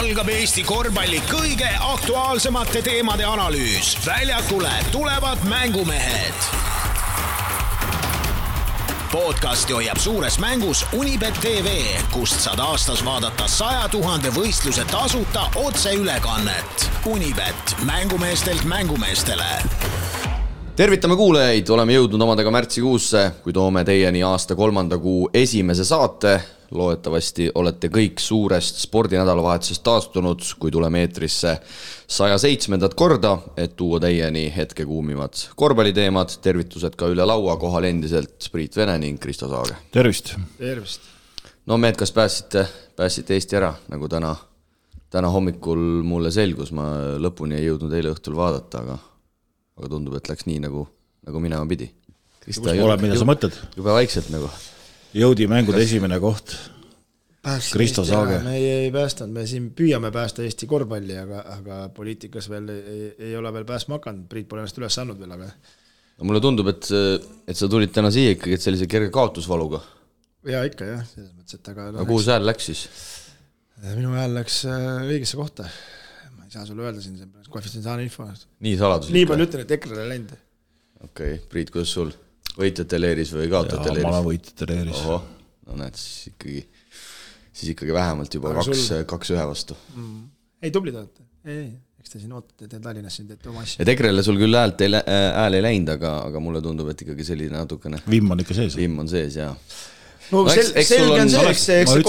algab Eesti korvpalli kõige aktuaalsemate teemade analüüs. Väljakule tulevad mängumehed. Podcasti hoiab suures mängus Unibet TV, kust saad aastas vaadata 100 000 võistluse tasuta otseülekannet. Unibet, mängumeestelt mängumeestele. Tervitame kuulajaid, oleme jõudnud omadega märtsikuusse, kui toome teieni aasta 3. kuu esimese saate. Loodetavasti olete kõik suurest spordinädalavahetusest taastunud, kui tuleme eetrisse 107. korda, et tuua teieni hetke kuumivad korvpalliteemad. Tervitused ka üle laua, kohal endiselt Priit Vene ning Kristo Saage. Tervist! Tervist! No mehed, kas pääsite Eesti ära, nagu täna hommikul mulle selgus, ma lõpuni ei jõudnud eile õhtul vaadata, aga tundub, et läks nii, nagu minema pidi. Mida sa mõtled? Juba vaikselt nagu. Jõudi mängude esimene koht. Kristo Saage. Me ei päästanud, me siin püüame päästa Eesti korvpalli, aga poliitikas veel ei ole veel pääsma hakanud. Priit pole ennast üles saanud veel, aga... No, mulle tundub, et sa tulid täna siia ikkagi sellise kerge kaotusvaluga. Ja ikka, jah. Selles mõttes, et aga kuhu see hääl läks siis? Minu hääl läks õigesse kohta. Ma ei saa sulle öelda siin, koefitsientaalne info. Nii saladus. Nii palju ütlen, et EKRE läinud. Okei, Priit, kuidas sul? Võitjate leeris või kaotajate leeris? Ma olen võitjate leeris. Oho, no näed, siis ikkagi vähemalt juba 2-1 vastu. Ei, tublid olete. Ei, eks te siin ootate, te Tallinnas siin teete oma asja. Et EKRE-le sul küll hääl ei läinud, aga mulle tundub, et ikkagi selline natukene... Vimm on ikka sees. Vimm on sees, jaa. No selge on see, eks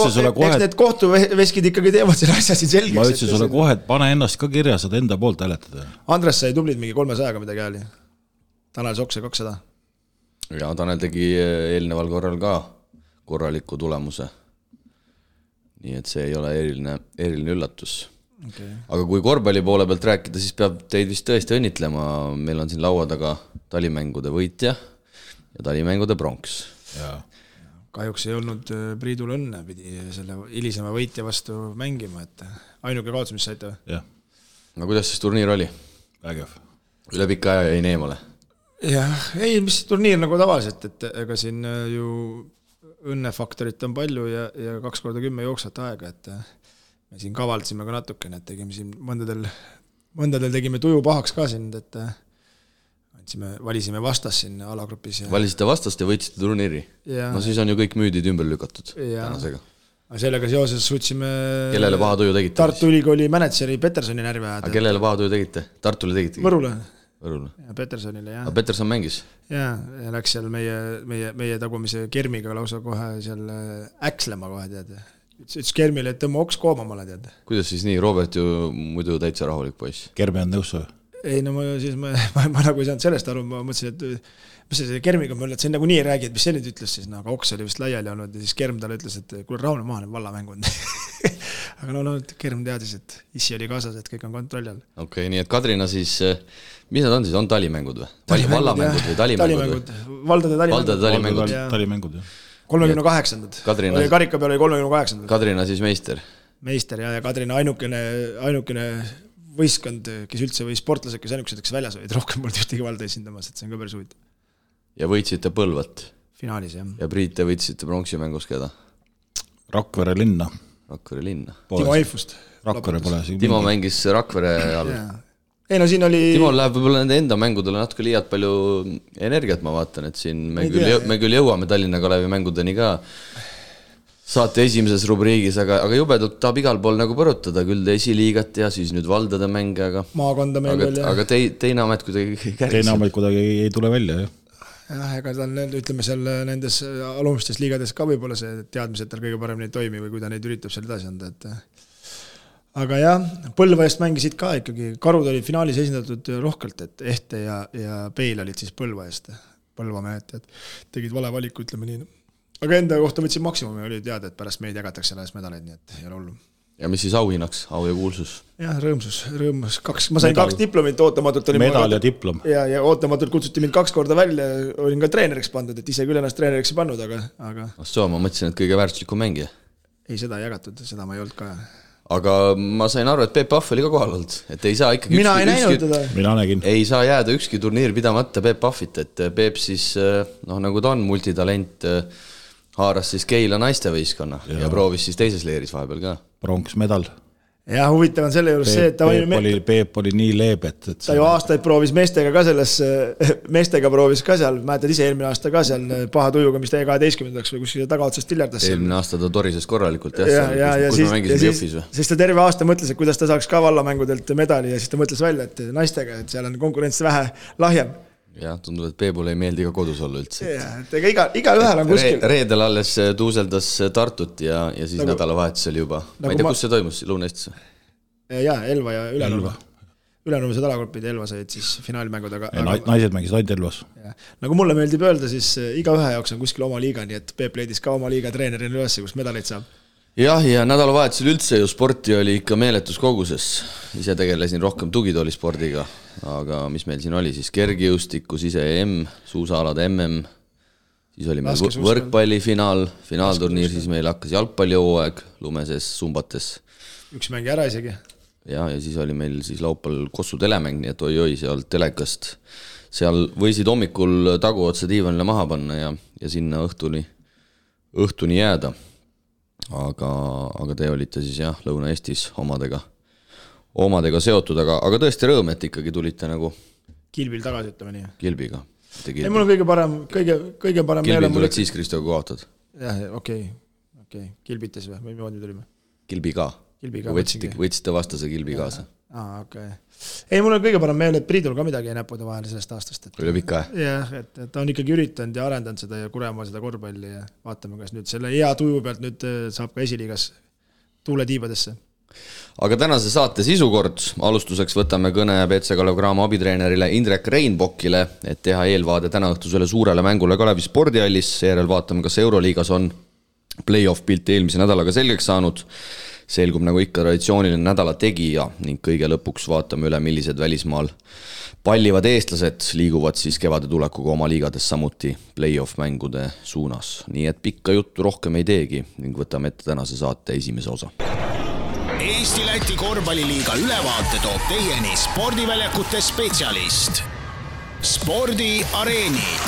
need kohtuveskid ikkagi teevad selle asja siin selgeks. Ma ütlesin sulle kohe, et pane ennast ka kirja, saad enda poolt hääletada. Andres sai tublid mingi 300 midagi hääli. Tanel Soks sai 200. Ja Tanel tegi eelneval korral ka korraliku tulemuse. Nii et see ei ole eriline üllatus. Okay. Aga kui korvpalli poole pealt rääkida, siis peab teid vist tõesti õnnitlema. Meil on siin laua taga talimängude võitja ja talimängude pronks. Ja. Kahjuks ei olnud Priidul õnne, pidi selle hilisema võitja vastu mängima, et ainuke kaotus, mis saite? Jah. No kuidas siis turniir oli? Vägev. Üle pika aja jäi neemale? Jah, ei, mis turniir nagu tavaliselt, et ega siin ju õnnefaktorit on palju ja 2x10 jooksvat aega, et me siin kavaldasime ka natukene, et tegime siin mõndadel tegime tuju pahaks ka siin, et valisime vastas siin alagrupis. Valisite vastast ja võitsite turniiri? No siis on ju kõik müüdid ümber lükatud tänasega. Sellega seoses suutsime... Kellele paha tuju tegite? Tartu Ülikooli mänedžeri Petersoni närvi ajada. Aga kellele paha tuju tegite? Tartule tegite? Võrule. Ja Petersonile, jah. Aga Peterson mängis? Ja läks seal meie tagumise Kermiga lausa kohe seal äkslema kohe, tead. Ütles Kermile, et tõmma oks koomamale, tead. Kuidas siis nii? Robert ju muidu täitsa rahulik poiss. Kermi on nõus või? Ei, no ma nagu ei saanud sellest aru, ma mõtlesin, et mis see Kermiga mõelda, et see nagu nii ei räägi, et mis see nüüd ütles siis, aga oks oli vist laiali olnud ja siis Kerm talle ütles, et kuule rahune maha, need vallamängud. Aga no, Kerm teadis, et issi oli kaasas, et kõik on kontrolli all. Okei, nii et Kadrina siis, mis nad on siis, on talimängud või? Vallamängud või talimängud? Valdade talimängud. Talimängud, jah. 38. Karika peal oli 38. Kadrina siis meister. Meister ja Kadrina ainukene võistkond, kes üldse või sportlased, kes ainukesed, kes väljas olid, rohkem poolt ühtegi valda esindamas, et see on ka päris huvitav. Ja võitsite Põlvat? Finaalis, jah. Ja Priit, te võitsite pronksi mängus keda? Rakvere linna. Timo Eifust. Rakvere pole. Timo mängis Rakvere all. Ei, no siin oli... Timo läheb võib-olla nende enda mängudele natuke liialt palju energiat, ma vaatan, et siin me küll jõuame Tallinna Kalevi mängudeni ka saate esimeses rubriigis, aga jubedult tahab igal pool nagu põrutada, küll esiliigat ja siis nüüd valdade mänge, maakonda mängul ja... Aga teine amet kuidagi käris. Teine amet kuidagi ei tule välja, jah. Jah, ega tal, ütleme seal nendes alumistes liigades ka võib-olla see teadmised tal kõige paremini ei toimi või kui ta neid üritab seal edasi anda, et... Aga jah, Põlva eest mängisid ka ikkagi, Karud olid finaalis esindatud rohkelt, et Ehte ja Peil olid siis Põlva eest, Põlva mehed, tegid vale valiku, ütleme nii. Aga enda kohta võtsin maksimumi, oli teada, et pärast meid jagatakse selles medaleid, nii et ei ole hullu. Ja mis siis auhinnaks, au ja kuulsus? Jah, rõõmus. Ma sain 2 diplomit, ootamatult oli medal ja diplom. Ja ootamatult kutsuti mind 2 korda välja, olin ka treeneriks pandud, et ise küll ennast treeneriks ei pannud, aga... Ma mõtlesin, et kõige väärtuslikum mängija. Ei, seda ei jagatud, seda ma ei olnud ka. Aga ma sain aru, et Peep Pahv oli ka kohal olnud, et ei saa ikkagi... Mina ei näinud teda. Mina nägin. Ei saa jääda ükski turniir pidamata Peep Pahvit, et Peep siis, nagu ta on multitalent, haaras siis Keila naistevõistkonna ja proovis siis teises leeris vahepeal ka. Pronksmedal. Ja huvitav on selle juures see, et Peep oli nii leebet, et ta ju aastaid proovis meestega proovis ka seal, mäletad ise eelmine aasta ka seal paha tujuga, mis täie 12-ndaks või kuskil tagaotsast tiljardas. Eelmine aasta ta torises korralikult, kus me mängisime Jõhvis või? Siis ta terve aasta mõtles, et kuidas ta saaks ka vallamängudelt medali ja siis ta mõtles välja, et naistega, et seal on konkurents vähe lahjem. Jah, tundub, et Peebule ei meeldi ka kodus olla üldse. Ega iga ühel on kuskil. Reedel alles tuuseldas Tartut ja siis nädalavahetusel juba. Ma ei tea, kus see toimus, Lõuna-Eestis? Jaa, Elva ja Ülenurme. Ülenurme alagrupid, Elva said siis finaalmängud. Naised mängisid ainult Elvas. Nagu mulle meeldib öelda, siis iga ühe jaoks on kuskil oma liiga, nii et Peep leidis ka oma liiga treenerina üles, kus medaleid saab. Jah, ja nädalavahetusel üldse ju sporti oli ikka meeletus koguses. Ise tegelesin rohkem tugitoolispordiga, aga mis meil siin oli siis kergejõustikus ise suusaalade siis oli meil võrkpalli finaalturniir, siis meil hakkas jalgpallihooaeg lumeses sumbates. Üks mängi ära isegi. Ja siis oli meil siis laupäeval Kossu telemäng, nii et oi seal telekast. Seal võisid hommikul taguotsa diivanile maha panna ja sinna õhtuni jääda. Aga te olite siis jah, Lõuna-Eestis omadega seotud, aga tõesti rõõm, et ikkagi tulite nagu Kilbil tagasi, ütleme nii. Kilbiga. Ei, mul on kõige parem Kilbil tuled siis, Kristoga kaotad? Jah, okei. Kilbites või moodi tulime? Kilbiga. Võtsite vastase Kilbi kaasa. Okay. Ei, mul on kõige parem meel, et Priidul ka midagi ei näpuda vahele sellest aastast. Üle pikka, jah, et ta on ikkagi üritanud ja arendanud seda ja kurema seda korvpalli ja vaatame, kas nüüd selle hea tuju pealt nüüd saab ka esiliigas tuule tiibadesse. Aga tänase saate sisukord. Alustuseks võtame kõne BC Kalev Cramo abitreenerile Indrek Reinbokile, et teha eelvaade täna õhtusele suurele mängule Kalevi spordihallis. Seejärel vaatame, kas Euroliigas on play-off pilt eelmise nädalaga selgeks saanud. Selgub nagu ikka traditsiooniline nädala tegija ning kõige lõpuks vaatame üle, millised välismaal pallivad eestlased liiguvad siis kevade tulekuga oma liigades samuti play-off mängude suunas. Nii et pikka juttu rohkem ei teegi ning võtame ette tänase saate esimese osa. Eesti-Läti korvpalliliiga ülevaate toob teieni spordiväljakute spetsialist. Spordiareenid.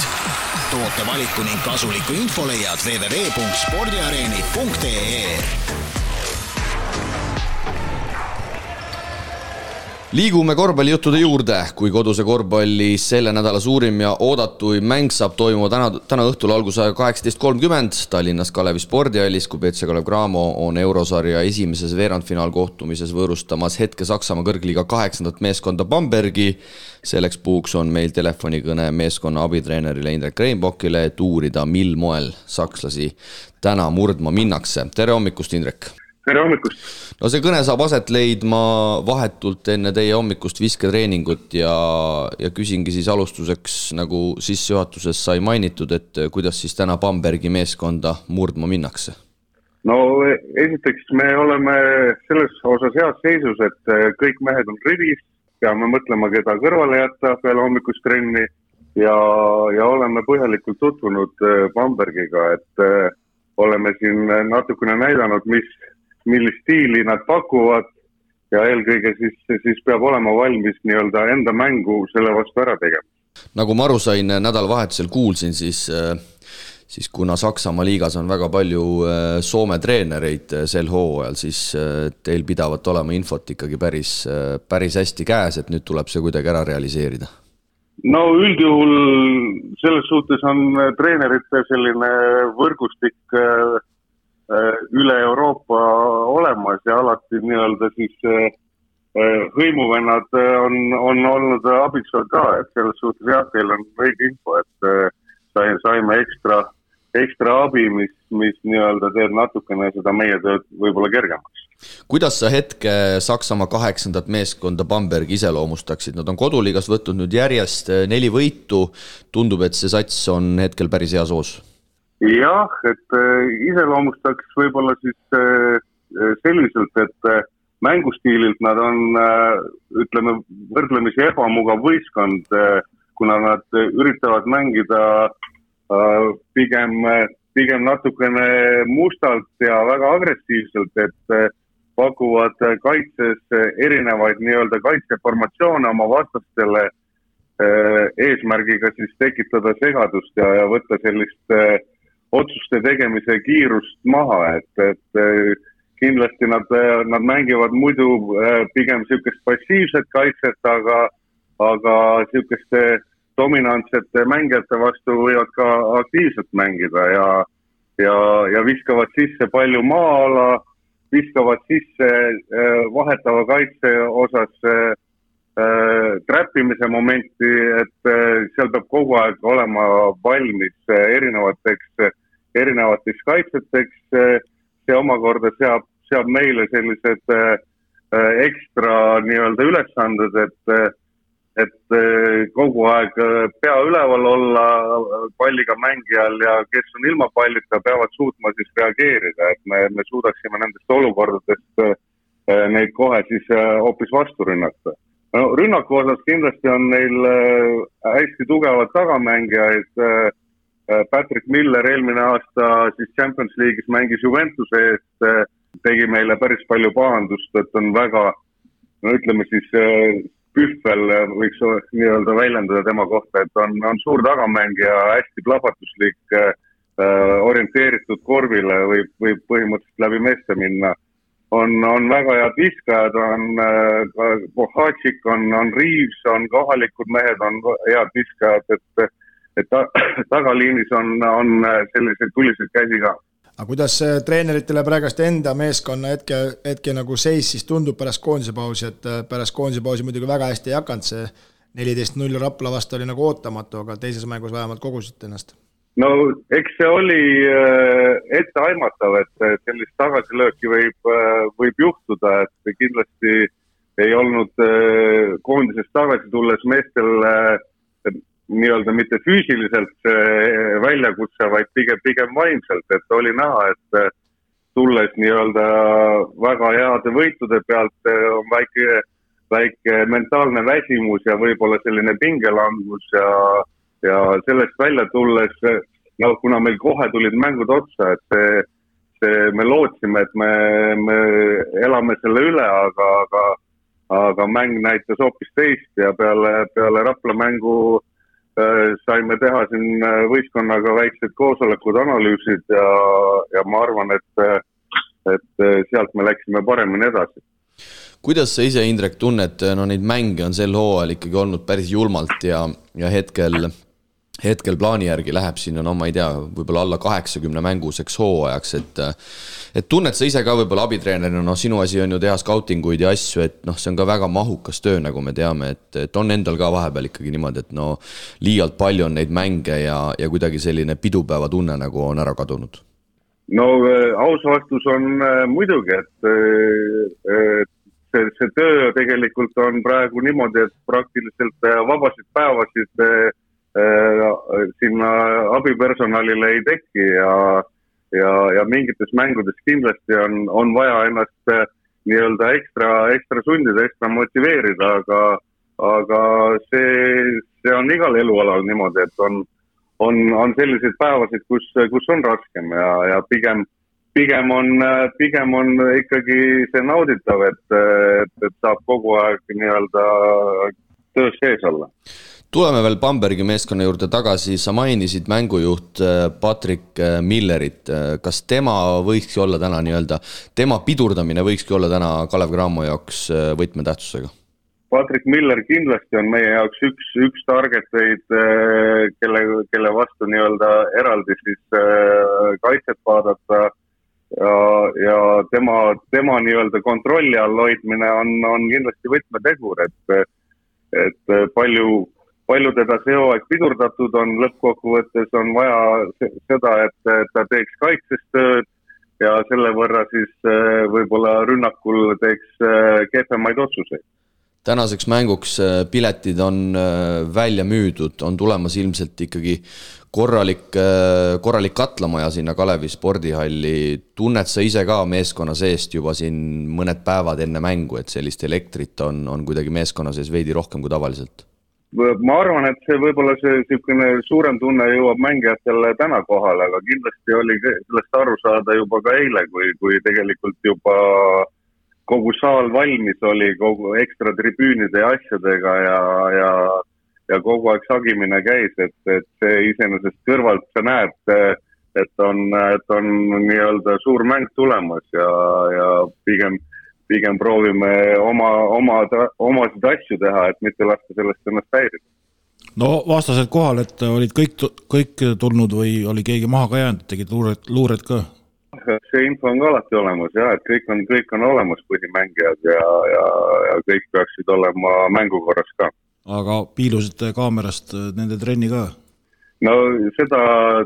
Toote valiku ning kasuliku info leiad www.spordiareenid.ee. Liigume korvpallijuttude juurde, kui koduse korvpalli selle nädala suurim ja oodatui mäng saab toimuma täna õhtul algusaja 18.30 Tallinnas Kalevi spordihallis, kui BC Kalev Cramo on eurosarja esimeses veerandfinaalkohtumises võõrustamas hetke Saksamaa kõrgliiga 8. meeskonda Bambergi. Selleks puhuks on meil telefonikõne meeskonna abitreenerile Indrek Reinbokile, et uurida, mil moel sakslasi täna murdma minnakse. Tere hommikust, Indrek! Tere hommikust! No see kõne saab aset leidma vahetult enne teie hommikust visketreeningut ja küsingi siis alustuseks, nagu sissejuhatuses sai mainitud, et kuidas siis täna Bambergi meeskonda murdma minnakse? No esiteks me oleme selles osas heas seisus, et kõik mehed on rivis, peame mõtlema, keda kõrvale jätta peale hommikust trenni ja oleme põhjalikult tutvunud Bambergiga, et oleme siin natukene näidanud, millist stiili nad pakuvad ja eelkõige siis peab olema valmis nii-öelda enda mängu selle vastu ära tegema. Nagu ma aru sain, nädalavahetusel kuulsin, siis kuna Saksamaa liigas on väga palju Soome treenereid sel hooajal, siis teil pidavat olema infot ikkagi päris hästi käes, et nüüd tuleb see kuidagi ära realiseerida. No üldjuhul selles suhtes on treenerite selline võrgustik üle Euroopa olemas ja alati nii-öelda siis hõimuvennad on olnud abiks ka, et selles suhtes jah, teil on õige info, et saime ekstra abi, mis nii-öelda teeb natukene seda meie tööd võib-olla kergemaks. Kuidas sa hetke Saksamaa 8. meeskonda Bambergi iseloomustaksid? Nad on koduliigas võtnud nüüd järjest 4 võitu, tundub, et see sats on hetkel päris hea soos. Jah, et iseloomustaks võib-olla siis selliselt, et mängustiililt nad on, ütleme, võrdlemisi ebamugav võistkond, kuna nad üritavad mängida pigem natukene mustalt ja väga agressiivselt, et pakuvad kaitses erinevaid nii-öelda kaitseformatsioone oma vastastele eesmärgiga siis tekitada segadust ja võtta sellist otsuste tegemise kiirust maha, et kindlasti nad mängivad muidu pigem niisugust passiivset kaitset, aga niisuguste dominantsete mängijate vastu võivad ka aktiivselt mängida ja viskavad sisse palju maa-ala, viskavad sisse vahetava kaitse osas trappimise momenti, et seal peab kogu aeg olema valmis erinevateks kaitseteks. See omakorda seab meile sellised ekstra nii-öelda ülesanded, et kogu aeg pea üleval olla palliga mängijal ja kes on ilma pallita, peavad suutma siis reageerida, et me suudaksime nendest olukordadest neid kohe siis hoopis vastu rünnata. No, rünnaku osas kindlasti on neil hästi tugevad tagamängijaid. Patrick Miller eelmine aasta siis Champions League'is mängis Juventuse eest, tegi meile päris palju pahandust, et on väga, no ütleme siis pühvel võiks nii-öelda väljendada tema kohta, et on suur tagamängija, hästi plahvatuslik, orienteeritud korvile, võib põhimõtteliselt läbi meeste minna. On väga head viskajad, on Bohatšik, on Reeves, on kohalikud mehed, on head viskajad, et tagaliinis on sellised tulised käsi ka. Aga kuidas treeneritele praegast enda meeskonna hetke nagu seis siis tundub pärast koondise pausi, et pärast koondise pausi muidugi väga hästi ei hakanud, see 14-0 Rapla vastu oli nagu ootamatu, aga teises mängus vähemalt kogusid ennast? No eks see oli etteaimatav, et sellist tagasilööki võib juhtuda, et kindlasti ei olnud koondisest tagasi tulles meestel nii-öelda mitte füüsiliselt väljakutse, vaid pigem vaimselt, et oli näha, et tulles nii-öelda väga heade võitude pealt on väike mentaalne väsimus ja võib-olla selline pingelangus ja sellest välja tulles, kuna meil kohe tulid mängud otsa, et me lootsime, et me elame selle üle, aga mäng näitas hoopis teist ja peale Rapla mängu saime teha siin võistkonnaga väiksed koosolekud, analüüsid ja ma arvan, et sealt me läksime paremini edasi. Kuidas sa ise, Indrek, tunned, neid mänge on sel hooajal ikkagi olnud päris julmalt ja hetkel plaani järgi läheb siin ma ei tea, võib-olla alla 80 mänguseks hooajaks, et tunned sa ise ka võib-olla abitreenerina, sinu asi on ju teha skautinguid ja asju, et see on ka väga mahukas töö, nagu me teame, et on endal ka vahepeal ikkagi niimoodi, et liialt palju on neid mänge ja kuidagi selline pidupäeva tunne nagu on ära kadunud? No aus vastus on muidugi, et see töö tegelikult on praegu niimoodi, et praktiliselt vabasid päevasid sinna abipersonalile ei teki ja mingites mängudes kindlasti on vaja ennast nii-öelda ekstra sundida, ekstra motiveerida, aga see on igal elualal niimoodi, et on selliseid päevasid, kus on raskem ja pigem on ikkagi see nauditav, et saab kogu aeg nii-öelda töös sees olla. Tuleme veel Bambergi meeskonna juurde tagasi, sa mainisid mängujuht Patrick Millerit, kas tema võikski olla täna nii-öelda, tema pidurdamine võikski olla täna Kalev Cramo jaoks võtmetähtsusega? Patrick Miller kindlasti on meie jaoks üks targeteid, kelle vastu nii-öelda eraldi siis kaitset vaadata ja tema nii-öelda kontrolli all hoidmine on kindlasti võtmetegur, et palju teda see hooaeg pidurdatud on, lõppkokkuvõttes on vaja seda, et ta teeks kaitses tööd ja selle võrra siis võib-olla rünnakul teeks kehvemaid otsuseid. Tänaseks mänguks piletid on välja müüdud, on tulemas ilmselt ikkagi korralik katlamaja sinna Kalevi spordihalli. Tunned sa ise ka meeskonna seest juba siin mõned päevad enne mängu, et sellist elektrit on kuidagi meeskonna sees veidi rohkem kui tavaliselt? Ma arvan, et see võib-olla see suurem tunne jõuab mängijatele täna kohale, aga kindlasti oli sellest aru saada juba ka eile, kui tegelikult juba kogu saal valmis oli kogu ekstra tribüünide ja asjadega ja kogu aeg sagimine käis, et see iseenesest kõrvalt sa näed et on nii-öelda suur mäng tulemas ja pigem proovime omasid asju teha, et mitte lasta sellest ennast häirida. No vastased kohal, et olid kõik tulnud või oli keegi maha ka jäänud, tegid luured ka? See info on ka alati olemas, et kõik on olemas põhimängijad ja kõik peaksid olema mängukorras ka. Aga piilusite kaamerast nende trenni ka? No seda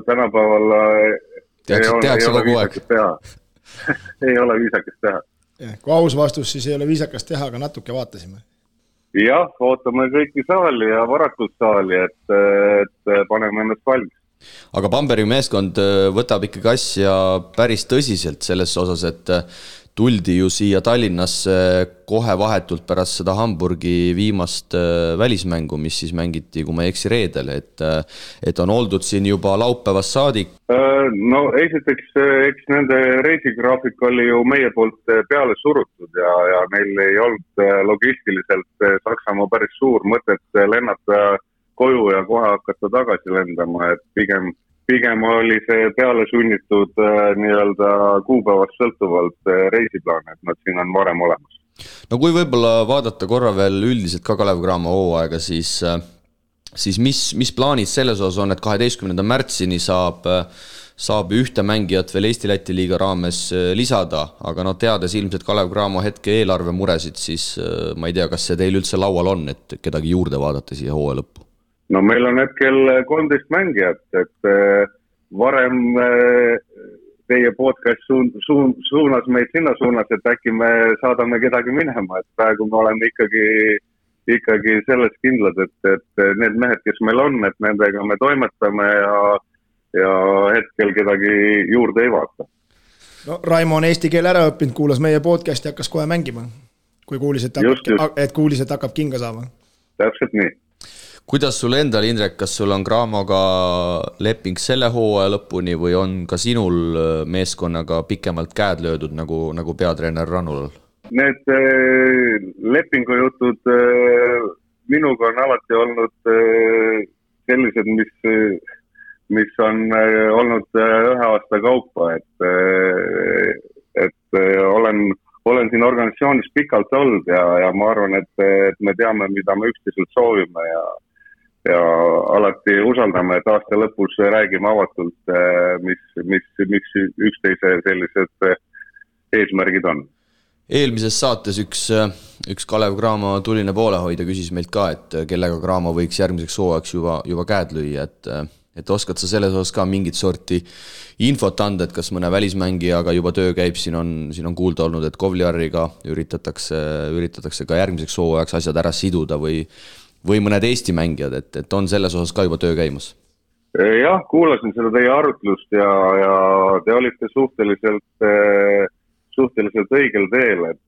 tänapäeval tehakse kogu aeg. Ei ole viisakas teha. Kui aus vastus, siis ei ole viisakas teha, aga natuke vaatasime. Jah, ootame kõiki saali ja varakult saali, et paneme ennast valmis. Aga Bambergi meeskond võtab ikkagi asja päris tõsiselt selles osas, et tuldi ju siia Tallinnasse kohe vahetult pärast seda Hamburgi viimast välismängu, mis siis mängiti, kui ma ei eksi reedel, et on oldud siin juba laupäevast saadik. No esiteks, eks nende reisigraafik oli ju meie poolt peale surutud ja neil ei olnud logistiliselt Saksamaa päris suur mõtet lennata koju ja kohe hakata tagasi lendama, et pigem oli see peale sunnitud nii-öelda kuupäevast sõltuvalt reisiplaan, et nad siin on varem olemas. No kui võib-olla vaadata korra veel üldiselt ka Kalev Cramo hooaega, siis mis plaanid selles osas on, et 12. märtsini saab ühte mängijat veel Eesti-Läti liiga raames lisada, aga teades ilmselt Kalev Cramo hetke eelarve muresid, siis ma ei tea, kas see teil üldse laual on, et kedagi juurde vaadata siia hooaja lõppu? No meil on hetkel 13 mängijat, et varem teie podcast suunas meid sinna suunas, et äkki me saadame kedagi minema, et praegu me oleme ikkagi selles kindlad, et need mehed, kes meil on, et nendega me toimetame ja hetkel kedagi juurde ei vaata. No Raimo on eesti keele ära õppinud, kuulas meie podcast ja hakkas kohe mängima, kui kuulis, et hakkab kinga saama. Täpselt nii. Kuidas sul endal, Indrek, kas sul on Cramoga leping selle hooaja lõpuni või on ka sinul meeskonnaga pikemalt käed löödud nagu peatreener Rannulal? Need lepingujutud minuga on alati olnud sellised, mis on olnud ühe aasta kaupa, et olen siin organisatsioonis pikalt olnud ja ma arvan, et me teame, mida me üksteiselt soovime ja alati usaldame, et aasta lõpus räägime avatult, mis üksteise sellised eesmärgid on. Eelmises saates üks Kalev Cramo tuline poolehoidja küsis meilt ka, et kellega Cramo võiks järgmiseks hooajaks juba käed lüüa, et oskad sa selles osas ka mingit sorti infot anda, et kas mõne välismängijaga juba töö käib, siin on kuulda olnud, et Kovliariga üritatakse ka järgmiseks hooajaks asjad ära siduda või mõned Eesti mängijad, et on selles osas ka juba töö käimas? Jah, kuulasin seda teie arutlust ja te olite suhteliselt õigel teel, et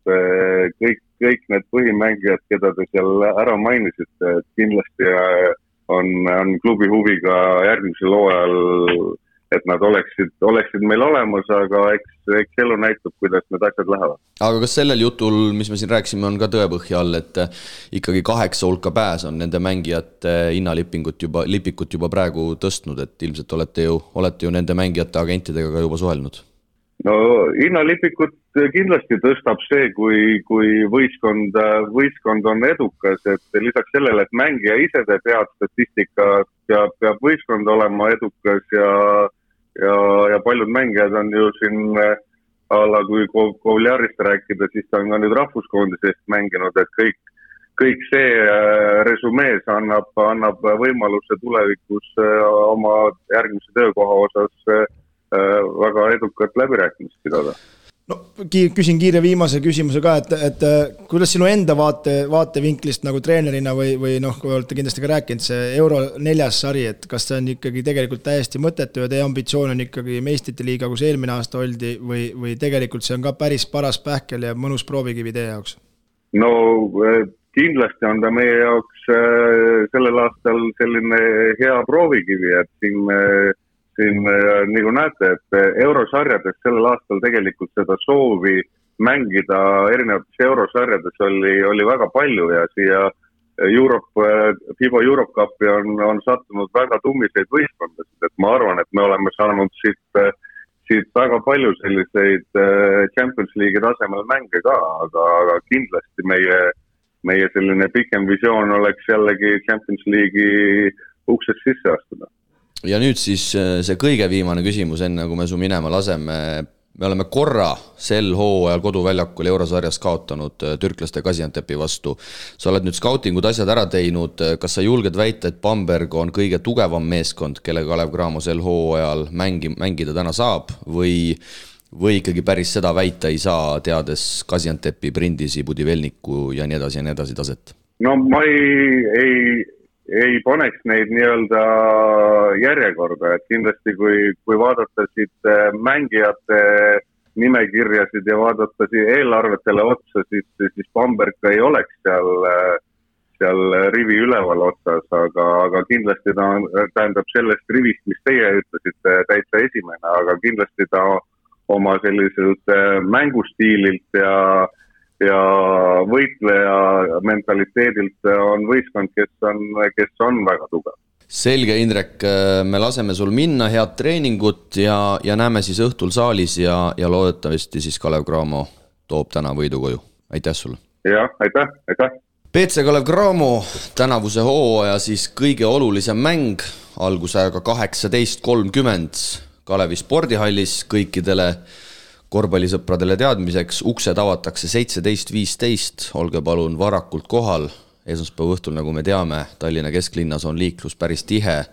kõik need põhimängijad, keda te seal ära mainisite, et kindlasti on klubi huviga järgmisel hooajal, et nad oleksid meil olemas, aga eks elu näitab, kuidas need asjad lähevad. Aga kas sellel jutul, mis me siin rääksime, on ka tõepõhja all, et ikkagi 8 hulka pääs on nende mängijate hinnalipikut juba praegu tõstnud, et ilmselt olete ju nende mängijate agentidega ka juba suhelnud? No hinnalipikut kindlasti tõstab see, kui võistkond on edukas, et lisaks sellele, et mängija ise teeb head statistika, peab võistkond olema edukas ja paljud mängijad on ju siin kui Kovliarist rääkida, siis ta on ka nüüd rahvuskoondisest mänginud, et kõik see resumees annab võimaluse tulevikus oma järgmise töökoha osas väga edukat läbirääkimist pidada. No, küsin kiire viimase küsimuse ka, et kuidas sinu enda vaatevinklist nagu treenerina või kui olete kindlasti ka rääkinud, see Euro 4. sari, et kas see on ikkagi tegelikult täiesti mõttetu ja teie ambitsioon on ikkagi meistrite liiga, kus eelmine aasta oldi või tegelikult see on ka päris paras pähkel ja mõnus proovikivi teie jaoks? No kindlasti on ta meie jaoks sellel aastal selline hea proovikivi, et siin nagu näete, et eurosarjades sellel aastal tegelikult seda soovi mängida erinevates eurosarjades oli väga palju ja siia FIBA Europe Cupi on sattunud väga tummiseid võistkondasid, et ma arvan, et me oleme saanud siit väga palju selliseid Champions League'i tasemel mänge ka, aga kindlasti meie selline pikem visioon oleks jällegi Champions League'i uksest sisse astuda. Ja nüüd siis see kõige viimane küsimus, enne kui me su minema laseme. Me oleme korra sel hooajal koduväljakul Eurosarjas kaotanud türklaste Gaziantepi vastu. Sa oled nüüd skautingud asjad ära teinud. Kas sa julged väita, et Bamberg on kõige tugevam meeskond, kelle Kalev Cramo sel hooajal mängida täna saab või ikkagi päris seda väita ei saa, teades Gaziantepi, Brindisi, Budivelniku ja nii edasi taset? No ma ei paneks neid nii-öelda järjekorda, et kindlasti kui vaadata siit mängijate nimekirjasid ja vaadata eelarvetele otsa, siis Bamberg ei oleks seal rivi üleval otsas, aga kindlasti ta tähendab sellest rivist, mis teie ütlesite, täitsa esimene, aga kindlasti ta oma selliselt mängustiililt ja võitleja mentaliteedilt on võistkond, kes on väga tugev. Selge, Indrek, me laseme sul minna, head treeningut ja näeme siis õhtul saalis ja loodetavasti siis Kalev Cramo toob täna võidu koju. Aitäh sulle! Jah, aitäh! PC Kalev Cramo tänavuse hooaja siis kõige olulisem mäng algusajaga 18.30 Kalevi spordihallis kõikidele korvpallisõpradele teadmiseks, uksed avatakse 17.15, olge palun varakult kohal. Esmaspäeva õhtul, nagu me teame, Tallinna kesklinnas on liiklus päris tihe.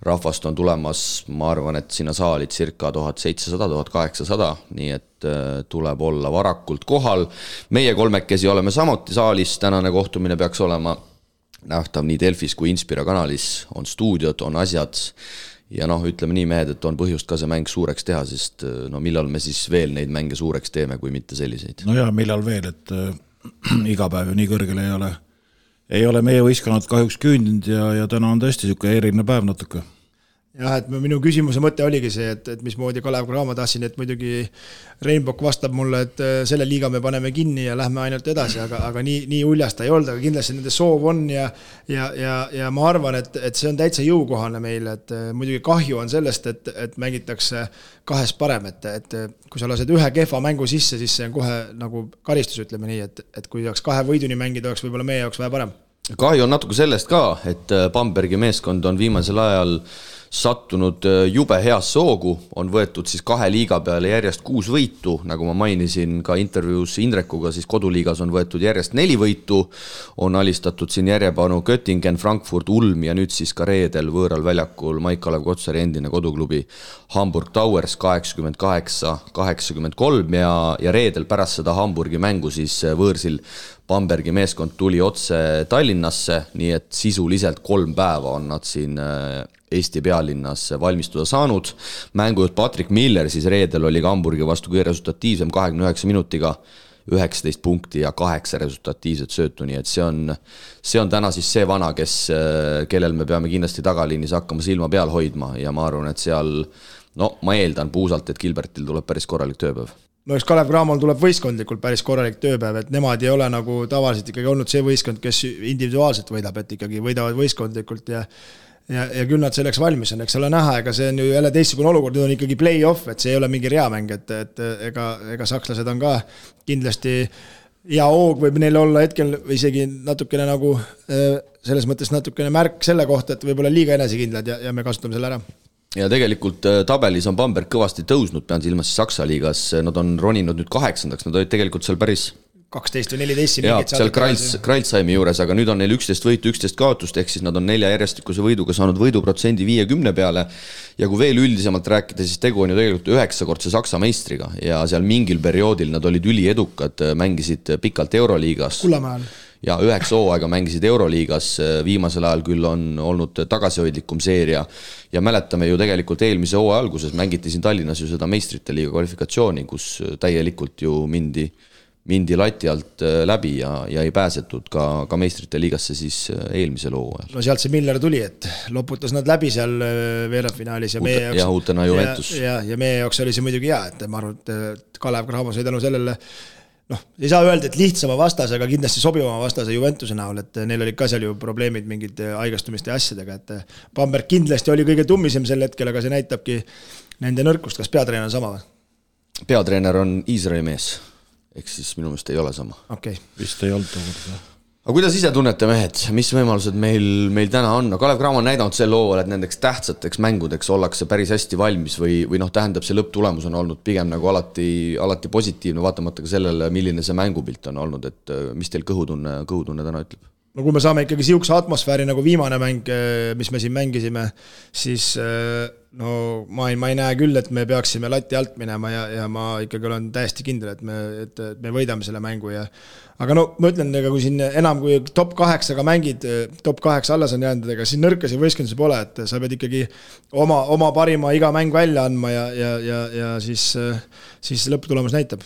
Rahvast on tulemas, ma arvan, et sinna saali circa 1700-1800, nii et tuleb olla varakult kohal. Meie kolmekesi oleme samuti saalis, tänane kohtumine peaks olema nähtav nii Delfis kui Inspira kanalis, on stuudiod, on asjad. Ja ütleme nii mehed, et on põhjust ka see mäng suureks teha, sest millal me siis veel neid mänge suureks teeme, kui mitte selliseid? No ja millal veel, et iga päev ju nii kõrgel ei ole meie võistkonnad kahjuks küündinud ja täna on tõesti niisugune eriline päev natuke. Jah, et minu küsimuse mõte oligi see, et mismoodi Kalev Cramo tahtsin, et muidugi Rainbow vastab mulle, et selle liiga me paneme kinni ja lähme ainult edasi, aga nii uljasta ei olnud, aga kindlasti nende soov on ja ma arvan, et see on täitsa jõukohane meile, et muidugi kahju on sellest, et mängitakse kahes parem, et kui sa lased ühe kehva mängu sisse, siis see on kohe nagu karistus, ütleme nii, et kui oleks 2 võiduni mängida, oleks võib-olla meie jaoks vähe parem. Kahju on natuke sellest ka, et Bambergi meeskond on viimasel ajal sattunud jube heas soogu, on võetud siis 2 liiga peale järjest 6 võitu, nagu ma mainisin ka intervjuus Indrekuga, siis koduliigas on võetud järjest 4 võitu, on alistatud siin järjepanu Göttingen, Frankfurt, Ulm ja nüüd siis ka reedel võõral väljakul Maik Kalev Kotsari endine koduklubi Hamburg Towers 88-83 ja reedel pärast seda Hamburgi mängu siis võõrsil Bambergi meeskond tuli otse Tallinnasse, nii et sisuliselt 3 päeva on nad siin Eesti pealinnas valmistuda saanud. Mängujuht Patrick Miller siis reedel oli ka Hamburgi vastu kõige resultatiivsem 29 minutiga, 19 punkti ja 8 resultatiivset söötu, nii et see on täna siis see vana, kellel me peame kindlasti tagaliinis hakkama silma peal hoidma ja ma arvan, et seal, ma eeldan puusalt, et Gilbertil tuleb päris korralik tööpäev. No eks Kalev Cramol tuleb võistkondlikult päris korralik tööpäev, et nemad ei ole nagu tavaliselt ikkagi olnud see võistkond, kes individuaalselt võidab, et ikkagi võidavad võistkondlikult ja küll nad selleks valmis on, eks ole näha, ega see on ju jälle teistsugune olukord, nüüd on ikkagi play-off, et see ei ole mingi reamäng, et ega sakslased on ka kindlasti hea hoog võib neil olla hetkel isegi natukene nagu selles mõttes natukene märk selle kohta, et võib-olla liiga enesekindlad ja me kasutame selle ära. Ja tegelikult tabelis on Bamberg kõvasti tõusnud, pean silmas Saksa liigas, nad on roninud nüüd 8, nad olid tegelikult seal päris 12 või 14 ja, seal Kreilsheimi juures, aga nüüd on neil 11 võitu, 11 kaotust, ehk siis nad on 4 järjestikuse võiduga saanud võiduprotsendi 50 peale ja kui veel üldisemalt rääkida, siis tegu on ju tegelikult 9-kordse Saksa meistriga ja seal mingil perioodil nad olid üliedukad, mängisid pikalt Euroliigas Kullamäel ja 9 hooaega mängisid Euroliigas, viimasel ajal küll on olnud tagasihoidlikum seeria ja mäletame ju tegelikult eelmise hooaja alguses mängiti siin Tallinnas ju seda meistrite liiga kvalifikatsiooni, kus täielikult ju mindi lati alt läbi ja ei pääsetud ka meistrite liigasse siis eelmisel hooajal. No sealt see Miller tuli, et loputas nad läbi seal veerandfinaalis ja meie jaoks uutena Juventus. Ja meie jaoks oli see muidugi hea, et ma arvan, et Kalev Cramo sai tänu sellele ei saa öelda, et lihtsama vastase, aga kindlasti sobivama vastase Juventuse näol, et neil olid ka seal ju probleemid mingid haigastumiste asjadega, et Bamberg kindlasti oli kõige tummisem sel hetkel, aga see näitabki nende nõrkust. Kas peatreener on sama või? Peatreener on Iisraeli mees, ehk siis minu meelest ei ole sama. Okay. Vist ei olnud tookord. Aga kuidas ise tunnete, mehed, mis võimalused meil täna on? No Kalev Cramo on näidanud sel lool, et nendeks tähtsateks mängudeks ollakse päris hästi valmis või tähendab see lõpptulemus on olnud pigem nagu alati positiivne, vaatamata ka sellele, milline see mängupilt on olnud, et mis teil kõhutunne täna ütleb? No kui me saame ikkagi siukse atmosfääri nagu viimane mäng, mis me siin mängisime, siis ma ei näe küll, et me peaksime lati alt minema ja ma ikkagi olen täiesti kindel, et me võidame selle mängu. Aga ma ütlen, kui siin enam kui top 8-ga mängid, top 8 alles on jäänud, ega siin nõrkasi võistkondusi pole, et sa pead ikkagi oma parima iga mäng välja andma ja siis lõpptulemus näitab.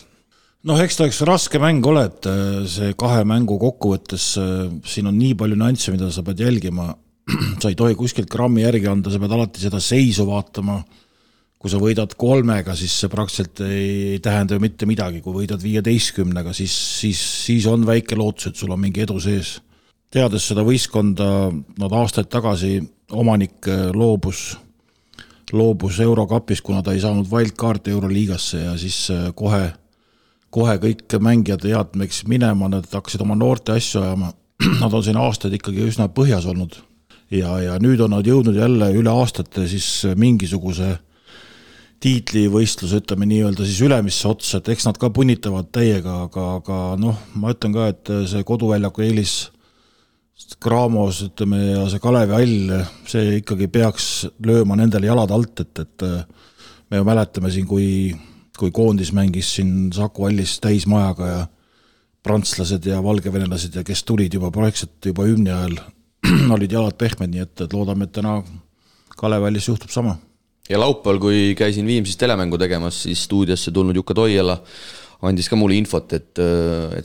Eks ta üks raske mäng ole, et see 2 mängu kokkuvõttes siin on nii palju nüansse, mida sa pead jälgima. Sa ei tohi kuskilt grammi järgi anda, sa pead alati seda seisu vaatama. Kui sa võidad 3-ga, siis see praktiliselt ei tähenda ju mitte midagi. Kui võidad 15-ga, siis on väike lootus, et sul on mingi edu sees. Teades seda võistkonda, nad aastaid tagasi omanik loobus Eurokapis, kuna ta ei saanud wildcard'i Euroliigasse ja siis kohe kõik mängijad teadmeks minema, nad hakkasid oma noorte asju ajama. Nad on siin aastaid ikkagi üsna põhjas olnud ja nüüd on nad jõudnud jälle üle aastate siis mingisuguse tiitlivõistluse, ütleme nii öelda siis ülemisse otsa, et eks nad ka punnitavad täiega, aga ma ütlen ka, et see koduväljaku eelis Cramos, ütleme, ja see Kalevi Hall, see ikkagi peaks lööma nendele jalad alt, et me ju mäletame siin, kui koondis mängis siin Saku Hallis täismajaga ja prantslased ja valgevenelased ja kes tulid juba projektselt juba hümni ajal olid jalad pehmed, nii et loodame, et täna Kalev Hallis juhtub sama. Ja laupäeval, kui käisin Viimsis telemängu tegemas, siis stuudiosse tulnud Jukka Toiela andis ka mulle infot, et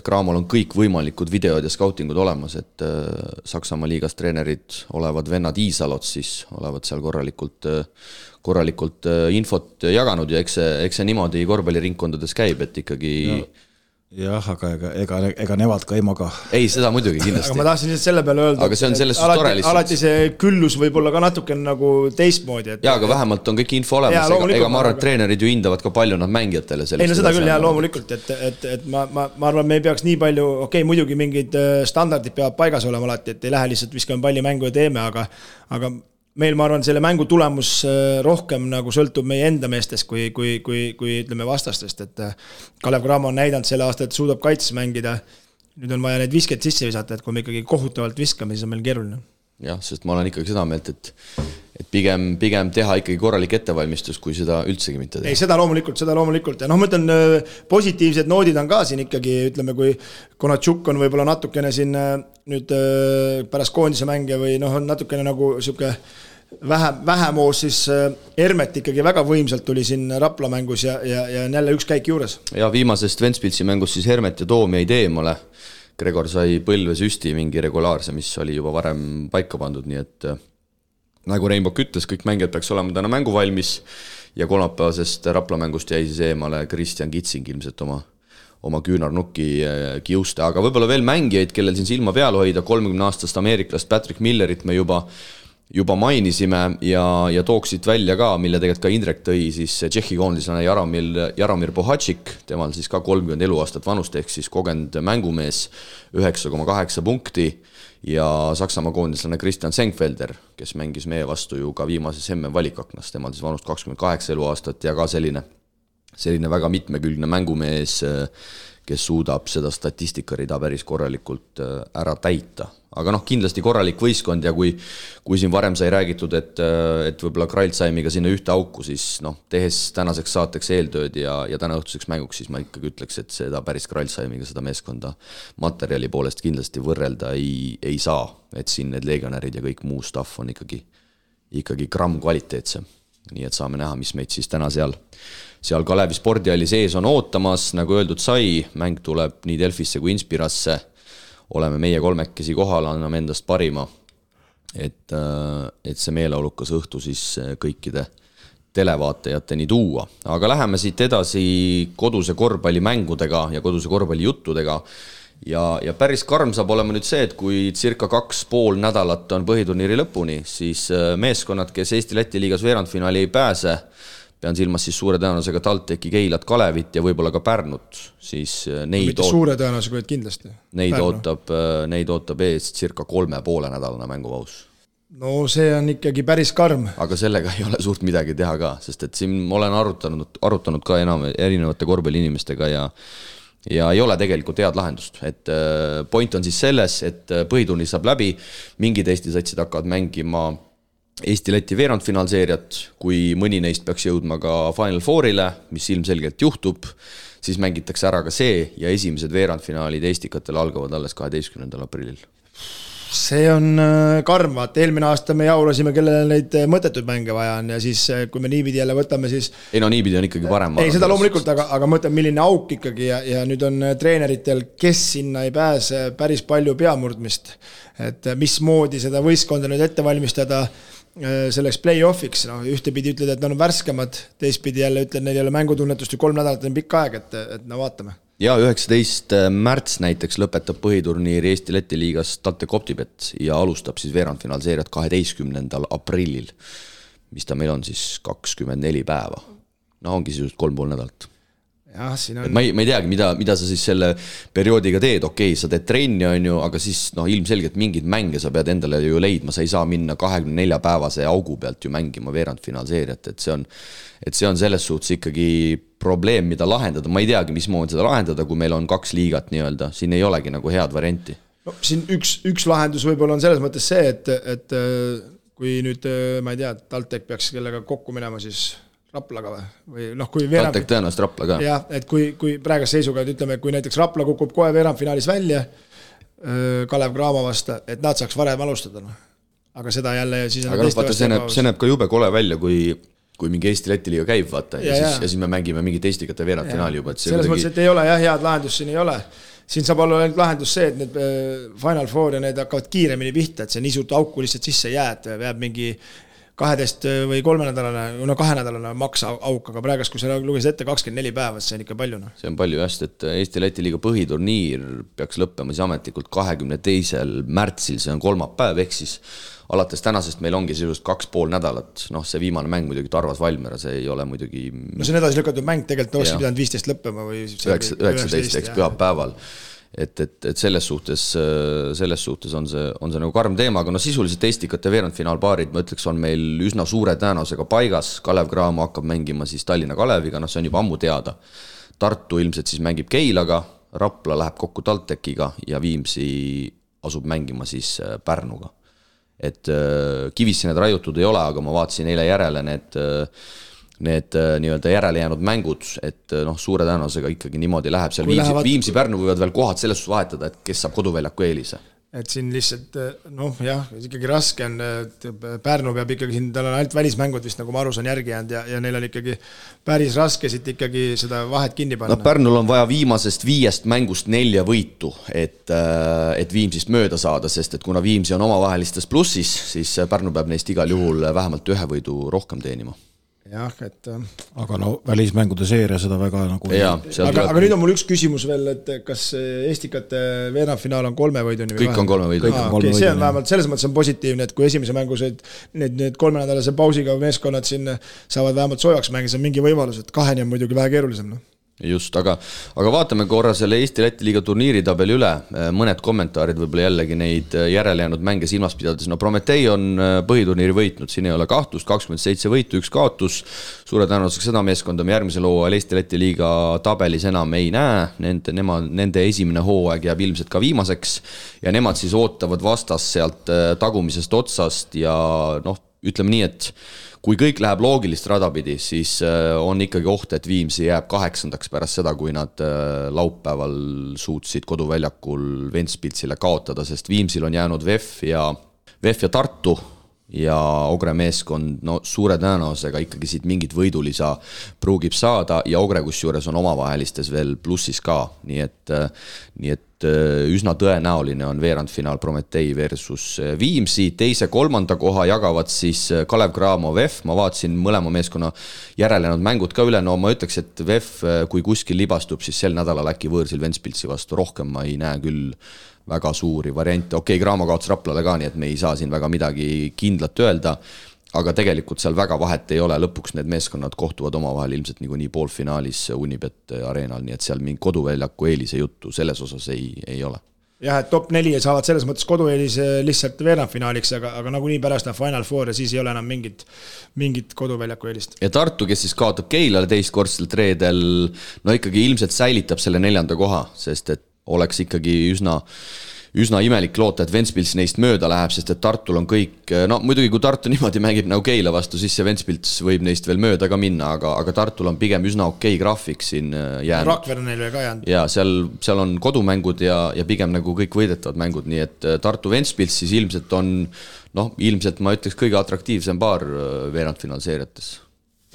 Cramol on kõik võimalikud videod ja scoutingud olemas, et Saksamaa liigas treenerid olevad vennad Iisalot, siis olevad seal korralikult infot jaganud ja eks see niimoodi korvpalliringkondades käib, et ikkagi... Jah, aga ega nevad ka ei maga. Ei, seda muidugi kindlasti. Aga ma tahtsin selle peale öelda, aga see on sellest tore lihtsalt. Alati see küllus võib olla ka natuke nagu teistmoodi. Jaa, aga vähemalt on kõik info olemas, ega ma arvan, et treenerid ju hindavad ka palju nad mängijatele. Ei, no seda küll, jah, loomulikult, et ma arvan, me ei peaks nii palju, muidugi mingid standardid peavad paigas olema alati, et ei lähe lihtsalt viskame palli mängu ja teeme, aga meil, ma arvan, selle mängu tulemus rohkem nagu sõltub meie enda meestest kui ütleme vastastest, et Kalev Cramo on näidanud selle aasta, et suudab kaitses mängida. Nüüd on vaja need visked sisse visata, et kui me ikkagi kohutavalt viskame, siis on meil keeruline. Jah, sest ma olen ikkagi seda meelt, et pigem teha ikkagi korralik ettevalmistus, kui seda üldsegi mitte teha. Ei, seda loomulikult. Ja ma ütlen, positiivsed noodid on ka siin ikkagi, ütleme, kui Konatšuk on võib-olla natukene siin nüüd pärast koondise mänge või on natukene nagu siuke vähemoos, siis Hermet ikkagi väga võimsalt tuli siin Rapla mängus ja jälle üks käik juures. Ja viimasest Ventspilsi mängus siis Hermet ja Toom jäid eemale. Gregor sai põlve süsti mingi regulaarse, mis oli juba varem paika pandud, nii et nagu Reinbok ütles, kõik mängijad peaks olema täna mängu valmis ja kolmapäevasest Rapla mängust jäi siis eemale Kristjan Kitsing ilmselt oma küünarnukki kiuste, aga võib-olla veel mängijaid, kellel siin silma peal hoida, 30-aastast ameeriklast Patrick Millerit me juba mainisime ja tooksid välja ka, mille tegelikult ka Indrek tõi, siis Tšehhi koondislane Jaromir Bohatšik, temal siis ka 30 eluaastat vanust, ehk siis kogenud mängumees, 9,8 punkti ja Saksamaa koondislane Christian Senkfelder, kes mängis meie vastu ju ka viimases MM valikaknas, temal siis vanust 28 eluaastat ja ka selline väga mitmekülgne mängumees, kes suudab seda statistikarida päris korralikult ära täita. Aga kindlasti korralik võistkond ja kui siin varem sai räägitud, et võib-olla Kreilsheimiga sinna ühte auku, siis tehes tänaseks saateks eeltööd ja täna õhtuseks mänguks, siis ma ikkagi ütleks, et seda päris Kreilsheimiga seda meeskonda materjali poolest kindlasti võrrelda ei saa, et siin need legionärid ja kõik muu staff on ikkagi gramm kvaliteetsem. Nii et saame näha, mis meid siis täna seal Kalevi spordihalli sees on ootamas, nagu öeldud sai, mäng tuleb nii Delfisse kui Inspirasse, oleme meie kolmekesi kohal, anname endast parima, et see meeleolukas õhtu siis kõikide televaatajateni tuua. Aga läheme siit edasi koduse korvpallimängudega ja koduse korvpallijuttudega. Ja päris karm saab olema nüüd see, et kui circa 2,5 nädalat on põhiturniiri lõpuni, siis meeskonnad, kes Eesti-Läti liigas veerandfinaali ei pääse, pean silmas siis suure tõenäosusega TalTechi, Keilat, Kalevit ja võib-olla ka Pärnut, siis neid suure tõenäosusega kindlasti. Neid ootab ees circa 3,5 nädalane mängupaus. No see on ikkagi päris karm. Aga sellega ei ole suurt midagi teha ka, sest et siin olen arutanud ka erinevate korvpalliinimestega ja ei ole tegelikult head lahendust. Et point on siis selles, et põhiturniir saab läbi, mingid Eesti satsid hakkavad mängima Eesti-Läti veerandfinaalseeriat, kui mõni neist peaks jõudma ka Final Fourile, mis ilmselgelt juhtub, siis mängitakse ära ka see ja esimesed veerandfinaalid Eestikatel algavad alles 12. aprillil. See on karm, vaata, eelmine aasta me jaulasime, kellele neid mõttetud mänge vaja on ja siis kui me niipidi jälle võtame, siis ei no niipidi on ikkagi parem. Ei, seda loomulikult, aga mõtleme, milline auk ikkagi ja nüüd on treeneritel, kes sinna ei pääse päris palju peamurdmist, et mismoodi seda võistkonda nüüd ette valmistada selleks play-offiks, no ühtepidi ütled, et nad on värskemad, teistpidi jälle ütled, neil ei ole mängutunnetust ju 3 nädalat on pikk aeg, et no vaatame. Ja 19. märts näiteks lõpetab põhiturniiri Eesti-Läti liigas TalTech Optibet ja alustab siis veerandfinaalseeriat 12. aprillil, mis ta meil on siis 24 päeva. No ongi siis 3,5 nädalat. Jah, siin on... Ma ei teagi, mida sa siis selle perioodiga teed, okei, sa teed trenni on ju, aga siis ilmselgelt mingid mänge sa pead endale ju leidma, sa ei saa minna 24 päevase augu pealt ju mängima veerandfinaalseeriat, et see on selles suhtes ikkagi probleem, mida lahendada, ma ei teagi, mismoodi seda lahendada, kui meil on 2 liigat nii-öelda, siin ei olegi nagu head varianti. No, siin üks lahendus võib-olla on selles mõttes see, et kui nüüd, ma ei tea, TalTech peaks kellega kokku minema, siis Raplaga või kui TalTech tõenäoliselt Rapla ka. Jah, et kui praegas seisuga, ütleme, kui näiteks Rapla kukub kohe veerandfinaalis välja Kalev Cramo vasta, et nad saaks varem alustada. Aga seda jälle siis... Aga vaata, see näeb ka jube kole välja, kui mingi Eesti-Läti liiga käib, vaata, ja siis me mängime mingit Eestikate veerandfinaali juba. Selles mõttes, et ei ole head lahendust, siin ei ole. Siin saab olla lahendus see, et need Final Four ja need hakkavad kiiremini pihta, et see nii suurt auku lihtsalt sisse jääd, jääb mingi 12 või 3 nädalane, 2 nädalane maks auk, aga praegast, kui sa lugesid ette 24 päeva, see on ikka palju. No. See on palju just, et Eesti-Läti liiga põhiturniir peaks lõppema siis ametlikult 22. märtsil, see on kolmapäev, ehk siis alates tänasest meil ongi sisust 2,5 nädalat, see viimane mäng muidugi Tarvas Valmiera, see ei ole muidugi... No see on edasi lükatud mäng, tegelikult oleks pidanud 15 lõppema või... 19 eks pühapäeval. Et selles suhtes on see nagu karm teema, aga sisuliselt Eestikate veerandfinaalpaarid, ma ütleks, on meil üsna suure tõenäosusega paigas. Kalev Cramo hakkab mängima siis Tallinna Kaleviga, see on juba ammu teada. Tartu ilmselt siis mängib Keilaga, Rapla läheb kokku TalTechiga ja Viimsi asub mängima siis Pärnuga. Et kivisse need raiutud ei ole, aga ma vaatasin eile järele need nii-öelda järele jäänud mängud, et suure tõenäosusega ikkagi niimoodi läheb. Seal Viimsi Pärnu võivad veel kohad selles suhtes vahetada, et kes saab koduväljaku eelise. Et siin lihtsalt, ikkagi raske on, Pärnu peab ikkagi siin, tal on ainult välismängud vist, nagu ma aru saan järgi jäänud ja neil on ikkagi päris raske siit ikkagi seda vahet kinni panna. Pärnul on vaja viimasest 5 mängust 4 võitu, et Viimsist mööda saada, sest et kuna Viimsi on omavahelistes plussis, siis Pärnu peab neist igal juhul vähemalt 1 võidu rohkem teenima. Jah, et... Aga välismängude seeria seda väga nagu... Aga nüüd on mul üks küsimus veel, et kas Eestikate veerandfinaal on 3 võiduni? Kõik on 3 võiduni. See on vähemalt selles mõttes on positiivne, et kui esimese mängus need 3 nädalase pausiga meeskonnad siin saavad vähemalt soojaks mängida, see on mingi võimalus, et 2 on muidugi vähe keerulisem. Just, aga vaatame korra selle Eesti-Läti liiga turniiritabeli üle, mõned kommentaarid võib-olla jällegi neid järele jäänud mänge silmas pidades. Prometee on põhiturniiri võitnud, siin ei ole kahtlust, 27 võitu, 1 kaotus, suure tõenäosusega seda meeskonda me järgmisel hooajal Eesti-Läti liiga tabelis enam ei näe, nende esimene hooaeg jääb ilmselt ka viimaseks ja nemad siis ootavad vastas sealt tagumisest otsast ja ütleme nii, et kui kõik läheb loogilist radapidi, siis on ikkagi oht, et Viimsi jääb 8. pärast seda, kui nad laupäeval suutsid koduväljakul Ventspilsile kaotada, sest Viimsil on jäänud VEF ja Tartu ja Ogre meeskond suure tõenäosusega ikkagi siit mingit võidulisa pruugib saada ja Ogre kusjuures on omavahelistes veel plussis ka, nii et üsna tõenäoline on veerandfinaal Prometee versus Viimsi, teise, kolmanda koha jagavad siis Kalev Cramo, VEF, ma vaatasin mõlema meeskonna järelenud mängud ka üle, no ma ütleks, et VEF, kui kuskil libastub, siis sel nädalal äkki võõrsil Ventspilsi vastu, rohkem ma ei näe küll väga suuri variante, okei, Cramo kaotas Raplale ka, nii et me ei saa siin väga midagi kindlat öelda, aga tegelikult seal väga vahet ei ole, lõpuks need meeskonnad kohtuvad omavahel ilmselt nii poolfinaalis Unibet areenal, nii et seal mingi koduväljaku eelise juttu selles osas ei ole. Jah, et top 4 saavad selles mõttes kodueelis lihtsalt veerandfinaaliks, aga nagunii pärast on Final Four ja siis ei ole enam mingit koduväljaku eelist. Ja Tartu, kes siis kaotab Keilale teistkordselt reedel, no ikkagi ilmselt säilitab selle 4. koha, sest et oleks ikkagi üsna imelik loota, et Ventspils neist mööda läheb, sest et Tartul on kõik, no muidugi kui Tartu niimoodi mängib nagu Keila vastu, siis see Ventspils võib neist veel mööda ka minna, aga Tartul on pigem üsna okei graafik siin jäänud. Rakvere neil veel ka jäänud. Ja seal on kodumängud ja pigem nagu kõik võidetavad mängud, nii et Tartu Ventspils siis ilmselt on, ilmselt ma ütleks kõige atraktiivsem paar veerandfinaalseeriates.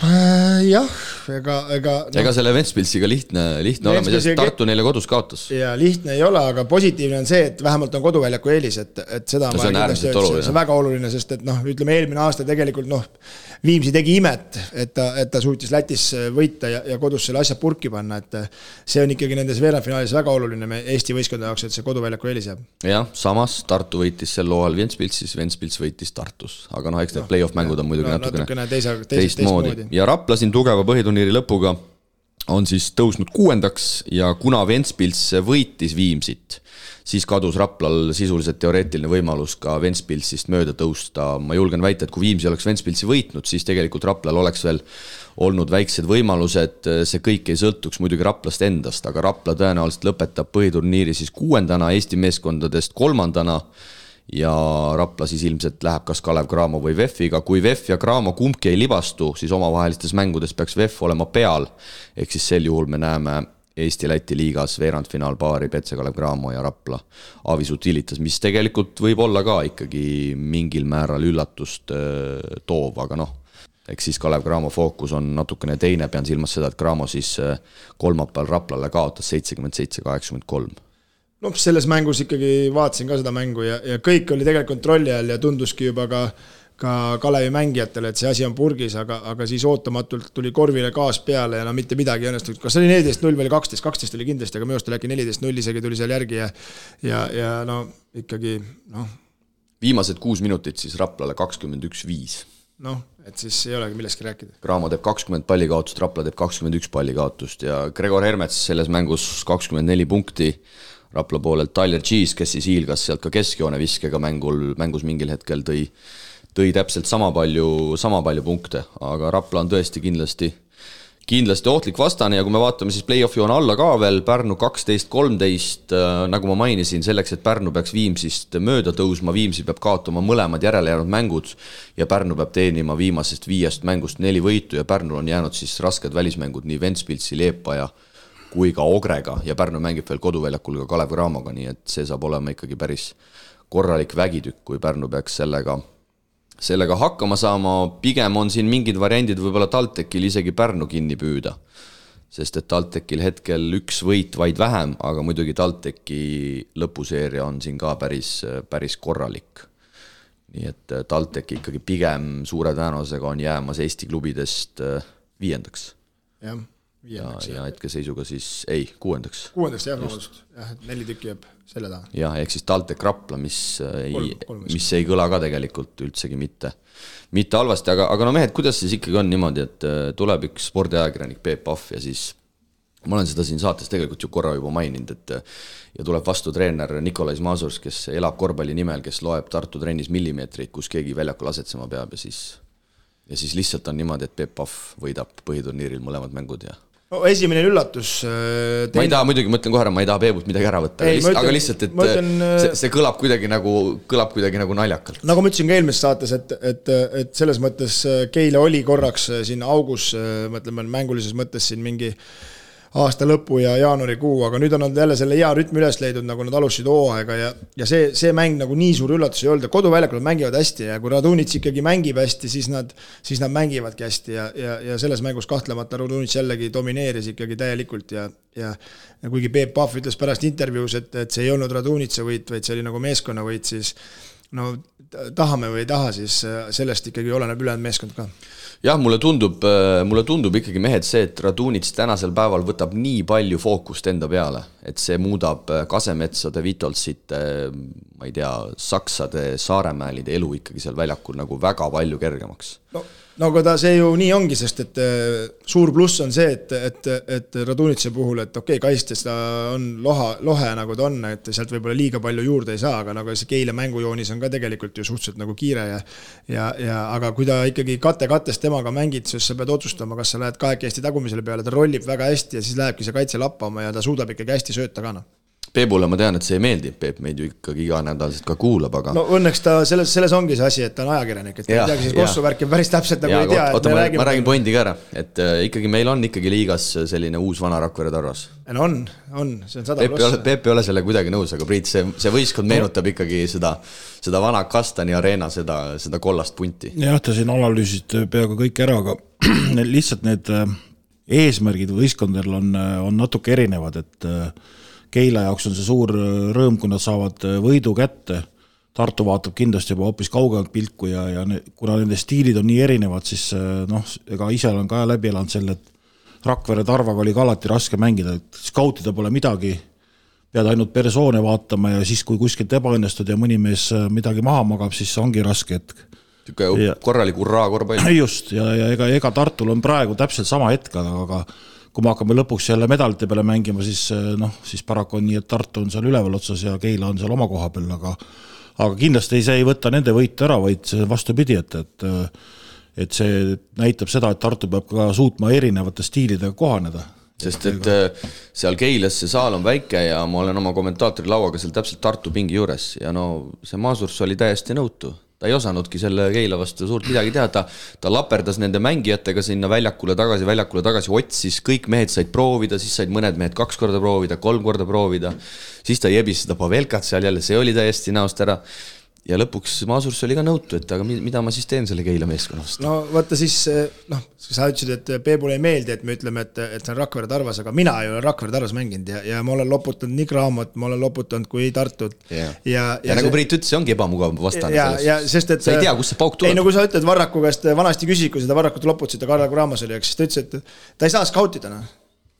Jah, ega selle Ventspilsiga lihtne olema, sest Tartu neile kodus kaotas. Ja lihtne ei ole, aga positiivne on see, et vähemalt on koduväljaku eelis, et seda see on äärmiselt oluline. See on väga oluline, sest et ütleme eelmine aasta tegelikult Viimsi tegi imet, et ta suutis Lätis võita ja kodus selle asja purki panna, et see on ikkagi nendes veerandfinaalis väga oluline Eesti võistkonna jaoks, et see koduväljaku eelis jääb. Jah, samas Tartu võitis sel looal Ventspilsis, Ventspils võitis Tartus, aga eks need play-off mängud on muidugi natukene teistmoodi. Ja Rapla siin tugeva põhiturniiri lõpuga on siis tõusnud 6. ja kuna Ventspils võitis Viimsit, siis kadus Raplal sisuliselt teoreetiline võimalus ka Ventspilsist mööda tõusta. Ma julgen väita, et kui Viimsi oleks Ventspilsi võitnud, siis tegelikult Raplal oleks veel olnud väiksed võimalused, see kõik ei sõltuks muidugi Raplast endast, aga Rapla tõenäoliselt lõpetab põhiturniiri siis 6. Eesti meeskondadest 3. ja Rapla siis ilmselt läheb kas Kalev Cramo või VEF-iga. Kui VEF ja Cramo kumbki ei libastu, siis omavahelistes mängudes peaks VEF olema peal, ehk siis sel juhul me näeme Eesti-Läti liigas veerandfinaalpaari Petse Kalev Cramo ja Rapla Avis Utilitas, mis tegelikult võib olla ka ikkagi mingil määral üllatust toov, aga eks siis Kalev Cramo fookus on natukene teine, pean silmas seda, et Cramo siis kolmapäeval Raplale kaotas 77-83. Selles mängus ikkagi vaatasin ka seda mängu ja kõik oli tegelikult kontrolli all ja tunduski juba ka Kalevi mängijatele, et see asi on purgis, aga siis ootamatult tuli korvile gaas peale ja mitte midagi õnnestunud. Kas oli 14-0 või 12 oli kindlasti, aga minu arust oli äkki 14-0 isegi tuli seal järgi ja ikkagi Viimased 6 minutit siis Raplale 21-5. Et siis ei olegi millestki rääkida. Cramo teeb 20 pallikaotust, Rapla teeb 21 pallikaotust ja Gregor Hermets selles mängus 24 punkti. Rapla poolelt Tyler Cheese, kes siis hiilgas sealt ka keskjoone viskega mängus mingil hetkel tõi täpselt sama palju punkte, aga Rapla on tõesti kindlasti ohtlik vastane ja kui me vaatame siis play-offi on alla ka veel, Pärnu 12-13, nagu ma mainisin, selleks, et Pärnu peaks Viimsist mööda tõusma, Viimsi peab kaotama mõlemad järelejäänud mängud ja Pärnu peab teenima viimasest 5 mängust 4 võitu ja Pärnul on jäänud siis rasked välismängud nii Ventspilsi, Leepaja kui ka Ogrega ja Pärnu mängib veel koduväljakul ka Kalev Cramoga, nii et see saab olema ikkagi päris korralik vägitükk, kui Pärnu peaks sellega hakkama saama. Pigem on siin mingid variandid võib-olla TalTechil isegi Pärnu kinni püüda, sest et TalTechil hetkel 1 võit vaid vähem, aga muidugi TalTechi lõpuseeria on siin ka päris korralik. Nii et TalTech ikkagi pigem suure tõenäosusega on jäämas Eesti klubidest 5. Ja hetkeseisuga siis 6. 6. jah, 4 tükki jääb selle taha. Ja ehk siis TalTech Rapla, mis ei kõla ka tegelikult üldsegi mitte halvasti, aga mehed, kuidas siis ikkagi on niimoodi, et tuleb üks spordiajakirjanik Peep Pahv ja siis ma olen seda siin saates tegelikult ju korra juba maininud, et ja tuleb vastu treener Nikolais Mazurs, kes elab korvpalli nimel, kes loeb Tartu trennis millimeetreid, kus keegi väljakul asetsema peab ja siis lihtsalt on niimoodi, et Peep Pahv võidab põhiturniiril mõlemad mängud ja esimene üllatus ma ei taha muidugi, mõtlen kohe ära, ma ei taha Peebult midagi ära võtta, aga lihtsalt, et see kõlab kuidagi nagu naljakalt. Nagu ma ütlesin ka eelmises saates, et selles mõttes Keile oli korraks siin augus, mõtleme mängulises mõttes siin mingi aasta lõpu ja jaanuarikuu, aga nüüd on nad jälle selle hea rütmi üles leidnud, nagu nad alustasid hooaega ja see mäng nagu nii suur üllatus ei olnud, koduväljakul nad mängivad hästi ja kui Radunits ikkagi mängib hästi, siis nad mängivadki hästi ja selles mängus kahtlemata Radunits jällegi domineeris ikkagi täielikult ja kuigi Peep Pahv ütles pärast intervjuus, et see ei olnud Radunitsa võit, vaid see oli nagu meeskonna võit, siis no tahame või ei taha, siis sellest ikkagi oleneb ülejäänud meeskond ka. Jah, mulle tundub ikkagi mehed see, et Radunits tänasel päeval võtab nii palju fookust enda peale, et see muudab Kasemetsade, Vitolsite, ma ei tea, Saksade, Saaremäelide elu ikkagi seal väljakul nagu väga palju kergemaks. No aga see ju nii ongi, sest et suur pluss on see, et Radunitse puhul, et okei, kaistes ta on lohe nagu ta on, et sealt võib-olla liiga palju juurde ei saa, aga nagu see Keila mängujoonis on ka tegelikult ju suhteliselt nagu kiire aga kui ta ikkagi kattest temaga mängid, siis sa pead otsustama, kas sa lähed kahekesti tagumisele peale, ta rollib väga hästi ja siis lähebki see kaitse lappama ja ta suudab ikkagi hästi sööta ka. Peebule ma tean, et see ei meeldi, Peep meid ju ikkagi iga nädalselt ka kuulab, aga... No õnneks ta selles ongi see asi, et ta on ajakirjanik, et ta ei teagi siis kossuvärki päris täpselt nagu ei tea. Oota, ma räägin pointi ka ära, et ikkagi meil on ikkagi liigas selline uus vana Rakvere Tarvas. No on, see on 100+. Peep ei ole selle kuidagi nõus, aga Priit, see võistkond meenutab ikkagi seda vana Kastani Arena, seda kollast punti. Jah, ta siin analüüsid peaaegu kõik ära, aga lihtsalt need eesmärgid võistkondadel on natuke erinevad, et Keila jaoks on see suur rõõm, kui nad saavad võidu kätte. Tartu vaatab kindlasti juba hoopis kaugelt pilku ja kuna nende stiilid on nii erinevad, siis ega ise olen ka läbi elanud selle, et Rakvere Tarvaga oli ka alati raske mängida, et skautida pole midagi, pead ainult persoone vaatama ja siis, kui kuskilt ebaõnnestud ja mõni mees midagi maha magab, siis ongi raske, et korralik urraa korvpall. Just, ja ega Tartul on praegu täpselt sama hetk, aga kui me hakkame lõpuks jälle medalite peale mängima, siis paraku on nii, et Tartu on seal üleval otsas ja Keila on seal oma koha peal, aga kindlasti see ei võta nende võitu ära, vaid vastupidi, et see näitab seda, et Tartu peab ka suutma erinevate stiilidega kohaneda. Sest et seal Keilas see saal on väike ja ma olen oma kommentaatori lauaga seal täpselt Tartu pingi juures ja see Masurs oli täiesti nõutu. Ta ei osanudki selle Keila vastu suurt midagi teha, ta laperdas nende mängijatega sinna väljakule tagasi, otsis, kõik mehed said proovida, siis said mõned mehed 2 korda proovida, 3 korda proovida, siis ta jebis seda Pavelkat seal jälle, see oli täiesti näost ära. Ja lõpuks Masurs oli ka nõutu, et aga mida ma siis teen selle Keila meeskonnast? No vaata siis, sa ütlesid, et Peebule ei meeldi, et me ütleme, et see on Rakvere Tarvas, aga mina ei ole Rakvere Tarvas mänginud ja ma olen loputanud nii Graamot, ma olen loputanud kui Tartut. Ja nagu Priit ütles, see ongi ebamugav vastane selles. Sa ei tea, kus see pauk tuleb. Ei, no kui sa ütled Varraku käest, vanasti küsid, kui seda Varrakut loputasid, Karl Graamas oli, siis ta ütles, et ta ei saa skautida.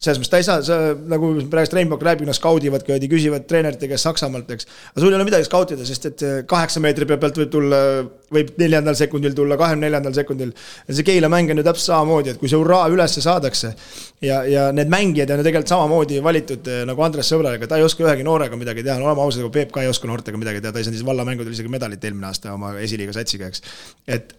Selles mõttes ta ei saa, nagu praegust Rainbow rääbib, skaudivad, küsivad treenerite käest Saksamaalt, eks. Aga sul ei ole midagi skautida, sest et 8 meetri pealt võib 4. sekundil tulla, 24. sekundil. See Keila mäng on ju täpselt samamoodi, et kui see urraa ülesse saadakse ja need mängijad on ju tegelikult samamoodi valitud nagu Andres Sõbralega, ta ei oska ühegi noorega midagi teha, olema ausad, kui Peep ka ei oska noortega midagi teha, ta ei saa vallamängudel isegi medalit eelmine aasta oma esiliiga satsiga, eks.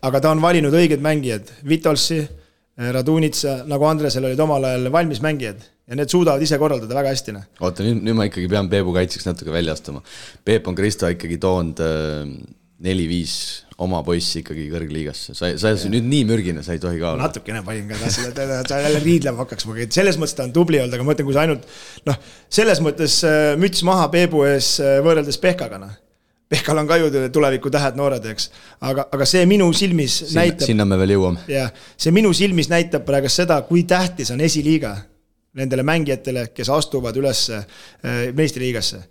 Aga ta on valinud õiged mängijad, Vitolsi, Radunitsa, nagu Andresel olid omal ajal valmis mängijad ja need suudavad ise korraldada väga hästi. Oota, nüüd ma ikkagi pean Peebu kaitseks natuke välja astuma. Peep on Kristo ikkagi toonud 4-5 oma poissi ikkagi kõrgliigasse. Sa nüüd nii mürgine, sa ei tohi ka olla. Natukene panin ka, ta jälle riidlema hakkaks. Selles mõttes ta on tubli olnud, aga ma mõtlen, kui sa ainult selles mõttes müts maha Peebu ees võrreldes Pehkaga. Pehkal on ka ju tuleviku tähed noored, eks. Aga see minu silmis näitab... Sinna me veel jõuame. Ja, see minu silmis näitab praegu seda, kui tähtis on esiliiga nendele mängijatele, kes astuvad üles meistriliigasse.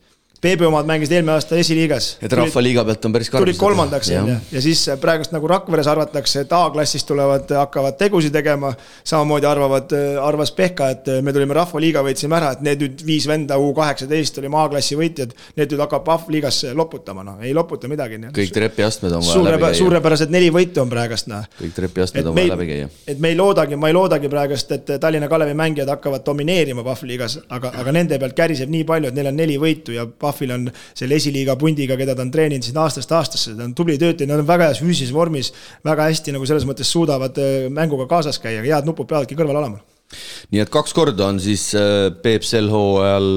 Peebi omad mängisid eelmine aasta esiliigas. Et rahvaliiga pealt on päris karvus. Tulid 3. ja siis praegust nagu Rakveres arvatakse, et A-klassist hakkavad tegusi tegema, samamoodi arvas Pehka, et me tulime rahvaliiga, võitsime ära, et need nüüd 5 venda U18 oli A-klassi võitjad, need nüüd hakkab Pahv-liigas loputama, ei loputa midagi. Kõik trepiastmed on vaja läbi käia. Suurepärased 4 võitu on praegust. Kõik trepiastmed on vaja läbi käia. Et ma ei loodagi praegust, et Tallinna Kalevi mängijad hakkavad domineerima Pahv-liigas, aga nende pealt käriseb nii palju, et neil on 4 võitu ja Pahvil on selle esiliiga pundiga, keda ta on treeninud siin aastast aastasse, ta on tubli töötaja, nad on väga heas füüsilises vormis, väga hästi nagu selles mõttes suudavad mänguga kaasas käia, head nupud peavadki kõrval olema. Nii et 2 korda on siis Peep sel hooajal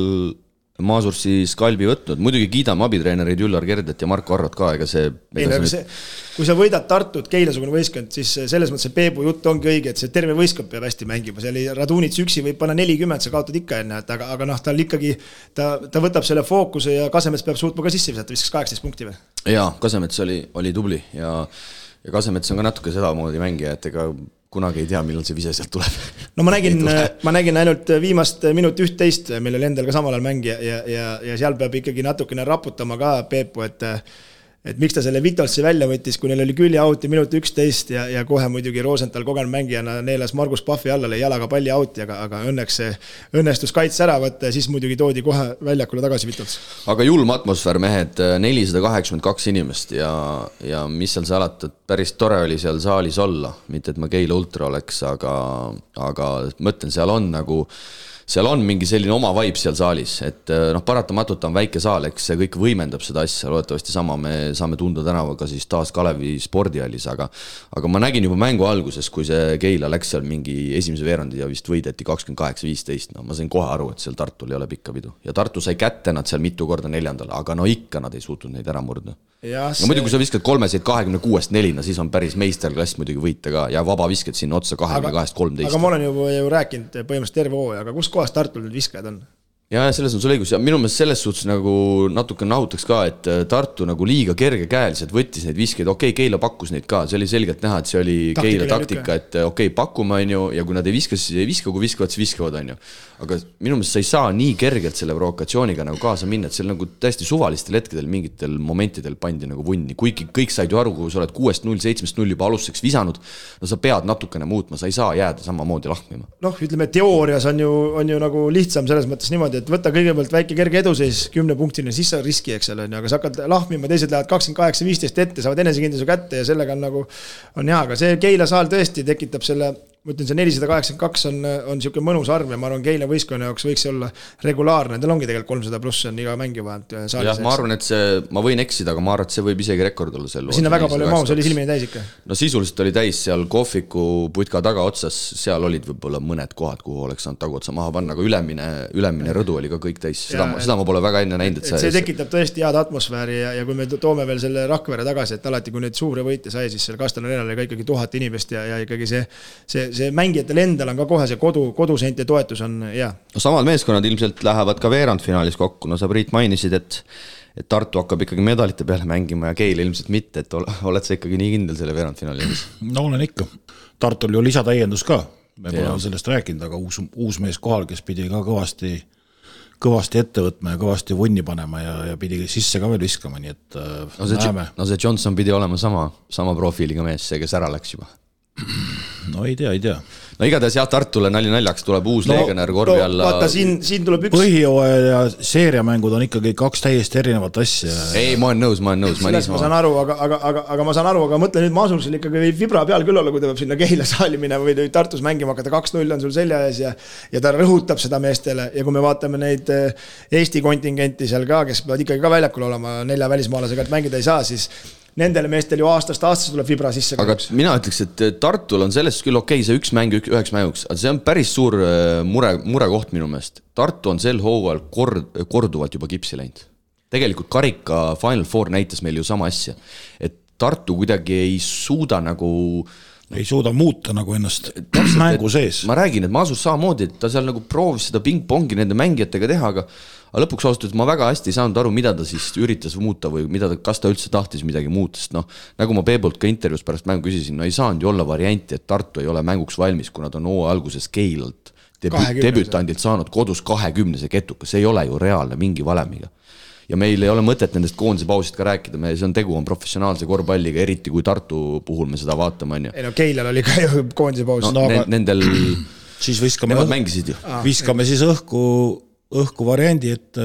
Maasursi skalbi võtnud, muidugi kiidame abitreenerid Üllar Kerdet ja Marko Arrot ka, ega see... kui sa võidad Tartut, Keilasugune võistkond, siis selles mõttes see Peebu jutt ongi õige, et see terve võistkond peab hästi mängima, see oli Radunits üksi võib panna 40, sa kaotad ikka enne, aga noh, tal ikkagi, ta võtab selle fookuse ja Kasemets peab suutma ka sisse visata, viskas 18 punkti või? Jaa, Kasemets oli tubli ja Kasemets on ka natuke sedamoodi mängija, et ega kunagi ei tea, millal see vise sealt tuleb. No ma nägin ainult viimast minut 11, millel endal ka samal ajal mängija ja seal peab ikkagi natukene raputama ka Peepu, et miks ta selle Vitolsi välja võttis, kui neil oli külje auti minut 11 ja kohe muidugi Rosenthal kogenud mängijana neelas Margus Pahvi alla, lõi jalaga palli auti, aga õnneks see õnnestus kaits ära võtta ja siis muidugi toodi kohe väljakule tagasi Vitols. Aga julm atmosfäär, mehed, 482 inimest ja mis seal salata, päris tore oli seal saalis olla, mitte et ma Keila ultra oleks, aga mõtlen, seal on mingi selline oma vibe seal saalis, et paratamatult on väike saal, eks see kõik võimendab seda asja, loodetavasti sama me saame tunda tänavaga siis taas Kalevi spordihallis, aga ma nägin juba mängu alguses, kui see Keila läks seal mingi esimese veerandi ja vist võideti 28-15, ma sain kohe aru, et seal Tartul ei ole pikka pidu ja Tartu sai kätte nad seal mitu korda neljandal, aga ikka nad ei suutnud neid ära murda. Muidu kui sa viskad 3-26-4, siis on päris meisterklass muidugi võita ka ja vaba viskad sinna otsa 22-13. Aga ma olen ju rääkinud põhimõtteliselt terve hooaja, aga kus kohas Tartul need viskajad on? Ja selles on sul õigus ja minu meelest selles suhtes nagu natuke nahutaks ka, et Tartu nagu liiga kergekäeliselt võttis neid viskeid, Keila pakkus neid ka, see oli selgelt näha, et see oli Keila taktika, et pakume on ju ja kui nad ei viska, siis ei viska, kui viskavad, siis viskavad on ju. Aga minu meelest sa ei saa nii kergelt selle provokatsiooniga nagu kaasa minna, et seal nagu täiesti suvalistel hetkedel mingitel momentidel pandi nagu vunni, kuigi kõik said ju aru, kui sa oled 6-0, 7-0 juba alustuseks visanud, no sa pead natukene muutma, sa ei saa jääda samamoodi lahmima. Ütleme, teoorias on ju nagu lihtsam selles mõttes niimoodi, et võtta kõigepealt väike kerge eduseis 10 punktini, siis sa riski, eks ole, aga sa hakkad lahmima, teised lähevad 28-15 ette, saavad enesekindluse kätte ja sellega on nagu on hea, aga see Keila saal tõesti tekitab selle, ma ütlen, see 482 on siuke mõnus arv ja ma arvan, Keila võistkonna jaoks võiks olla regulaarne, tal ongi tegelikult 300 pluss on iga mängi vahelt saalis. Jah, ma arvan, et see, ma võin eksida, aga ma arvan, et see võib isegi rekord olla seal. Sinna väga palju maus oli silmini täis ikka. No sisuliselt oli täis seal kohviku putka taga otsas, seal olid võib-olla mõned kohad, kuhu oleks saanud tagu otsa maha panna, aga ülemine rõdu oli ka kõik täis, seda ma pole väga enne näinud. See tekitab tõesti head atmosfääri ja kui me toome veel selle Rakvere tagasi, et alati kui neid suure võite sai, siis seal Kastel Arenal oli ka ikkagi 1000 inimest ja ikkagi see mängijatel endal on ka kohe see koduseinte toetus on hea. No samad meeskonnad ilmselt lähevad ka veerandfinaalis kokku, no sa Priit mainisid, et Tartu hakkab ikkagi medalite peale mängima ja Keil ilmselt mitte, et oled sa ikkagi nii kindel selle veerandfinaalis? No olen ikka. Tartul ju lisatäiendus ka, me pole sellest rääkinud, aga uus mees kohal, kes pidi ka kõvasti ette võtma ja kõvasti vunni panema ja pidi sisse ka veel viskama, nii et näeme. No see Johnson pidi olema sama profiiliga mees, see, kes ära läks juba. No ei tea. No igatahes jah, Tartule naljaks tuleb uus legionär korvi alla. Vaata, siin tuleb üks... Põhijooaja ja seeriamängud on ikkagi kaks täiesti erinevat asja. Ei, ma olen nõus. Ma saan aru, aga ma saan aru, aga mõtle nüüd Maasursil ikkagi võib vibra peal küll olla, kui ta peab sinna Keila saali minema või Tartus mängima hakata, 2-0 on sul selja ees ja ta rõhutab seda meestele ja kui me vaatame neid Eesti kontingenti seal ka, kes peavad ikkagi ka väljakul olema 4 välismaalasega, et mängida ei saa, siis nendele meestel ju aastast tuleb vibra sisse. Aga mina ütleks, et Tartul on sellest küll see üks mäng üheks mänguks, aga see on päris suur murekoht minu meelest. Tartu on sel hooajal korduvalt juba kipsi läinud. Tegelikult karika Final Four näitas meil ju sama asja, et Tartu kuidagi ei suuda muuta nagu ennast mängu sees. Ma räägin, et Maasus samamoodi, et ta seal nagu proovis seda ping-pongi nende mängijatega teha, aga lõpuks ausalt, et ma väga hästi ei saanud aru, mida ta siis üritas muuta või kas ta üldse tahtis midagi muuta, sest nagu ma Peebolt ka intervjuus pärast mängu küsisin, ei saanud ju olla varianti, et Tartu ei ole mänguks valmis, kui nad on alguses Keilalt debütandilt saanud kodus 20 ketuka, see ei ole ju reaalne mingi valemiga. Ja meil ei ole mõtet nendest koondise pausist ka rääkida, tegu on professionaalse korvpalliga, eriti kui Tartu puhul me seda vaatame. Ei no Keilal oli ka ju koondise paus. Nendel siis viskame siis õhku variandi, et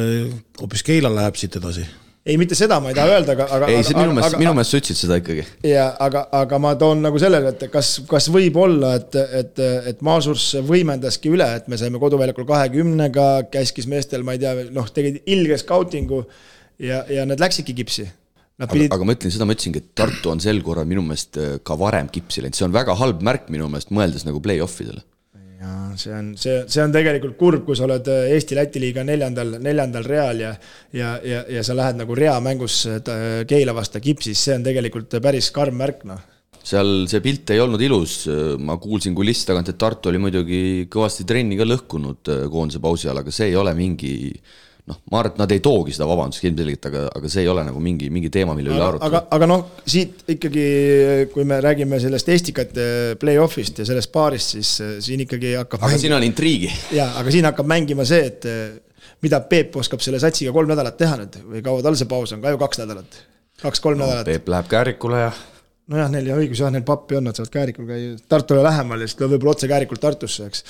hoopis Keila läheb siit edasi. Ei, mitte seda ma ei taha öelda, aga... Ei, minu meelest sa ütlesid seda ikkagi. Aga ma toon nagu sellele, et kas võib olla, et Maasurs võimendaski üle, et me saime koduväljakul 20-ga, käskis meestel, ma ei tea, tegid ilge scoutingu ja need läksidki kipsi. Aga ma ütlesingi, et Tartu on sel korral minu meelest ka varem kipsi läinud. See on väga halb märk minu meelest mõeldes nagu play-offidele. see on tegelikult kurb, kui sa oled Eesti-Läti liiga neljandal real ja sa lähed nagu rea mängus Keila vasta Kipsis, see on tegelikult päris karm märk, Seal see pilt ei olnud ilus, ma kuulsin kulissi tagant, et Tartu oli muidugi kõvasti trenni ka lõhkunud koondise pausi all, aga see ei ole mingi, ma arvan, et nad ei toogi seda vabandust ilmselgelt, aga see ei ole nagu mingi teema, mille üle arutada. Aga siit ikkagi, kui me räägime sellest Estikate play-offist ja sellest paarist, siis siin ikkagi hakkab siin on intriigi. Jaa, aga siin hakkab mängima see, et mida Peep oskab selle satsiga 3 nädalat teha nüüd, või kaua tal see paus on, ka ju 2 nädalat, 2-3 nädalat. Peep läheb Käärikule ja nojah, neil ja õigus, neil pappi on, nad saavad Käärikul käia Tartule lähemal ja siis võib-olla otse Käärikul Tartusse, eks.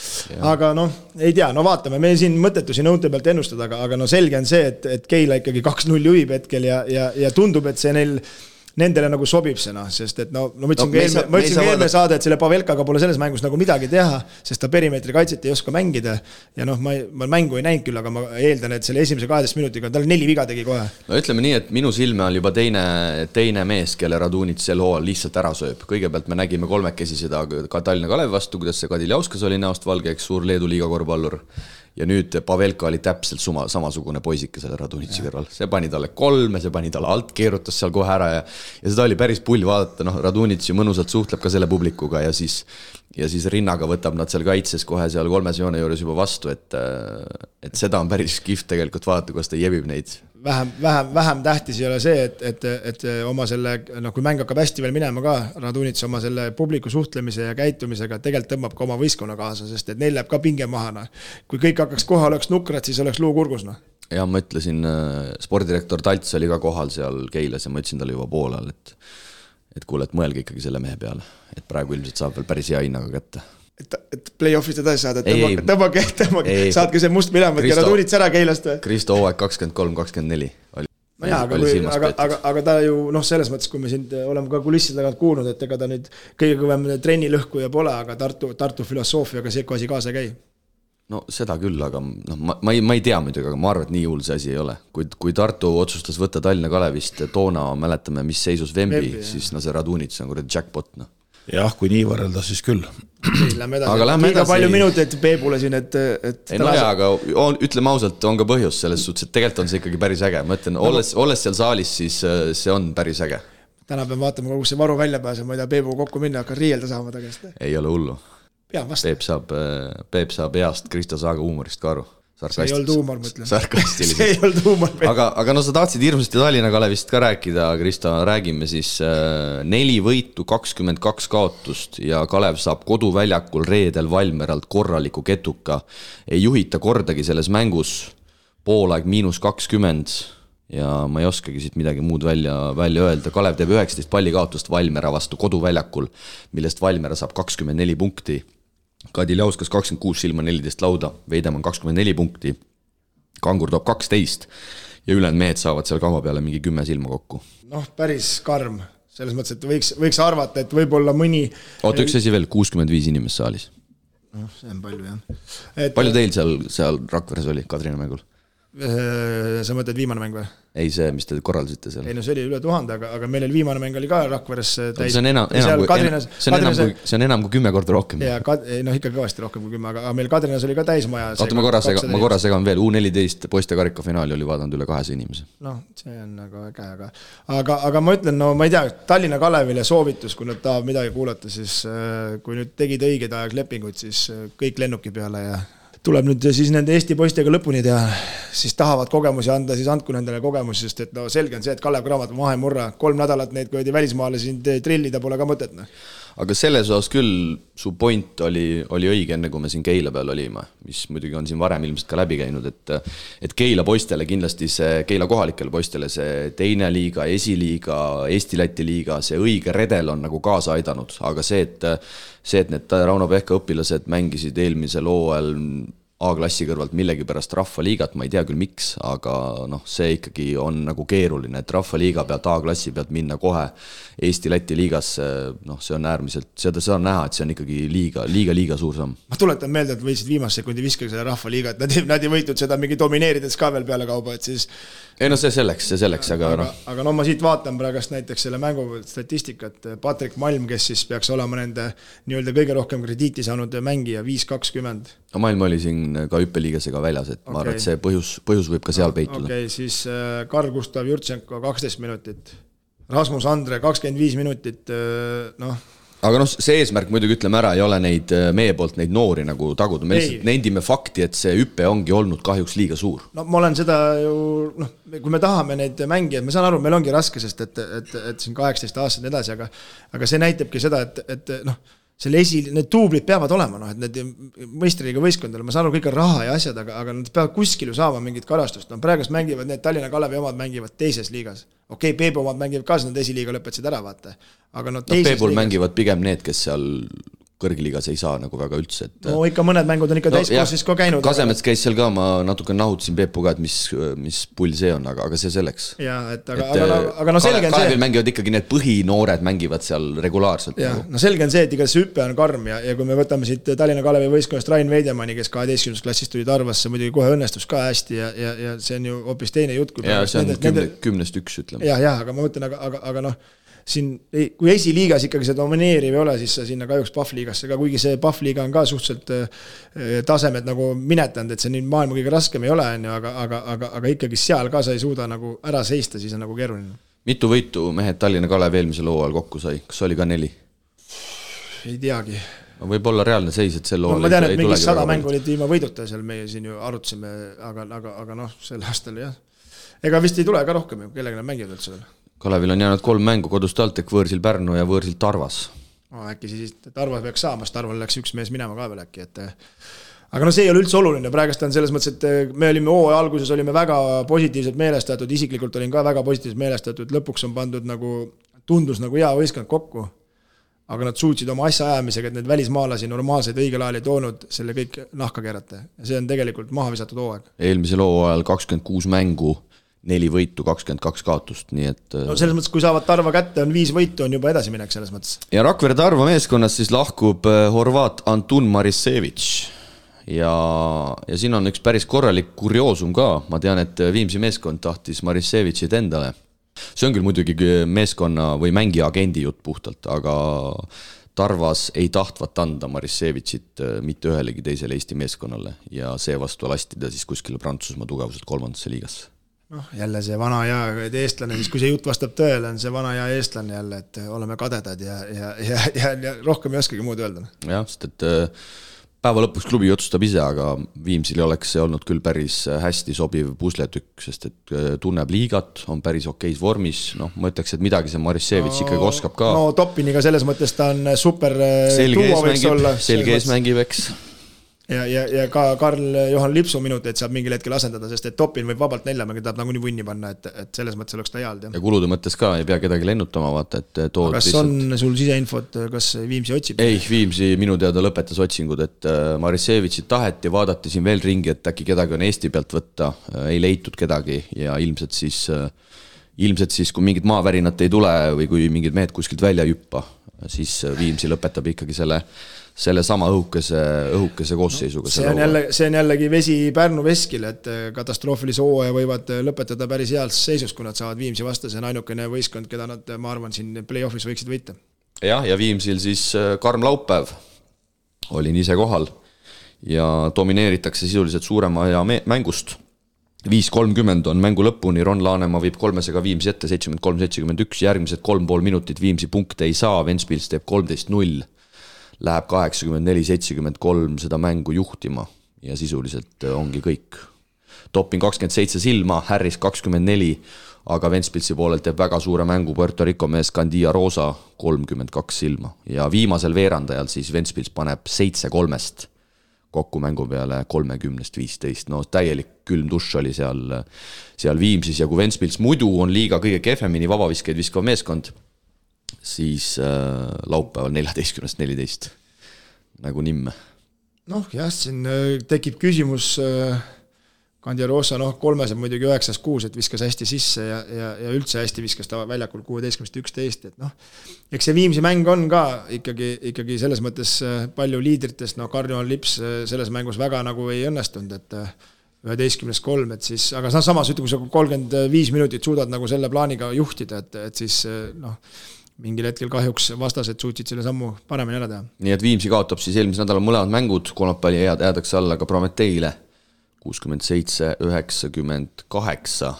Aga ei tea, vaatame, me siin mõttetusi nõunte pealt ennustada, aga selge on see, et Keila ikkagi 2-0 juhib hetkel ja tundub, et see nendele nagu sobib see, sest et ma ütlesin eelme saade, et selle Pavelkaga pole selles mängus nagu midagi teha, sest ta perimeetri kaitset ei oska mängida ja ma mängu ei näinud küll, aga ma eeldan, et selle esimese 12 minutiga tal 4 viga tegi kohe. No ütleme nii, et minu silme on juba teine mees, kelle Radunits sel hooajal lihtsalt ära sööb. Kõigepealt me nägime 3 seda ka Tallinna Kalevi vastu, kuidas see Kadiljauskas oli näost valge, eks suur Leedu liiga korvpallur. Ja nüüd Pavelka oli täpselt samasugune poisike selle Radunitsi kõrval. See pani talle 3, see pani talle alt, keerutas seal kohe ära ja seda oli päris pull vaadata. Radunitsi mõnusalt suhtleb ka selle publikuga ja siis rinnaga võtab nad seal kaitses kohe seal 3 joone juures juba vastu, et seda on päris kihvt tegelikult vaadata, kuidas ta jebib neid. Vähem tähtis ei ole see, et oma selle, kui mäng hakkab hästi veel minema ka, Radunits oma selle publiku suhtlemise ja käitumisega tegelikult tõmbab ka oma võistkonna kaasa, sest et neil läheb ka pinge maha. Kui kõik hakkaks kohal, oleks nukrad, siis oleks luu kurgus. Ja ma ütlesin, spordirektor Talts oli ka kohal seal Keilas ja ma ütlesin talle juba poolel, et kuule, et mõelge ikkagi selle mehe peale, et praegu ilmselt saab veel päris hea hinnaga kätte. Et play-offist edasi saada, et tõmmake, saadke see must minema, et Radunits ära Keilast või? Kristo hooaeg 23-24 oli. Aga ta ju, selles mõttes, kui me siin oleme ka kulisside tagant kuulnud, et ega ta nüüd kõige kõvem trenni lõhkuja pole, aga Tartu filosoofiaga see asi kaasa käi. No seda küll, aga ma ei tea muidugi, aga ma arvan, et nii hull see asi ei ole. Kui Tartu otsustas võtta Tallinna Kalevist toona, mäletame, mis seisus Vembi, siis see Radunits on jackpot. Jah, kui nii võrrelda, siis küll. Lähme edasi. Liiga palju minuteid Peebule siin, et aga ütleme ausalt, on ka põhjus selles suhtes, et tegelikult on see ikkagi päris äge. Ma ütlen, olles seal saalis, siis see on päris äge. Täna peame vaatama, kus see varu välja pääseb, ma ei tea, Peebu kokku minna, hakkan riielda saama tagasi. Ei ole hullu. Peep saab heast Kristo Saaga huumorist ka aru. See ei olnud huumor, mõtlen. Sarkastiliselt. See ei olnud huumor. Aga sa tahtsid hirmsasti Tallinna Kalevist ka rääkida, Kristo, räägime siis 4 võitu, 22 kaotust ja Kalev saab koduväljakul reedel Valmeralt korraliku ketuka. Ei juhita kordagi selles mängus, poolaeg -20 ja ma ei oskagi siit midagi muud välja öelda. Kalev teeb 19 palli kaotust Valmera vastu koduväljakul, millest Valmera saab 24 punkti. Kadiljauskas 26 silma 14 lauda, Veidemann 24 punkti, Kangur toob 12 ja ülejäänud mehed saavad seal kama peale mingi 10 silma kokku. Päris karm, selles mõttes, et võiks arvata, et võib-olla mõni... Oota, üks asi veel, 65 inimest saalis. See on palju, jah. Palju teil seal Rakveres oli Kadrina mängul? Sa mõtled viimane mäng või? Ei see, mis te korraldasite seal. Ei no see oli üle 1000, aga meil oli viimane mäng oli ka Rakveres täis. See on enam kui 10 korda rohkem. Ja, ikka kõvasti rohkem kui 10, aga meil Kadrinas oli ka täismaja. Oota, ma korra segan veel, U14 poiste karika finaali oli vaadanud üle 200 inimese. See on nagu äge, aga ma ütlen, ma ei tea, Tallinna Kalevile soovitus, kui nad tahab midagi kuulata, siis kui nüüd tegid õigeid aeglepinguid, siis kõik lennuki peale ja tuleb nüüd siis nende Eesti poistega lõpuni teha, siis tahavad kogemusi anda, siis andku nendele kogemusi, sest et selge on see, et Kalev Cramo maha ei murra, 3 nädalat neid kui välismaale siin trillida pole ka mõtet. Aga selles osas küll su point oli õige enne, kui me siin Keila peal olime, mis muidugi on siin varem ilmselt ka läbi käinud, et Keila poistele kindlasti see, Keila kohalikele poistele see teine liiga, esiliiga, Eesti-Läti liiga, see õige redel on nagu kaasa aidanud, aga see, et need Rauno Pehka õpilased mängisid eelmisel hooajal A-klassi kõrvalt millegipärast rahvaliigat, ma ei tea küll miks, aga noh, see ikkagi on nagu keeruline, et rahvaliiga pealt A-klassi pealt minna kohe Eesti-Läti liigasse, noh, see on äärmiselt, seda on näha, et see on ikkagi liiga suur samm. Ma tuletan meelde, et võitsid viimase sekundi viskagi selle rahvaliiga, et nad ei võitud seda mingi domineerides ka veel peale kauba, et siis ei no see selleks, aga noh. Aga no ma siit vaatan praegust näiteks selle mängu statistikat, Patrik Malm, kes siis peaks olema nende nii-öelda kõige rohkem krediiti saanud mängija, 5-20. No Malm oli siin ka hüppeliigasega väljas, et ma arvan, et see põhjus võib ka seal peituda. Okei, siis Karl Gustav Jurtšenko 12 minutit, Rasmus Andre 25 minutit, noh. Aga noh, see eesmärk muidugi ütleme ära, ei ole neid meie poolt neid noori nagu taguda, me lihtsalt nendime fakti, et see hüppe ongi olnud kahjuks liiga suur. No ma olen seda ju, noh, kui me tahame neid mängijad, ma saan aru, meil ongi raske, sest et siin 18 aastad edasi, aga see näitabki seda, et noh, selle need tuublid peavad olema, noh, et need mõistriga võistkondadele, ma saan aru, kõik on raha ja asjad, aga nad peavad kuskil ju saama mingit karastust. No praegust mängivad need Tallinna Kalevi omad mängivad teises liigas. Okei, Peebu omad mängivad ka, nad esiliiga lõpetasid ära, vaata. Aga no teises Peebul mängivad pigem need, kes seal kõrgliigas ei saa nagu väga üldse. No ikka mõned mängud on ikka täiskoosis ka käinud. Kasemets käis seal ka, ma natuke nahutasin Peepuga, et mis pull see on, aga see selleks. Jaa, aga no selge on see. Kalevil mängivad ikkagi need põhinoored mängivad seal regulaarselt. Jaa, no selge on see, et iga see hüppe on karm ja kui me võtame siit Tallinna Kalevi võistkonnast Rain Veidemanni, kes 12. klassist tuli Tarvasse, muidugi kohe õnnestus ka hästi ja see on ju hoopis teine jutt. Ja see on 10-1 ütleme. Jaa, aga ma mõtlen, aga noh, siin, kui esiliigas ikkagi see domineeriv ei ole, siis sa sinna kahjuks Pahvliigasse ka, kuigi see Pahvliiga on ka suhteliselt tasemed nagu minetanud, et see nii maailma kõige raskem ei ole, aga ikkagi seal ka sa ei suuda nagu ära seista, siis on nagu keeruline. Mitu võitu mehed Tallinna Kalev eelmisel hooajal kokku sai? Kas oli ka 4? Ei teagi. Võib olla reaalne seis, et sel hooajal ma tean, et mingi 100 mängu olid ilma võiduta, seal meie siin ju arutasime, aga noh, sel aastal jah. Ega vist ei tule ka rohkem ju, kellega nad mängivad üldse veel. Kalevil on jäänud 3 mängu kodust TalTech, võõrsil Pärnu ja võõrsil Tarvas. Äkki siis Tarvas peaks saama, sest Tarval läks üks mees minema ka veel äkki. Aga no see ei ole üldse oluline, praegust on selles mõttes, et me olime hooaja alguses olime väga positiivselt meelestatud, isiklikult olin ka väga positiivselt meelestatud, lõpuks on pandud nagu, tundus nagu hea võistkond kokku, aga nad suutsid oma asja ajamisega, et need välismaalasi normaalseid õigel ajal ei toonud selle kõik nahka keerata. Ja see on tegelikult maha visatud hooaeg. Eelmisel hooajal 26 mängu, 4 võitu, 22 kaotust, nii et no selles mõttes, kui saavad Tarva kätte, on 5 võitu, on juba edasiminek selles mõttes. Ja Rakvere Tarva meeskonnas siis lahkub horvaat Antun Marisevich ja siin on üks päris korralik kurioosum ka, ma tean, et Viimsi meeskond tahtis Marisevichit endale. See on küll muidugi meeskonna või mängija agendi jutt puhtalt, aga Tarvas ei tahtvat anda Marisevichit mitte ühelegi teisele Eesti meeskonnale ja seevastu lasti ta siis kuskile Prantsusmaa tugevuselt 3. liigasse. Noh, jälle see vana ja eestlane, siis kui see jutt vastab tõele, on see vana ja eestlane jälle, et oleme kadedad ja rohkem ei oskagi muud öelda. Jah, sest et päeva lõpuks klubi otsustab ise, aga Viimsil oleks see olnud küll päris hästi sobiv pusletükk, sest et tunneb liigat, on päris okeis vormis, noh, ma ütleks, et midagi see Marisevich ikkagi oskab ka. No Topiniga selles mõttes ta on super tuua võiks olla. Selge ees mängib, eks. Ja ka Karl-Johan Lipsu minuteid saab mingil hetkel asendada, sest et Topin võib vabalt 4 mänge tahab nagu nii vunni panna, et selles mõttes oleks ta heald. Ja kulude mõttes ka ei pea kedagi lennutama, vaata, et tood kas on sul siseinfot, kas Viimsi otsib? Ei, Viimsi minu teada lõpetas otsingud, et Marisevichit taheti, vaadati siin veel ringi, et äkki kedagi on Eesti pealt võtta, ei leitud kedagi ja ilmselt siis, kui mingid maavärinat ei tule või kui mingid mehed kuskilt välja jüppa, siis Viimsi lõpetab ikkagi selle sama õhukese koosseisuga. See on jällegi vesi Pärnu veskil, et katastroofilise hooaja võivad lõpetada päris heas seisus, kui nad saavad Viimsi vastu, see on ainukene võistkond, keda nad, ma arvan, siin play-offis võiksid võita. Ja Viimsil siis karm laupäev, olin ise kohal ja domineeritakse sisuliselt suurema aja mängust. 5.30 on mängu lõpuni, Ron Laanemaa viib 3-ga Viimsi ette, 73-71, järgmised 3,5 minutit Viimsi punkte ei saa, Ventspils teeb 13-0. Läheb 84-73 seda mängu juhtima ja sisuliselt ongi kõik. Topin 27 silma, Harris 24, aga Ventspilsi poolelt teeb väga suure mängu Puerto Rico mees Candia Rosa 32 silma. Ja viimasel veerandajal siis Ventspils paneb 7-3 kokku mängu peale 30-15. No täielik külm dušš oli seal Viimsis ja kui Ventspils muidu on liiga kõige kehvemini vabaviskeid viskav meeskond, siis laupäeval 14-14 nagu nimme. Noh, jah, siin tekib küsimus Kandiarosa, kolmes on muidugi 9-6, et viskas hästi sisse ja üldse hästi viskas ta väljakul 16-11, et eks see Viimsi mäng on ka ikkagi selles mõttes palju liidritest, Karnival Lips selles mängus väga nagu ei õnnestunud, et 11-3, et siis, aga samas ütleme, kui sa 35 minutit suudad nagu selle plaaniga juhtida, et siis mingil hetkel kahjuks vastased suutsid selle sammu paremini ära teha. Nii et Viimsi kaotab siis eelmise nädala mõlemad mängud, kolmapäeval jäädakse alla ka Prometeile 67-98.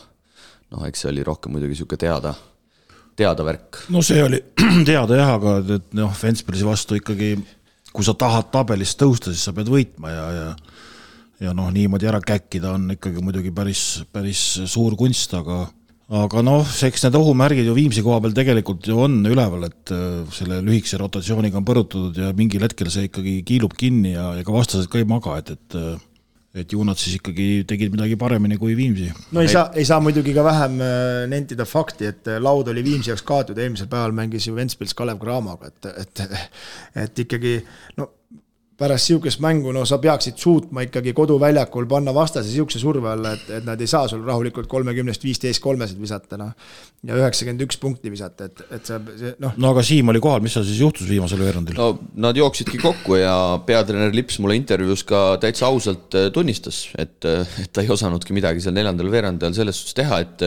Eks see oli rohkem muidugi siuke teada värk. No see oli teada jah, aga Ventspilsi vastu ikkagi, kui sa tahad tabelist tõusta, siis sa pead võitma ja niimoodi ära käkkida on ikkagi muidugi päris suur kunst, aga eks need ohumärgid ju Viimsi koha peal tegelikult ju on üleval, et selle lühikese rotatsiooniga on põrutatud ja mingil hetkel see ikkagi kiilub kinni ja ka vastased ka ei maga, et ju nad siis ikkagi tegid midagi paremini kui Viimsi. No ei saa muidugi ka vähem nentida fakti, et laud oli Viimsi jaoks kaotud, eelmisel päeval mängis ju Ventspils Kalev Cramoga, et ikkagi pärast siukest mängu, sa peaksid suutma ikkagi koduväljakul panna vastase siukse surve alla, et nad ei saa sul rahulikult 30-15-3 visata ja 91 punkti visata, et see. Aga Siim oli kohal, mis siis juhtus viimasel veerandil? No nad jooksidki kokku ja peatreener Lips mulle intervjuus ka täitsa ausalt tunnistas, et ta ei osanudki midagi seal neljandal veerandil selles suhtes teha, et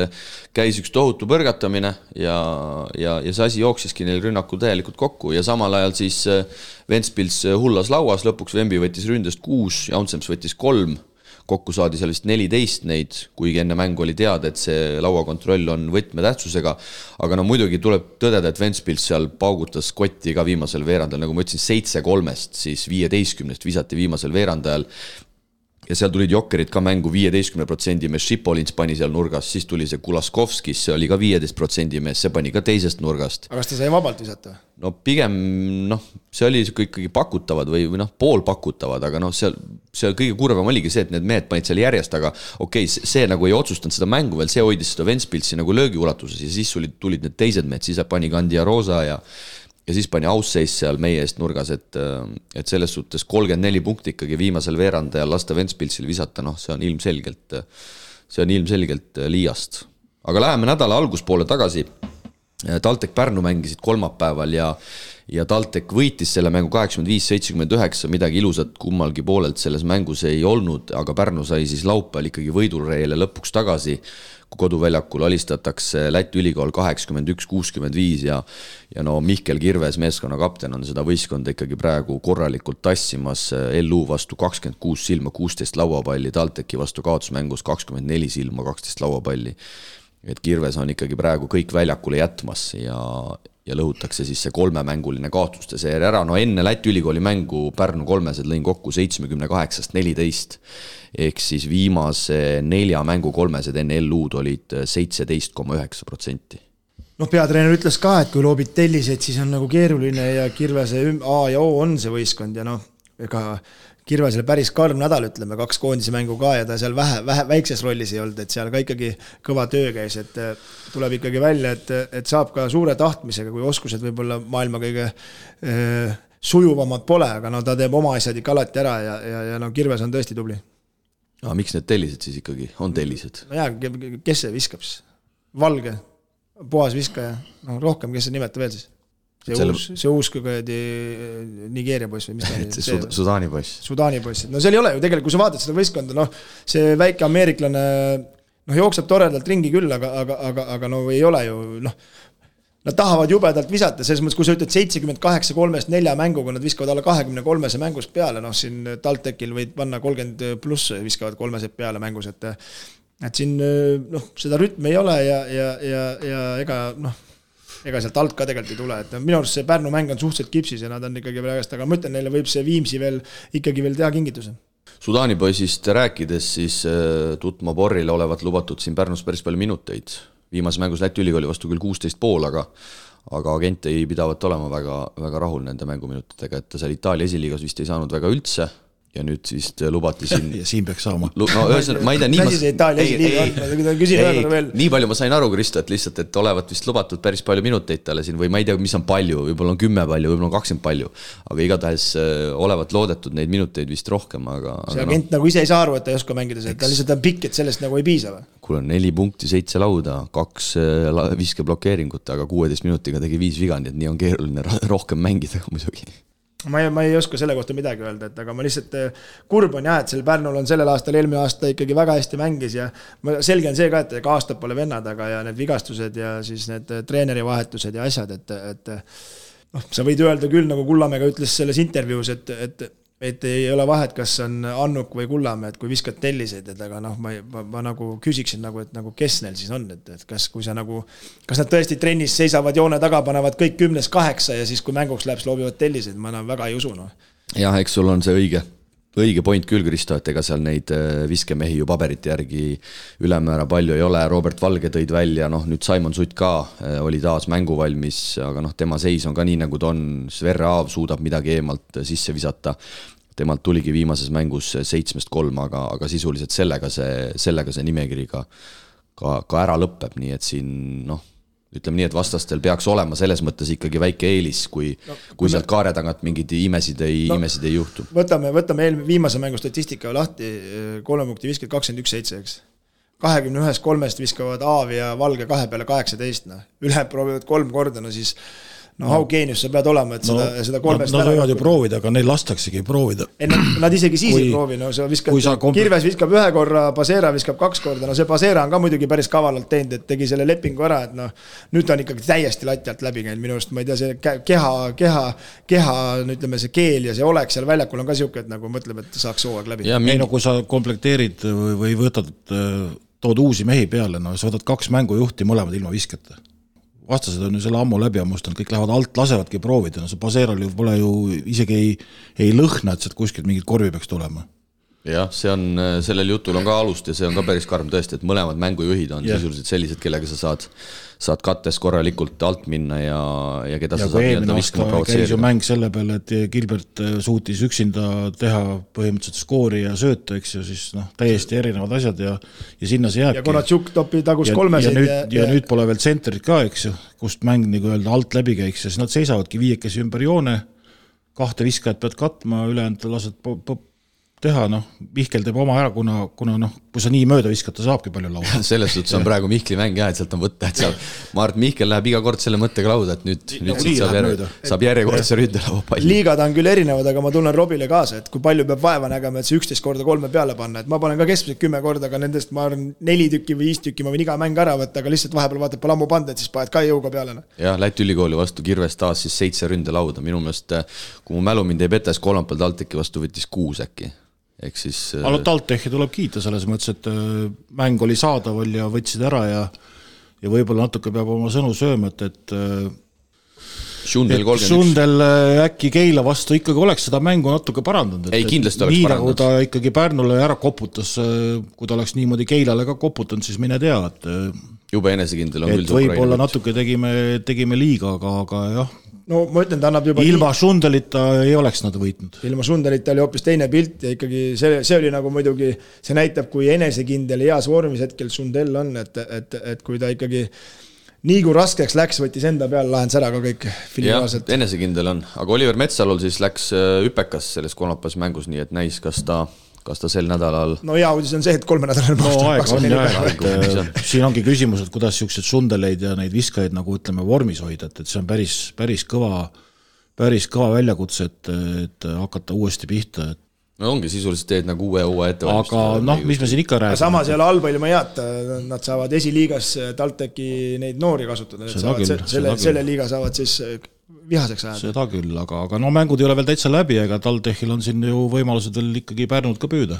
käis üks tohutu põrgatamine ja see asi jooksiski neil rünnakul täielikult kokku ja samal ajal siis Ventspils hullas lauas, lõpuks Vembi võttis ründest 6, Jaunsems võttis 3, kokku saadi seal vist 14 neid, kuigi enne mängu oli teada, et see lauakontroll on võtmetähtsusega, aga muidugi tuleb tõdeda, et Ventspils seal paugutas kotti ka viimasel veerandajal, nagu ma ütlesin, 7-3, siis 15 visati viimasel veerandajal ja seal tulid jokkerid ka mängu 15% mees, Šipolins pani seal nurgas, siis tuli see Kulaskovskis, see oli ka 15% mees, see pani ka teisest nurgast. Aga kas ta sai vabalt visata? No pigem, see oli ikkagi pakutavad või pool pakutavad, aga see kõige kurvem oligi see, et need mehed panid seal järjest, aga okei, see nagu ei otsustanud seda mängu veel, see hoidis seda Ventspilsi nagu löögiulatuses ja siis tulid need teised mehed, siis pani Kandiarosa ja siis pani Ausseis seal meie eest nurgas, et selles suhtes 34 punkti ikkagi viimasel veerandajal lasta Ventspilsil visata, see on ilmselgelt liiast. Aga läheme nädala alguspoole tagasi. Taltek Pärnu mängisid kolmapäeval ja Taltek võitis selle mängu 85-79, midagi ilusat kummalgi poolelt selles mängus ei olnud, aga Pärnu sai siis laupäeval ikkagi võidureele lõpuks tagasi, kui koduväljakul alistatakse Läti ülikool 81-65 ja Mihkel Kirves, meeskonna kapten, on seda võistkonda ikkagi praegu korralikult tassimas, LU vastu 26 silma, 16 lauapalli, Talteki vastu kaotusmängus 24 silma, 12 lauapalli. Et Kirves on ikkagi praegu kõik väljakule jätmas ja lõhutakse siis see 3-mänguline kaotuste seeria ära. Enne Läti ülikooli mängu Pärnu kolmesed lõin kokku 78-14, ehk siis viimase 4 mängu kolmesed enne LU-d olid 17,9%. Peatreener ütles ka, et kui loobid telliseid, siis on nagu keeruline ja Kirvese A ja O on see võistkond ja ega Kirvesele päris karm nädal, ütleme, 2 koondise mängu ka ja ta seal väikses rollis ei olnud, et seal ka ikkagi kõva töö käis, et tuleb ikkagi välja, et saab ka suure tahtmisega, kui oskused võib-olla maailma kõige sujuvamad pole, aga ta teeb oma asjad ikka alati ära ja Kirves on tõesti tubli. Aga miks need tellised siis ikkagi on tellised? Kes see viskab siis? Valge, puhas viskaja, rohkem, kes see nimetab veel siis? See uus Nigeeria poiss või mis ta oli? Sudaani poiss. Sudaani poiss. Seal ei ole ju tegelikult, kui sa vaatad seda võistkonda, see väike ameeriklane jookseb toredalt ringi küll, aga ei ole ju, nad tahavad jubedalt visata, selles mõttes, kui sa ütled 78-3-4 mänguga, nad viskavad alla 23 mängus peale, siin Taltekil võid panna 30 pluss viskavad 3 peale mängus, et siin seda rütmi ei ole ja ega sealt alt ka tegelikult ei tule, et minu arust see Pärnu mäng on suhteliselt kipsis ja nad on ikkagi praegast, aga ma ütlen, neile võib see Viimsi ikkagi veel teha kingituse. Sudaani poisist rääkides, siis Tutma Borrile olevat lubatud siin Pärnus päris palju minuteid. Viimase mängus Läti ülikooli vastu küll 16,5, aga agent ei pidavat olema väga rahul nende mänguminutitega, et ta seal Itaalia esiliigas vist ei saanud väga üldse ja nüüd siis lubati siin ja siin peaks saama. No ühesõnaga, ma ei tea, nii palju ma sain aru, Kristo, et lihtsalt, et olevat vist lubatud päris palju minuteid talle siin või ma ei tea, mis on palju, võib-olla on 10 palju, võib-olla on 20 palju, aga igatahes olevat loodetud neid minuteid vist rohkem, aga see agent nagu ise ei saa aru, et ta ei oska mängida, ta lihtsalt on pikk, et sellest nagu ei piisa või? Kuule, 4 punkti, 7 lauda, 2 viskeblokeeringut, aga 16 minutiga tegi 5 viga, nii et nii on keeruline rohkem mängida muidugi. Ma ei oska selle kohta midagi öelda, et aga ma lihtsalt kurb on et selle Pärnul on sellel aastal, eelmine aasta ikkagi väga hästi mängis ja selge on see ka, et aastad pole vennad, aga ja need vigastused ja siis need treeneri vahetused ja asjad, et sa võid öelda küll, nagu Kullamäega ütles selles intervjuus, et ei ole vahet, kas on Annuk või Kullamäe, et kui viskad telliseid, et aga ma nagu küsiksin nagu, et nagu kes neil siis on, et kas nad tõesti trennis seisavad joone taga, panevad kõik 10-8 ja siis kui mänguks läheb, loobivad telliseid, ma väga ei usu. Jah, eks sul on see õige point küll, Kristo, et ega seal neid viskemehi ju paberite järgi ülemäära palju ei ole, Robert Valge tõid välja, nüüd Simon Sutt ka oli taas mänguvalmis, aga tema seis on ka nii, nagu ta on, Sverre Aav suudab midagi eemalt sisse visata, temalt tuligi viimases mängus 7-3, aga sisuliselt sellega see nimekiri ka ära lõpeb, nii et siin ütleme nii, et vastastel peaks olema selles mõttes ikkagi väike eelis, kui sealt kaare tagant mingid imesid ei juhtu. Võtame viimase mängu statistika lahti, 3 punkti viskad 21-7, eks. 21-3 viskavad Aav ja Valge 2 peale 18, üle proovivad 3 korda, siis how geenius sa pead olema, et seda 3 Nad võivad ju proovida, aga neil lastaksegi proovida. Nad isegi siis ei proovi, sa viskad, Kirves viskab 1 korra, Pasera viskab 2 korda, see Pasera on ka muidugi päris kavalalt teinud, et tegi selle lepingu ära, et nüüd ta on ikkagi täiesti lati alt läbi käinud minu arust, ma ei tea, see keha, ütleme see keel ja see oleks seal väljakul on ka siuke, et nagu mõtleb, et saaks hooaeg läbi. Kui sa komplekteerid või võtad, tood uusi mehi peale, sa võtad 2 mängujuhti mõlemad ilma viskata. Vastased on ju selle ammu läbi ammustanud, kõik lähevad alt, lasevadki proovida, see Paseral ju pole ju isegi ei lõhna, et sealt kuskilt mingid korvi peaks tulema. Jah, sellel jutul on ka alust ja see on ka päris karm tõesti, et mõlemad mängujuhid on sisuliselt sellised, kellega sa saad kattes korralikult alt minna ja keda sa saad nii-öelda viskama provotseerida. Käis ju mäng selle peale, et Gilbert suutis üksinda teha põhimõtteliselt skoori ja sööta, eks ju, siis täiesti erinevad asjad ja sinna see jääbki. Ja Konatšuk topi tagus 3 ja nüüd pole veel tsentrit ka, eks ju, kust mäng nagu öelda alt läbi käiks ja siis nad seisavadki 5 ümber joone, 2 viskajat pead katma, ülejäänud lased teha, Mihkel teeb oma ära, kuna kui sa nii mööda viskata, saabki palju lauda. Selles suhtes on praegu Mihkli mäng et sealt on võtta, et ma arvan, et Mihkel läheb iga kord selle mõttega lauda, et nüüd saab järjekordse ründelaua palli. Liigad on küll erinevad, aga ma tunnen Robile kaasa, et kui palju peab vaeva nägema, et see 11 korda 3 peale panna, et ma panen ka keskmiselt 10 korda, aga nendest ma arvan 4 tükki või 5 tükki ma võin iga mäng ära võtta, aga lihtsalt vahepeal vaatad pole ammu panda, et siis paned ka jõuga peale. Jah, Läti ülikooli vastu Kirves taas siis 7 ründelauda, minu meelest, kui mu mälu mind ei petes, kolmapäeval TalTechi vastu võttis 6 äkki. Aga TalTechi tuleb kiita selles mõttes, et mäng oli saadaval ja võtsid ära ja võib-olla natuke peab oma sõnu sööma, et Sundel äkki Keila vastu ikkagi oleks seda mängu natuke parandanud. Ei, kindlasti oleks nii parandanud. Nagu ta ikkagi Pärnule ära koputas, kui ta oleks niimoodi Keilale ka koputanud, siis mine tea, et jube enesekindel on küll see Ukraina. Võib-olla natuke tegime liiga, aga jah. No ma ütlen, ta annab juba ilma Sundelita ei oleks nad võitnud. Ilma Sundelita oli hoopis teine pilt ja ikkagi see oli nagu muidugi, see näitab, kui enesekindel ja heas vormis hetkel Sundel on, et kui ta ikkagi nii kui raskeks läks, võttis enda peale, lahendas ära ka kõik filiaalselt. Jah, enesekindel on, aga Oliver Metsalul siis läks üpekas selles kolmapäevas mängus, nii et näis, kas ta sel nädalal... No hea uudis on see, et 3 nädalal siin ongi küsimus, et kuidas siuksed Sundeleid ja neid viskajaid nagu ütleme vormis hoida, et see on päris kõva väljakutse, et hakata uuesti pihta. No ongi sisuliselt teed nagu uue ettevalmistus. Aga mis me siin ikka räägime? Samas ei ole halba ilma head, nad saavad esiliigas TalTechi neid noori kasutada. Selle liiga saavad siis vihaseks ajada. Seda küll, aga mängud ei ole veel täitsa läbi, ega TalTechil on siin ju võimalused veel ikkagi Pärnud ka püüda.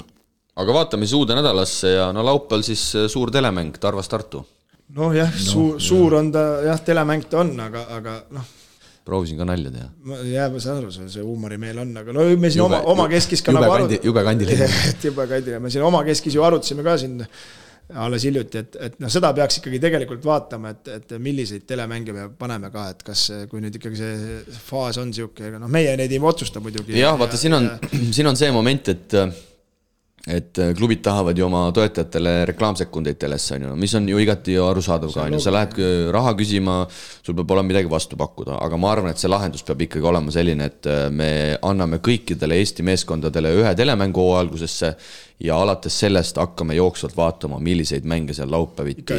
Aga vaatame siis uude nädalasse ja laupäeval siis suur telemäng Tarvas Tartu. Suur on ta, telemäng ta on, aga proovisin ka nalja teha. Ma saan aru, see huumorimeel on, aga me siin oma keskis ka jube kandiline. Me siin oma keskis ju arutasime ka siin alles hiljuti, et no seda peaks ikkagi tegelikult vaatama, et milliseid telemänge me paneme ka, et kas, kui nüüd ikkagi see faas on siuke, noh meie neid ei otsusta muidugi. Jah, vaata, siin on see moment, et klubid tahavad ju oma toetajatele reklaamsekundeid telesse, mis on ju igati arusaadav ka, sa lähed raha küsima, sul peab olema midagi vastu pakkuda, aga ma arvan, et see lahendus peab ikkagi olema selline, et me anname kõikidele Eesti meeskondadele ühe telemängu algusesse ja alates sellest hakkame jooksvalt vaatama, milliseid mänge seal laupäeviti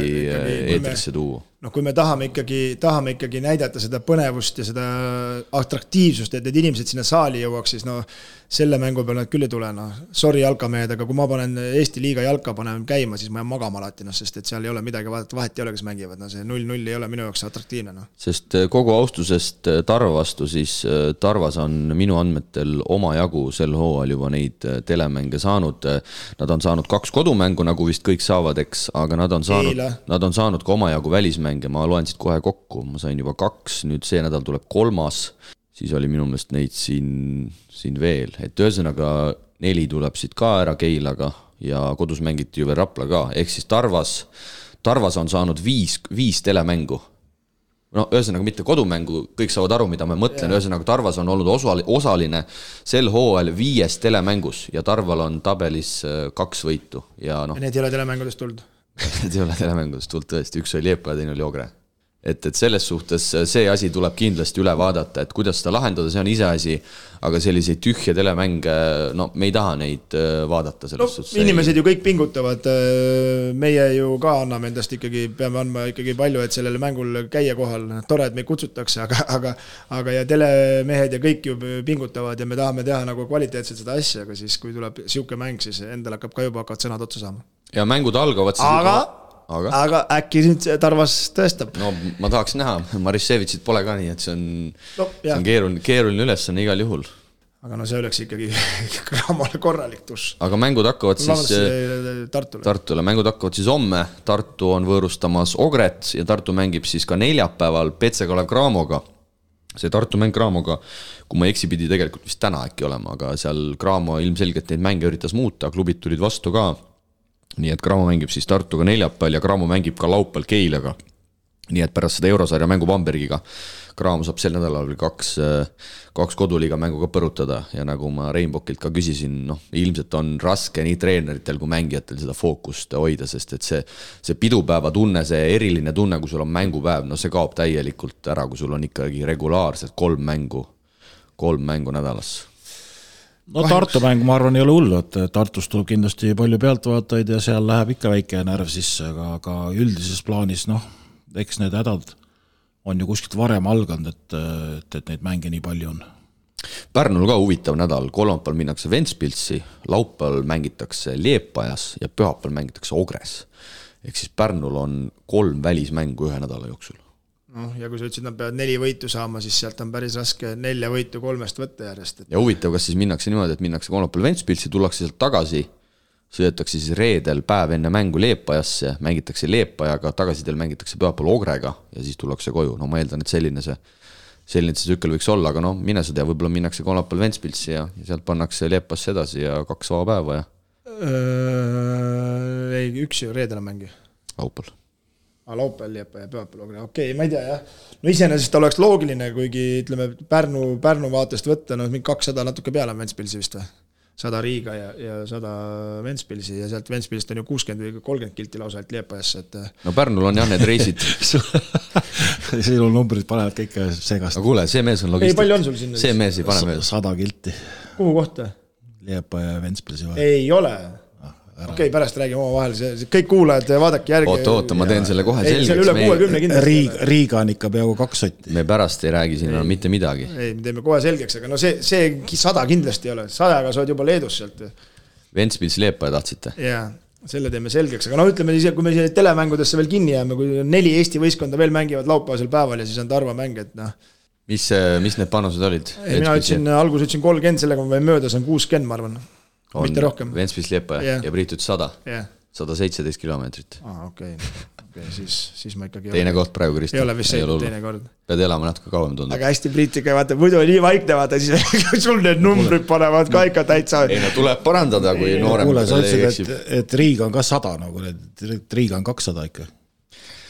eetrisse tuua. No kui me tahame ikkagi näidata seda põnevust ja seda atraktiivsust, et need inimesed sinna saali jõuaks, siis no selle mängu peal nad küll ei tule, no sorry jalkamehed, aga kui ma panen Eesti liiga jalka panen käima, siis ma jään magama alati, sest et seal ei ole midagi vaadata, vahet ei ole, kes mängivad, see 0-0 ei ole minu jaoks atraktiivne. Sest kogu austusest Tarva vastu, siis Tarvas on minu andmetel oma jagu sel hooajal juba neid telemänge saanud. Nad on saanud 2 kodumängu, nagu vist kõik saavad, eks, aga nad on saanud ka oma jagu välismänge, ma loen siit kohe kokku, ma sain juba 2, nüüd see nädal tuleb 3, siis oli minu meelest neid siin veel, et ühesõnaga 4 tuleb siit ka ära Keilaga ja kodus mängiti ju veel Rapla ka, ehk siis Tarvas on saanud 5 telemängu. No ühesõnaga mitte kodumängu, kõik saavad aru, mida ma mõtlen, ühesõnaga Tarvas on olnud osaline sel hooajal 5 telemängus ja Tarval on tabelis 2 võitu. Ja need ei ole telemängudest tulnud? Need ei ole telemängudest tulnud tõesti, üks oli Liepa ja teine oli Ogre. Et selles suhtes see asi tuleb kindlasti üle vaadata, et kuidas seda lahendada, see on ise asi, aga selliseid tühje telemänge, no me ei taha neid vaadata selles suhtes. Inimesed ju kõik pingutavad, meie ju ka anname endast ikkagi, peame andma ikkagi palju, et sellele mängul käia kohal, tore, et meid kutsutakse, aga ja telemehed ja kõik ju pingutavad ja me tahame teha nagu kvaliteetselt seda asja, aga siis kui tuleb siuke mäng, siis endal hakkab ka juba hakkavad sõnad otsa saama. Ja mängud algavad siis aga äkki nüüd Tarvas tõestab. No ma tahaks näha, Marissevitsit pole ka nii, et see on keeruline ülesanne igal juhul. Aga no see oleks ikkagi Graamole korralik tuss. Aga mängud hakkavad siis Tartule. Mängud hakkavad siis homme, Tartu on võõrustamas Ogret ja Tartu mängib siis ka neljapäeval Petse Kalev Graamoga. See Tartu mäng Graamoga, kui ma eksi pidi tegelikult vist täna äkki olema, aga seal Graamo ilmselgelt neid mänge üritas muuta, klubid tulid vastu ka. Nii et Graamo mängib siis Tartuga neljapäeval ja Graamo mängib ka laupäeval Keilaga. Nii et pärast seda Eurosarja mängu Bambergiga Graamo saab sel nädalal 2 koduliiga mängu ka põrutada ja nagu ma Reinbokilt ka küsisin, ilmselt on raske nii treeneritel kui mängijatel seda fookust hoida, sest et see pidupäeva tunne, see eriline tunne, kui sul on mängupäev, see kaob täielikult ära, kui sul on ikkagi regulaarselt 3 mängu nädalas. No Tartu mäng, ma arvan, ei ole hullu, et Tartus tuleb kindlasti palju pealtvaatajaid ja seal läheb ikka väike närv sisse, aga üldises plaanis, eks need hädad on ju kuskilt varem alganud, et neid mänge nii palju on. Pärnul ka huvitav nädal, kolmapäeval minnakse Ventspilsi, laupäeval mängitakse Liepajas ja pühapäeval mängitakse Ogres. Ehk siis Pärnul on 3 välismängu ühe nädala jooksul. Ja kui sa ütlesid, nad peavad 4 võitu saama, siis sealt on päris raske 4 võitu 3 võtta järjest. Ja huvitav, kas siis minnakse niimoodi, et minnakse kolmapäeval Ventspilsi, tullakse sealt tagasi, sõidetakse siis reedel päev enne mängu Liepajasse, mängitakse Liepajaga, tagasidel mängitakse pühapäeval Ogrega ja siis tullakse koju. No ma eeldan, et selline see tsükkel võiks olla, aga mine sa tea, võib-olla minnakse kolmapäeval Ventspilsi ja sealt pannakse Liepasse edasi ja 2 vaba päeva ja... Ei, üks ju reedel mängi. Laupäeval. Laupäeval Liepa ja pühapäeval. Okei, ma ei tea, jah. No iseenesest oleks loogiline, kuigi ütleme Pärnu vaatest võtta, mingi 200 natuke peale on Ventspilsi vist või? 100 Riiga ja 100 Ventspilsi ja sealt Ventspilist on ju 60 või 30 kilti lausa et Liepajasse. No Pärnul on jah need reisid. Sinu numbrid panevad kõik segast. Aga kuule, see mees on logistik. Ei, palju on sul sinna? See mees ei pane mees. 100 kilti. Kuhu kohta? Liepa ja Ventspilsi vahel. Ei ole. Okei, pärast räägime oma vahel, kõik kuulajad, vaadake järgi. Oota, ma teen selle kohe selgeks. Üle 60 kindlasti. Riiga on ikka peaaegu 2 sotti. Me pärast ei räägi siin mitte midagi. Ei, me teeme kohe selgeks, aga see 100 kindlasti ei ole. 100-ga sa oled juba Leedus sealt. Ventspils Liepa tahtsite? Jaa, selle teeme selgeks. Aga ütleme siis, kui me telemängudesse veel kinni jääme, kui 4 Eesti võistkonda veel mängivad laupäevasel päeval ja siis on Tarva mäng, et Mis need panused olid? Mina alguses ütlesin 30, sellega ma võin mööda, see on 60, ma arvan. Mitte rohkem. Ventspils Liepa ja Priit ütles 100. 117 kilomeetrit. Okei, siis ma ikkagi teine koht praegu, Kristo. Ei ole vist see teine kord. Pead elama natuke kauem tundub. Aga hästi Priitiga, vaata, muidu nii vaikne, vaata, siis sul need numbrid panevad ka ikka täitsa. Ei no tuleb parandada, kui noorem. Kuule, sa ütlesid, et Riiga on ka 100, nagu Riiga on 200 ikka.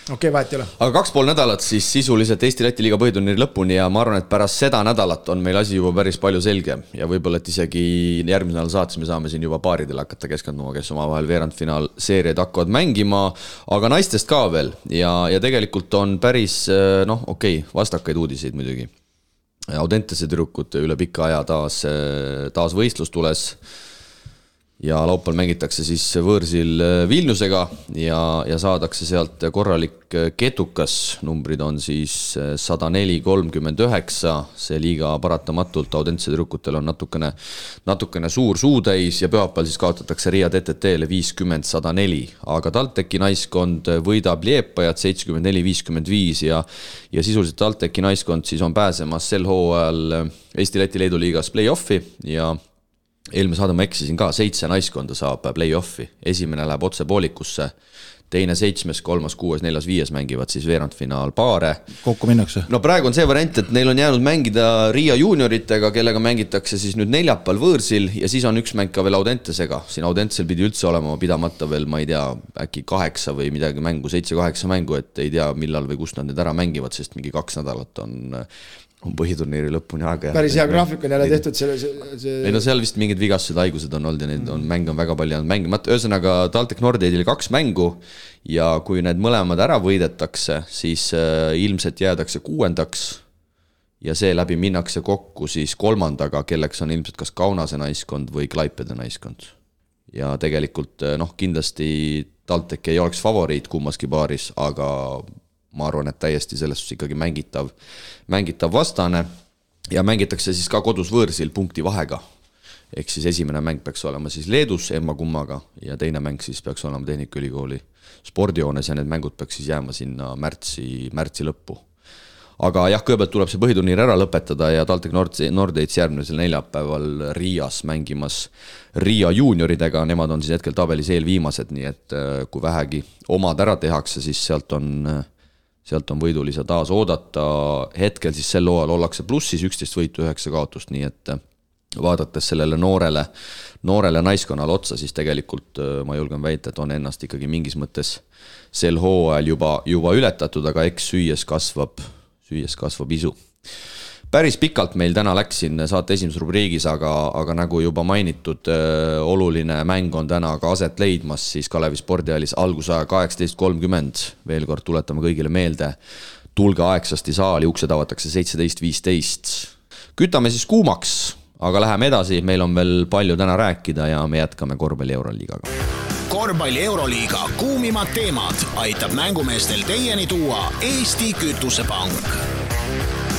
Okei, vahet ei ole. Aga 2,5 nädalat siis sisuliselt Eesti-Läti liiga põhiturniiri lõpuni ja ma arvan, et pärast seda nädalat on meil asi juba päris palju selge ja võib-olla, et isegi järgmisel nädal saates me saame siin juba paaridele hakata keskenduma, kes omavahel veerandfinaal seeriaid hakkavad mängima, aga naistest ka veel ja tegelikult on päris, vastakaid uudiseid muidugi. Audentese tüdrukud üle pika aja taas võistlus tules ja laupäeval mängitakse siis võõrsil Vilniusega ja saadakse sealt korralik ketukas, numbrid on siis 104-39, see liiga paratamatult Audentese tüdrukutel on natukene suur suutäis ja pühapäeval siis kaotatakse Riia TTT-le 50-104, aga TalTechi naiskond võidab Liepajat 74-55 ja sisuliselt TalTechi naiskond siis on pääsemas sel hooajal Eesti-Läti Leedu liigas play-offi ja eelmine saade ma eksisin ka, 7 naiskonda saab play-offi. Esimene läheb otse poolikusse, teine 7, 3, 6, 4, 5 mängivad siis veerandfinaal paare. Kokku minnakse? No praegu on see variant, et neil on jäänud mängida Riia junioritega, kellega mängitakse siis nüüd neljapäeval võõrsil ja siis on üks mäng ka veel Audentesega. Siin Audentesel pidi üldse olema pidamata veel, ma ei tea, äkki 8 või midagi mängu, 7-8 mängu, et ei tea millal või kust nad need ära mängivad, sest mingi 2 nädalat on põhiturniiri lõpuni aega. Päris hea graafik on jälle tehtud Ei no seal vist mingid vigastused, haigused on olnud ja neid mänge on väga palju jäänud mängimata. Ühesõnaga TalTech Nordeidil 2 mängu ja kui need mõlemad ära võidetakse, siis ilmselt jäädakse 6. ja see läbi minnakse kokku siis 3., kelleks on ilmselt kas Kaunase naiskond või Klaipede naiskond. Ja tegelikult kindlasti TalTech ei oleks favoriit kummaski paaris, aga ma arvan, et täiesti selles ikkagi mängitav vastane ja mängitakse siis ka kodus võõrsil punkti vahega. Ehk siis esimene mäng peaks olema siis Leedus emma-kummaga ja teine mäng siis peaks olema Tehnikaülikooli spordijoones ja need mängud peaks siis jääma sinna märtsi lõppu. Aga jah, kõigepealt tuleb see põhiturniir ära lõpetada ja TalTech Nordeits järgmisel neljapäeval Riias mängimas Riia junioridega, nemad on siis hetkel tabelis eelviimased, nii et kui vähegi omad ära tehakse, siis sealt on võidulisa taas oodata. Hetkel siis sel hooajal ollakse plussis 11 võitu 9 kaotust, nii et vaadates sellele noorele naiskonnale otsa, siis tegelikult ma julgen väita, et on ennast ikkagi mingis mõttes sel hooajal juba ületatud, aga eks süües kasvab isu. Päris pikalt meil täna läks siin saate esimeses rubriigis, aga nagu juba mainitud, oluline mäng on täna ka aset leidmas siis Kalevi spordihallis algusaja 18.30. Veel kord tuletame kõigile meelde, tulge aegsasti saali, uksed avatakse 17.15. Kütame siis kuumaks, aga läheme edasi, meil on veel palju täna rääkida ja me jätkame korvpalli Euroliigaga. Korvpalli Euroliiga kuumimad teemad aitab mängumeestel teieni tuua Eesti Kütusepank.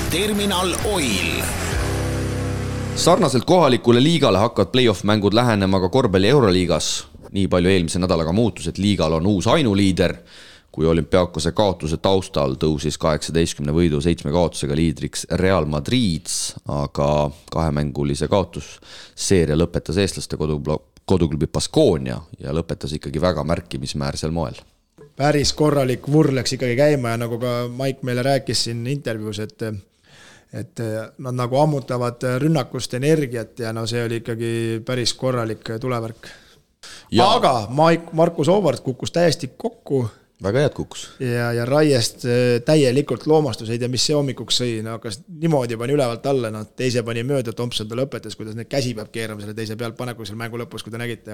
Terminal Oil. Sarnaselt kohalikule liigale hakkavad play-off mängud lähenema ka korvpalli Euroliigas. Nii palju eelmise nädalaga muutus, et liigal on uus ainuliider. Kui Olümpiakose kaotuse taustal tõusis 18 võidu 7 kaotusega liidriks Real Madrid, aga 2-mängulise kaotus seeria lõpetas eestlaste koduklubi Baskonia ja lõpetas ikkagi väga märkimismäärsel moel. Päris korralik vurr läks ikkagi käima ja nagu ka Mike meile rääkis siin intervjuus, et nad nagu ammutavad rünnakust energiat ja see oli ikkagi päris korralik tulevärk. Aga Markus Oovart kukkus täiesti kokku. Väga head kukkus. Ja Raiest täielikult loomastus, ei tea, mis see hommikuks sõi, hakkas niimoodi pani ülevalt alla, teise pani mööda, Thompson ta lõpetas, kuidas need käsi peab keerama selle teise pealt paneku seal mängu lõpus, kui ta nägite,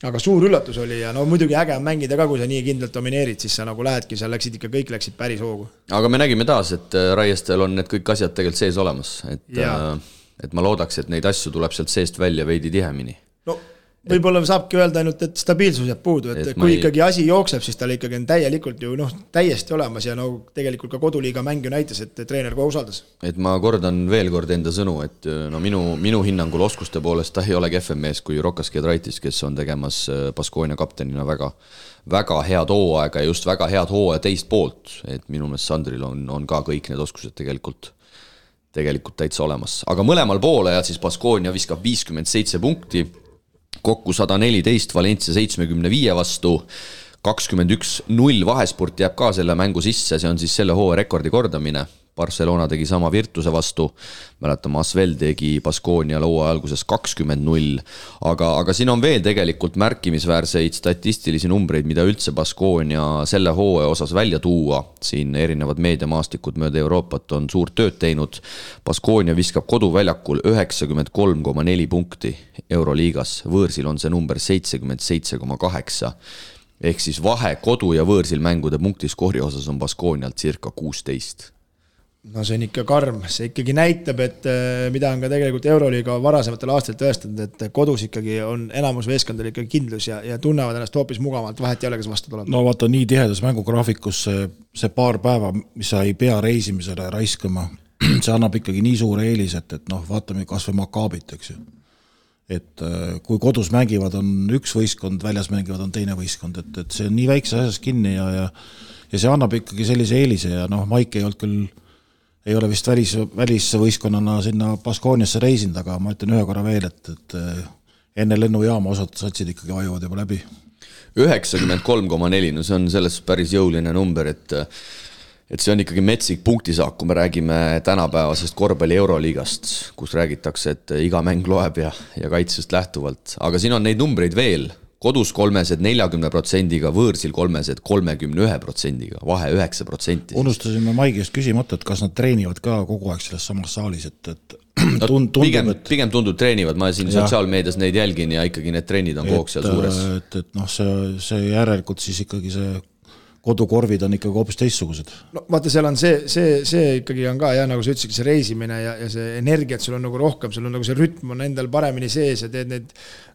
aga suur üllatus oli ja muidugi äge on mängida ka, kui sa nii kindlalt domineerid, siis sa nagu lähedki, seal kõik läksid päris hoogu. Aga me nägime taas, et Raiestel on need kõik asjad tegelikult sees olemas, et ma loodaks, et neid asju tuleb sealt seest välja veidi tihemini. Võib-olla saabki öelda ainult, et stabiilsus jääb puudu, et kui ikkagi asi jookseb, siis tal ikkagi on täielikult ju täiesti olemas ja tegelikult ka koduliiga mäng ju näitas, et treener kohe usaldas. Et ma kordan veel kord enda sõnu, et minu hinnangul oskuste poolest ta ei ole kehvem mees kui Rokas Giedraitis, kes on tegemas Baskonia kaptenina väga head hooaega ja just väga head hooaja teist poolt, et minu meelest Sandril on ka kõik need oskused tegelikult täitsa olemas. Aga mõlemal poole ja siis Baskonia viskab 57 punkti, kokku 114 Valencia 75 vastu, 21-0 vahesport jääb ka selle mängu sisse, see on siis selle hooaja rekordi kordamine. Barcelona tegi sama Virtuse vastu, mäletame Asvel tegi Baskonia hooaja alguses 20-0, aga siin on veel tegelikult märkimisväärseid statistilisi numbreid, mida üldse Baskonia selle hooaja osas välja tuua. Siin erinevad meediamaastikud mööda Euroopat on suurt tööd teinud. Baskonia viskab koduväljakul 93,4 punkti Euroliigas, võõrsil on see number 77,8. Ehk siis vahe kodu- ja võõrsil mängude punktiskoori osas on Baskonialt circa 16. No see on ikka karm, see ikkagi näitab, et mida on ka tegelikult Euroliiga varasematel aastatel tõestanud, et kodus ikkagi on enamus veeskondadel ikkagi kindlus ja tunnevad ennast hoopis mugavalt, vahet ei ole, kes vastu tuleb. No vaata, nii tihedas mängugraafikus see paar päeva, mis sa ei pea reisimisele raiskama, see annab ikkagi nii suure eelis, et vaatame kas või Makaabit, eks ju. Et kui kodus mängivad on üks võistkond, väljas mängivad on teine võistkond, et see on nii väikse asjas kinni ja see annab ikkagi sellise eelise ja Maik ei olnud küll ei ole vist välisvõistkonnana sinna Baskoniasse reisinud, aga ma ütlen ühe korra veel, et enne lennujaama osad satsid ikkagi vajuvad juba läbi. 93,4, no see on selles päris jõuline number, et see on ikkagi metsik punktisaak, kui me räägime tänapäevasest korvpalli Euroliigast, kus räägitakse, et iga mäng loeb ja kaitsest lähtuvalt. Aga siin on neid numbreid veel. Kodus 3-sed 40%-ga, võõrsil 3-sed 31%-ga, vahe 9%. Unustasime Maigist küsimata, et kas nad treenivad ka kogu aeg selles samas saalis, et pigem tundub treenivad, ma siin sotsiaalmeedias neid jälgin ja ikkagi need trennid on kogu seal suures. See järelikult siis ikkagi see kodukorvid on ikkagi hoopis teistsugused. No vaata, seal on see ikkagi on ka, nagu sa ütlesid, see reisimine ja see energiat sul on nagu rohkem, sul on nagu see rütm on endal paremini sees ja teed neid,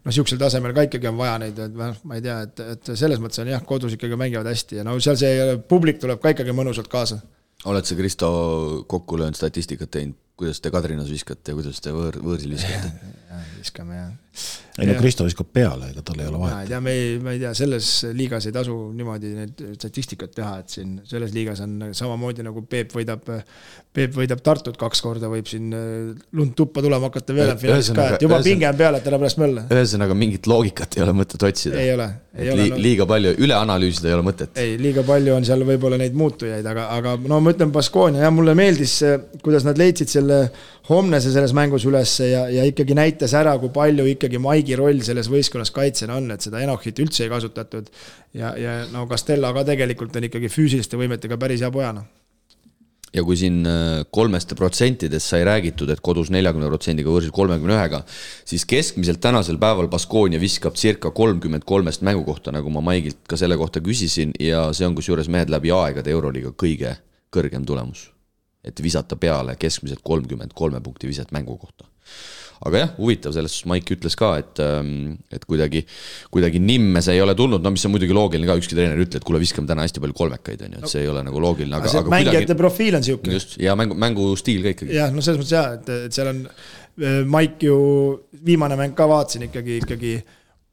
siuksel tasemel ka ikkagi on vaja neid, ma ei tea, et selles mõttes on kodus ikkagi mängivad hästi ja seal see publik tuleb ka ikkagi mõnusalt kaasa. Oled sa Kristo kokku löönud statistikat teinud, kuidas te Kadrinas viskate ja kuidas te võõrsil viskate? Viskame, jah. Ei Kristo viskab peale, ega tal ei ole vahet. Ma ei tea, selles liigas ei tasu niimoodi need statistikat teha, et siin selles liigas on samamoodi nagu Peep võidab Tartut 2 korda, võib siin lund tuppa tulema hakata veel finaalis ka, et juba pinge on peale, et ära pärast mölle. Ühesõnaga mingit loogikat ei ole mõtet otsida. Ei ole. Liiga palju, üle analüüsida ei ole mõtet. Ei, liiga palju on seal võib-olla neid muutujaid, aga ma ütlen Baskonia, mulle meeldis, kuidas nad leidsid selle Homnese selles mängus üles ja ikkagi näitas ära, kui palju ikkagi Maigi roll selles võistkonnas kaitsena on, et seda Enochit üldse ei kasutatud ja Castella ka tegelikult on ikkagi füüsiliste võimetega päris hea pojana. Ja kui siin 3% sai räägitud, et kodus 40%-ga võrsil 31-ga, siis keskmiselt tänasel päeval Baskonia viskab circa 33 mängu kohta, nagu ma Maigilt ka selle kohta küsisin ja see on kusjuures mehed läbi aegade Euroliiga kõige kõrgem tulemus. Et visata peale keskmiselt 33 punkti viset mängu kohta. Aga jah, huvitav, selles Maik ütles ka, et kuidagi nimme see ei ole tulnud, mis on muidugi loogiline ka, ükski treener ütle, et kuule viskame täna hästi palju kolmekaid, et see ei ole nagu loogiline. Aga mängijate profiil on siuke. Just, ja mängu stiil ka ikkagi. Jah, selles mõttes jah, et seal on Maik ju viimane mäng ka vaatsin ikkagi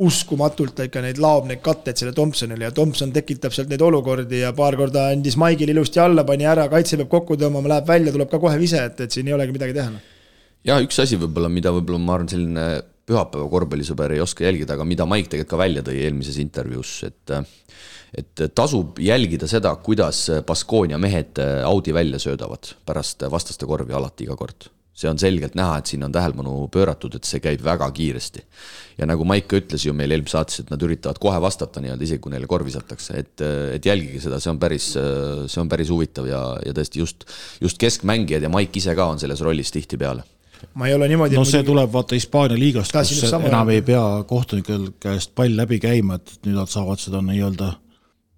uskumatult ikka neid laob neid katteid selle Thompsonile ja Thompson tekitab sealt neid olukordi ja paar korda andis Maigil ilusti alla, pani ära, kaitse peab kokku tõmbama, läheb välja, tuleb ka kohe vise, et siin ei olegi midagi teha. Ja üks asi võib-olla, mida võib-olla ma arvan selline pühapäeva korvpallisõber ei oska jälgida, aga mida Maik tegelikult ka välja tõi eelmises intervjuus, et tasub jälgida seda, kuidas Baskonia mehed Audi välja söödavad pärast vastaste korvi alati iga kord. See on selgelt näha, et siin on tähelepanu pööratud, et see käib väga kiiresti. Ja nagu Maik ütles ju meil eelmise saates, et nad üritavad kohe vastata isegi kui neile korvi satakse, et jälgige seda, see on päris huvitav ja tõesti just keskmängijad ja Maik ise ka on selles rollis tihti peale. Ma ei ole niimoodi... No see tuleb vaata Hispaania liigast, kus enam ei pea kohtunikel käest pall läbi käima, et nüüd nad saavad seda nii-öelda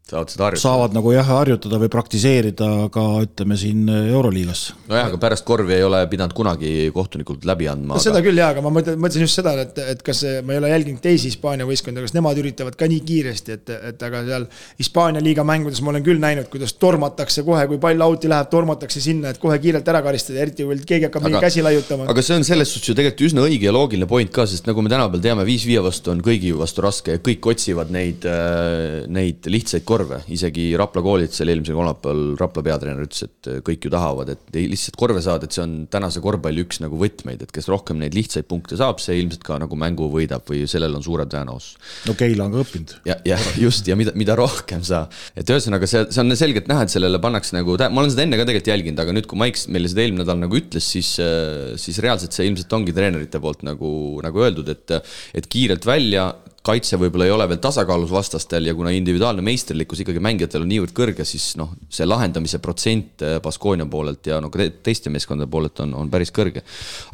saavad nagu harjutada või praktiseerida ka ütleme siin Euroliigas. No jah, aga pärast korvi ei ole pidanud kunagi kohtunikult läbi andma. Seda küll jah, aga ma mõtlesin just seda, et kas ma ei ole jälginud teisi Hispaania võistkonda, kas nemad üritavad ka nii kiiresti, et aga seal Hispaania liiga mängudes ma olen küll näinud, kuidas tormatakse kohe, kui pall auti läheb, tormatakse sinna, et kohe kiirelt ära karistada, eriti kui keegi hakkab mingi käsi laiutama. Aga see on selles suhtes ju tegelikult üsna õige ja loogiline point ka, sest nagu me tänapäeval teame, 5-5 vastu on kõigi vastu raske ja kõik otsivad neid lihtsaid korve, isegi Rapla koolitusel eelmisel kolmapäeval Rapla peatreener ütles, et kõik ju tahavad, et lihtsalt korve saada, et see on tänase korvpalli üks nagu võtmeid, et kes rohkem neid lihtsaid punkte saab, see ilmselt ka nagu mängu võidab või sellel on suurem tõenäosus. No Keila on ka õppinud. Ja just, ja mida rohkem sa, et ühesõnaga see on selgelt näha, et sellele pannakse nagu, ma olen seda enne ka tegelikult jälginud, aga nüüd kui Maiks meile seda eelmine nädal nagu ütles, siis reaalselt see ilmselt ongi treenerite poolt nagu öeldud, et kiirelt välja, kaitse võib-olla ei ole veel tasakaalus vastastel ja kuna individuaalne meisterlikkus ikkagi mängijatel on niivõrd kõrge, siis see lahendamise protsent Baskonia poolelt ja teiste meeskondade poolelt on päris kõrge.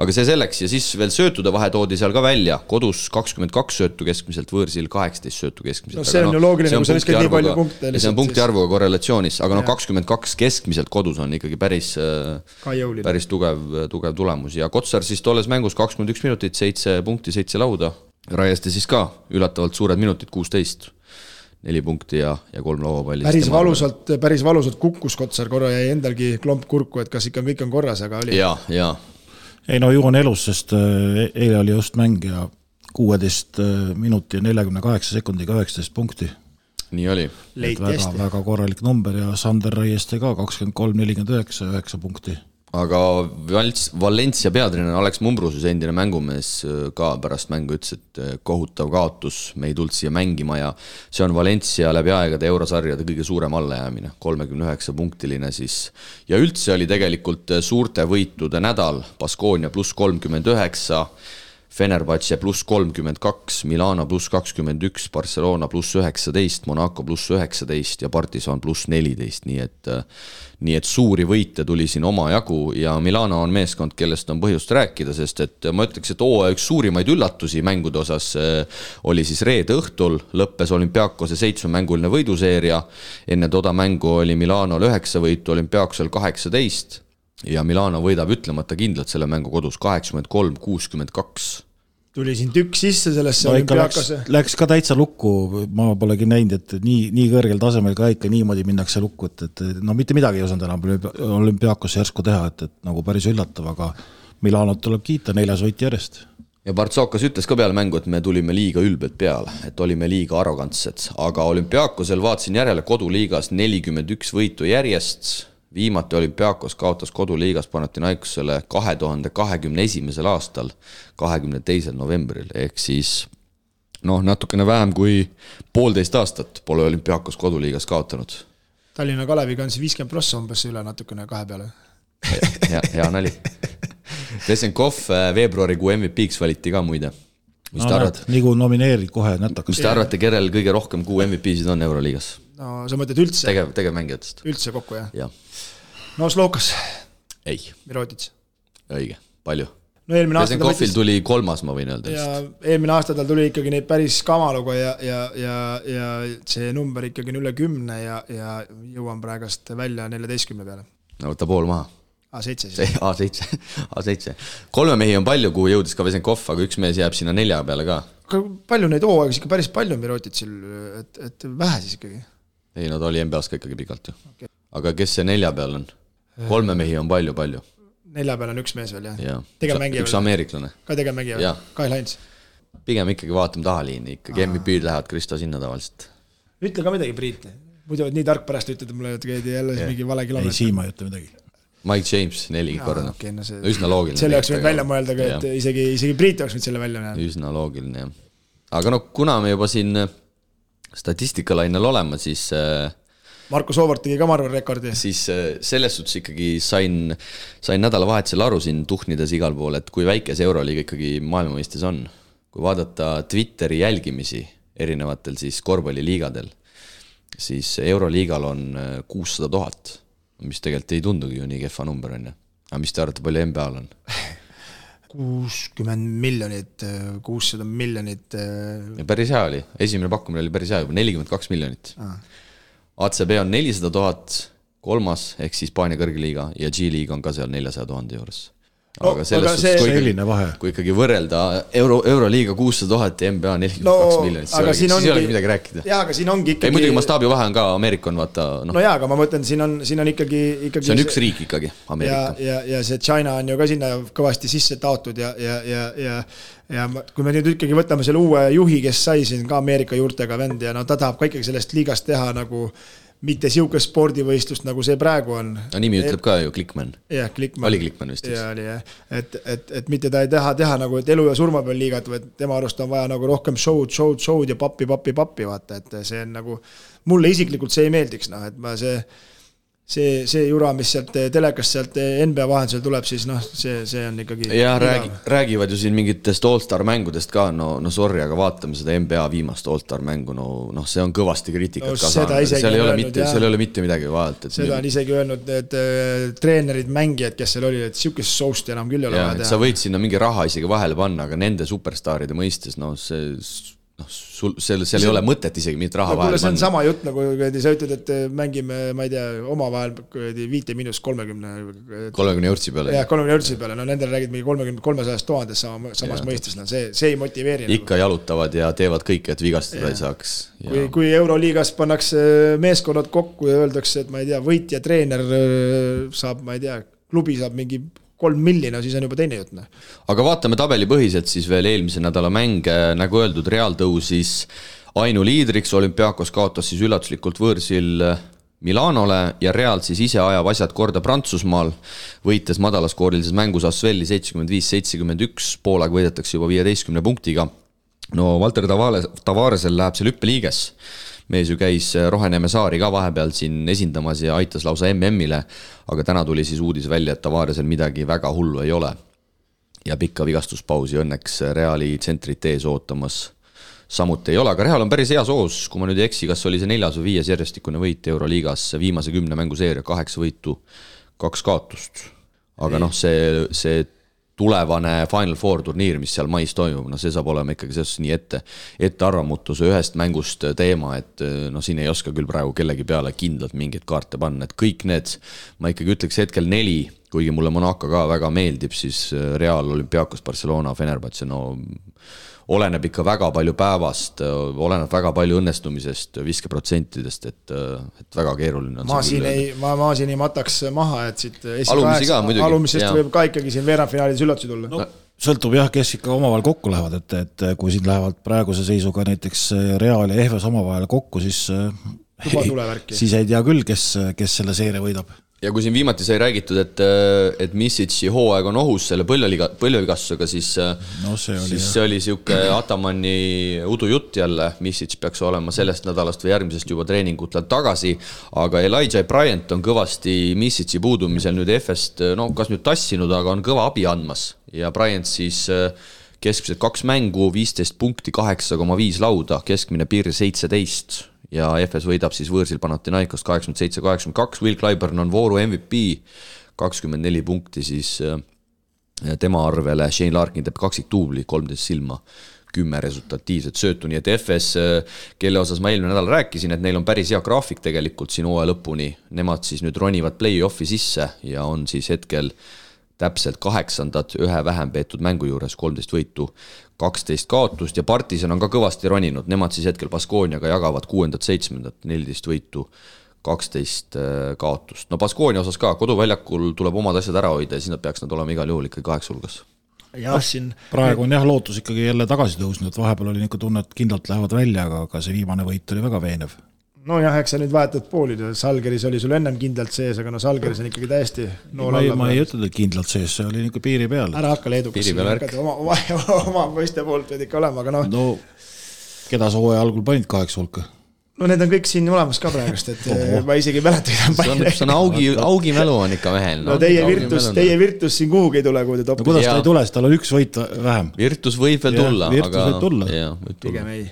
Aga see selleks ja siis veel söötude vahe toodi seal ka välja, kodus 22 söötu keskmiselt, võõrsil 18 söötu keskmiselt. No see on ju loogiline, kui sa viskad nii palju punkte. See on punkti arvuga korrelatsioonis, aga 22 keskmiselt kodus on ikkagi päris tugev tulemus ja Kotsar siis tolles mängus 21 minutit, 7 punkti, 7 lauda. Raieste siis ka ületavalt suured minutid, 16, 4 punkti ja 3 lauapalli. Päris valusalt kukkus Kotsar, korra jäi endalgi klomp kurku, et kas ikka kõik on korras, aga oli. Ja. Ei no ju on elus, sest eile oli just mäng ja 16 minuti ja 48 sekundiga 19 punkti. Nii oli. Väga korralik number ja Sander Raieste ka 23-49, 9 punkti. Aga Valencia peatreener Alex Mumbrusus, endine mängumees ka pärast mängu ütles, et kohutav kaotus, me ei tulnud siia mängima ja see on Valencia läbi aegade eurosarjade kõige suurem allajäämine, 39 punktiline siis. Ja üldse oli tegelikult suurte võitude nädal, Baskonia pluss 39, Fenerbahce pluss 32, Milano pluss 21, Barcelona pluss 19, Monaco pluss 19 ja Partizan pluss 14, nii et suuri võite tuli siin oma jagu ja Milano on meeskond, kellest on põhjust rääkida, sest et ma ütleks, et üks suurimaid üllatusi mängude osas oli siis reede õhtul, lõppes Olympiakose 7-mänguline võiduseeria, enne toda mängu oli Milanol 9 võitu, Olympiakosel 18 ja Milano võidab ütlemata kindlalt selle mängu kodus 83-62. Tuli siin tükk sisse sellesse Olympiakose. Läks ka täitsa lukku, ma polegi näinud, et nii kõrgel tasemel ka ikka niimoodi minnakse lukku, et no mitte midagi ei osanud enam Olympiakose järsku teha, et nagu päris üllatav, aga Milanot tuleb kiita 4 võit järjest. Ja Bartsokas ütles ka peale mängu, et me tulime liiga ülbelt peale, et olime liiga arrogantsed, aga Olympiakosel vaatasin järele koduliigas 41 võitu järjest. Viimati Olympiakos kaotas koduliigas Panathinaikosele 2021. aastal 22. novembril, ehk siis natukene vähem kui 1,5 aastat pole Olympiakos koduliigas kaotanud. Tallinna Kaleviga on 50+ umbes üle natukene 2 peale. Hea nali. Vesenkov veebruarikuu MVP-ks valiti ka muide. Mis te arvate? Nii kui nomineerid kohe nätakas. Mis te arvate, kellel kõige rohkem kuu MVP-sid on Euroliigas? No sa mõtled üldse? Tegevmängijatest. Üldse kokku, jah? Jah. No Slokas. Ei. Mirotic. Õige, palju. No Vesenkovil tuli 3, ma võin öelda. Ja eelmine aasta tal tuli ikkagi neid päris kamaluga ja see number ikkagi on üle 10 ja jõuan praegast välja 14 peale. No võtta pool maha. A7 siis. A7. 3 mehi on palju, kuhu jõudis ka Vesenkov, aga üks mees jääb sinna 4 peale ka. Palju neid hooaegis ikka päris palju Miroticil, et vähe siis ikkagi? Ei, no ta oli NBA-s ka ikkagi pikalt ju. Okay. Aga kes see 4 peal on? 3 mehi on palju. 4 peal on üks mees veel, jah? Üks ameeriklane. Ka tegevmängija veel? Kyle Hines? Pigem ikkagi vaatame tahaliini, ikkagi MVP-d lähevad Kristo sinna tavaliselt. Ütle ka midagi, Priit. Muidu nii tark pärast ütled mulle, et käidi jälle mingi vale kilomeetri. Ei, Siima ei ütle midagi. Mike James 4 korda. Okay, no üsna loogiline. Selle oleks võinud välja mõelda, et isegi Priit oleks võinud selle välja näha. Üsna loogiline, jah. Aga kuna me juba siin statistikalainel olema, siis Marko Soovart tegi ka marvel rekordi. Siis selles suhtes ikkagi sain nädalavahetusel aru siin tuhnides igal pool, et kui väike see Euroliiga ikkagi maailmamõistes on. Kui vaadata Twitteri jälgimisi erinevatel siis korvpalliliigadel, siis Euroliigal on 600 000, mis tegelikult ei tundugi ju nii kehva number on. Aga mis te arvate, palju NBA-l on? 60 miljonit, 600 miljonit. Päris hea oli. Esimene pakkumine oli päris hea, 42 miljonit. ACB on 400 000, 3. ehk siis Hispaania kõrgliiga ja G-liiga on ka seal 400 000 juures. aga selles suhtes, kui ikkagi võrrelda Euroliiga 600 000 ja NBA 42 miljonit, siis ei ole midagi rääkida. Jaa, aga siin ongi ikkagi... muidugi mastaabi vahe on ka, Ameerika on vaata... No jaa, aga ma mõtlen, siin on ikkagi... See on üks riik ikkagi, Ameerika. Ja see China on ju ka sinna kõvasti sisse taotud ja kui me nüüd ikkagi võtame selle uue juhi, kes sai siin ka Ameerika juurtega vend ja ta tahab ka ikkagi sellest liigast teha nagu... mitte siukest spordivõistlust, nagu see praegu on. No nimi ütleb ka ju Klickman. Jah, Klickman. Oli Klickman vist. Ja, oli jah. Et mitte ta ei teha nagu, et elu ja surma peal liigat, või tema arust on vaja nagu rohkem show'd ja pappi, vaata, et see on nagu, mulle isiklikult see ei meeldiks, et ma see jura, mis sealt telekast sealt NBA vahendusel tuleb, siis see on ikkagi... Ja räägivad ju siin mingitest All-Star mängudest ka, no sorry, aga vaatame seda NBA viimast All-Star mängu, see on kõvasti kriitikat ka saanud, seal ei ole mitte midagi vaadata. Seda on isegi öelnud need treenerid, mängijad, kes seal oli, et siukest soust enam küll ei ole vaja teha. Sa võid sinna mingi raha isegi vahele panna, aga nende superstaaride mõistes, seal ei ole mõtet isegi mitte raha vahel panna. See on sama jutt, nagu sa ütled, et mängime, ma ei tea, oma vahel 5–30 eurtsi peale. Jah, 30 eurtsi peale, nendel räägid mingi 300 000 samas mõistes, see ei motiveeri. Ikka jalutavad ja teevad kõik, et vigastada ei saaks. Kui Euroliigas pannakse meeskonnad kokku ja öeldakse, et ma ei tea, võitja treener saab, ma ei tea, klubi saab mingi 3 miljonit, siis on juba teine jutt. Aga vaatame tabeli põhiselt siis veel eelmise nädala mäng, nagu öeldud, Real tõusis ainuliidriks, Olympiakos kaotas siis üllatuslikult võõrsil Milanole ja Real siis ise ajab asjad korda Prantsusmaal, võites madalaskoorilises mängus Asvelli 75-71, poolaeg võidetakse juba 15 punktiga. No Valter Tavaresel läheb see lüppeliiges. Mees ju käis Roheneme Saari ka vahepeal siin esindamas ja aitas lausa MM-ile, aga täna tuli siis uudis välja, et Tavaresel midagi väga hullu ei ole. Ja pikka vigastuspausi õnneks Reali tsentrit ees ootamas samuti ei ole, aga Real on päris hea soos, kui ma nüüd ei eksi, kas oli see 4. või 5. järjestikune võit Euroliigas, viimase 10 mänguseeria, 8 võitu, 2 kaotust. Aga see tulevane Final Four turniir, mis seal mais toimub, see saab olema ikkagi selles nii ette arvamutuse ühest mängust teema, et siin ei oska küll praegu kellegi peale kindlalt mingeid kaarte panna, et kõik need, ma ikkagi ütleks hetkel 4, kuigi mulle Monaco ka väga meeldib, siis Real, Olympiakos, Barcelona, Fenerbahce, oleneb ikka väga palju päevast, oleneb väga palju õnnestumisest, viskeprotsentidest, et väga keeruline on. Ma siin ei mataks maha, et siit alumisest võib ka ikkagi siin veerandfinaalis üllatusi tulla. Sõltub jah, kes ikka omavahel kokku lähevad, et kui siin lähevad praeguse seisuga näiteks Real ja Ehves omavahel kokku, siis ei tea küll, kes selle seeria võidab. Ja kui siin viimati sai räägitud, et Misic'i hooaeg on ohus selle põlvevigastusega, siis see oli siuke Atamanni udujutt jälle. Misic peaks olema sellest nädalast või järgmisest juba treeningutelt tagasi, aga Elijah Bryant on kõvasti Misic'i puudumisel nüüd Efest, kas nüüd tassinud, aga on kõva abi andmas. Ja Bryant siis keskmiselt 2 mängu, 15 punkti, 8,5 lauda, keskmine piir 17 ja FS võidab siis võõrsil Panathinaikos 87-82, Will Clyburn on vooru MVP, 24 punkti siis tema arvele, Shane Larkin teeb 2 tuubli, 13 silma, 10 resultatiivset söötu, nii et FS, kelle osas ma eelmine nädal rääkisin, et neil on päris hea graafik tegelikult siin hooaja lõpuni, nemad siis nüüd ronivad play-offi sisse ja on siis hetkel täpselt 8. ühe vähem peetud mängu juures, 13 võitu, 12 kaotust ja Partisan on ka kõvasti roninud, nemad siis hetkel Baskooniaga jagavad 6. 7. 14 võitu, 12 kaotust. Baskoonia osas ka, koduväljakul tuleb omad asjad ära hoida ja siis nad peaks olema igal juhul ikkagi 8 hulgas. Praegu on lootus ikkagi jälle tagasi tõusnud, vahepeal oli tunne, et kindlalt lähevad välja, aga see viimane võit oli väga veenev. Eks sa nüüd vahetad poolid, Salgeris oli sul ennem kindlalt sees, aga Salgeris on ikkagi täiesti nool alla. Ma ei ütled, et kindlalt sees, see oli ikka piiri peal. Ära hakka leedukas, oma mõiste poolt võid ikka olema, aga keda sa hooaja algul panid 8 hulka? Need on kõik siin olemas ka praegust, et ma isegi mäletan. See on augi mälu on ikka mehel. Teie Virtus siin kuhugi ei tule, kui te topid. Kuidas ta ei tule, tal on 1 võit vähem. Virtus võib veel tulla. Pigem ei.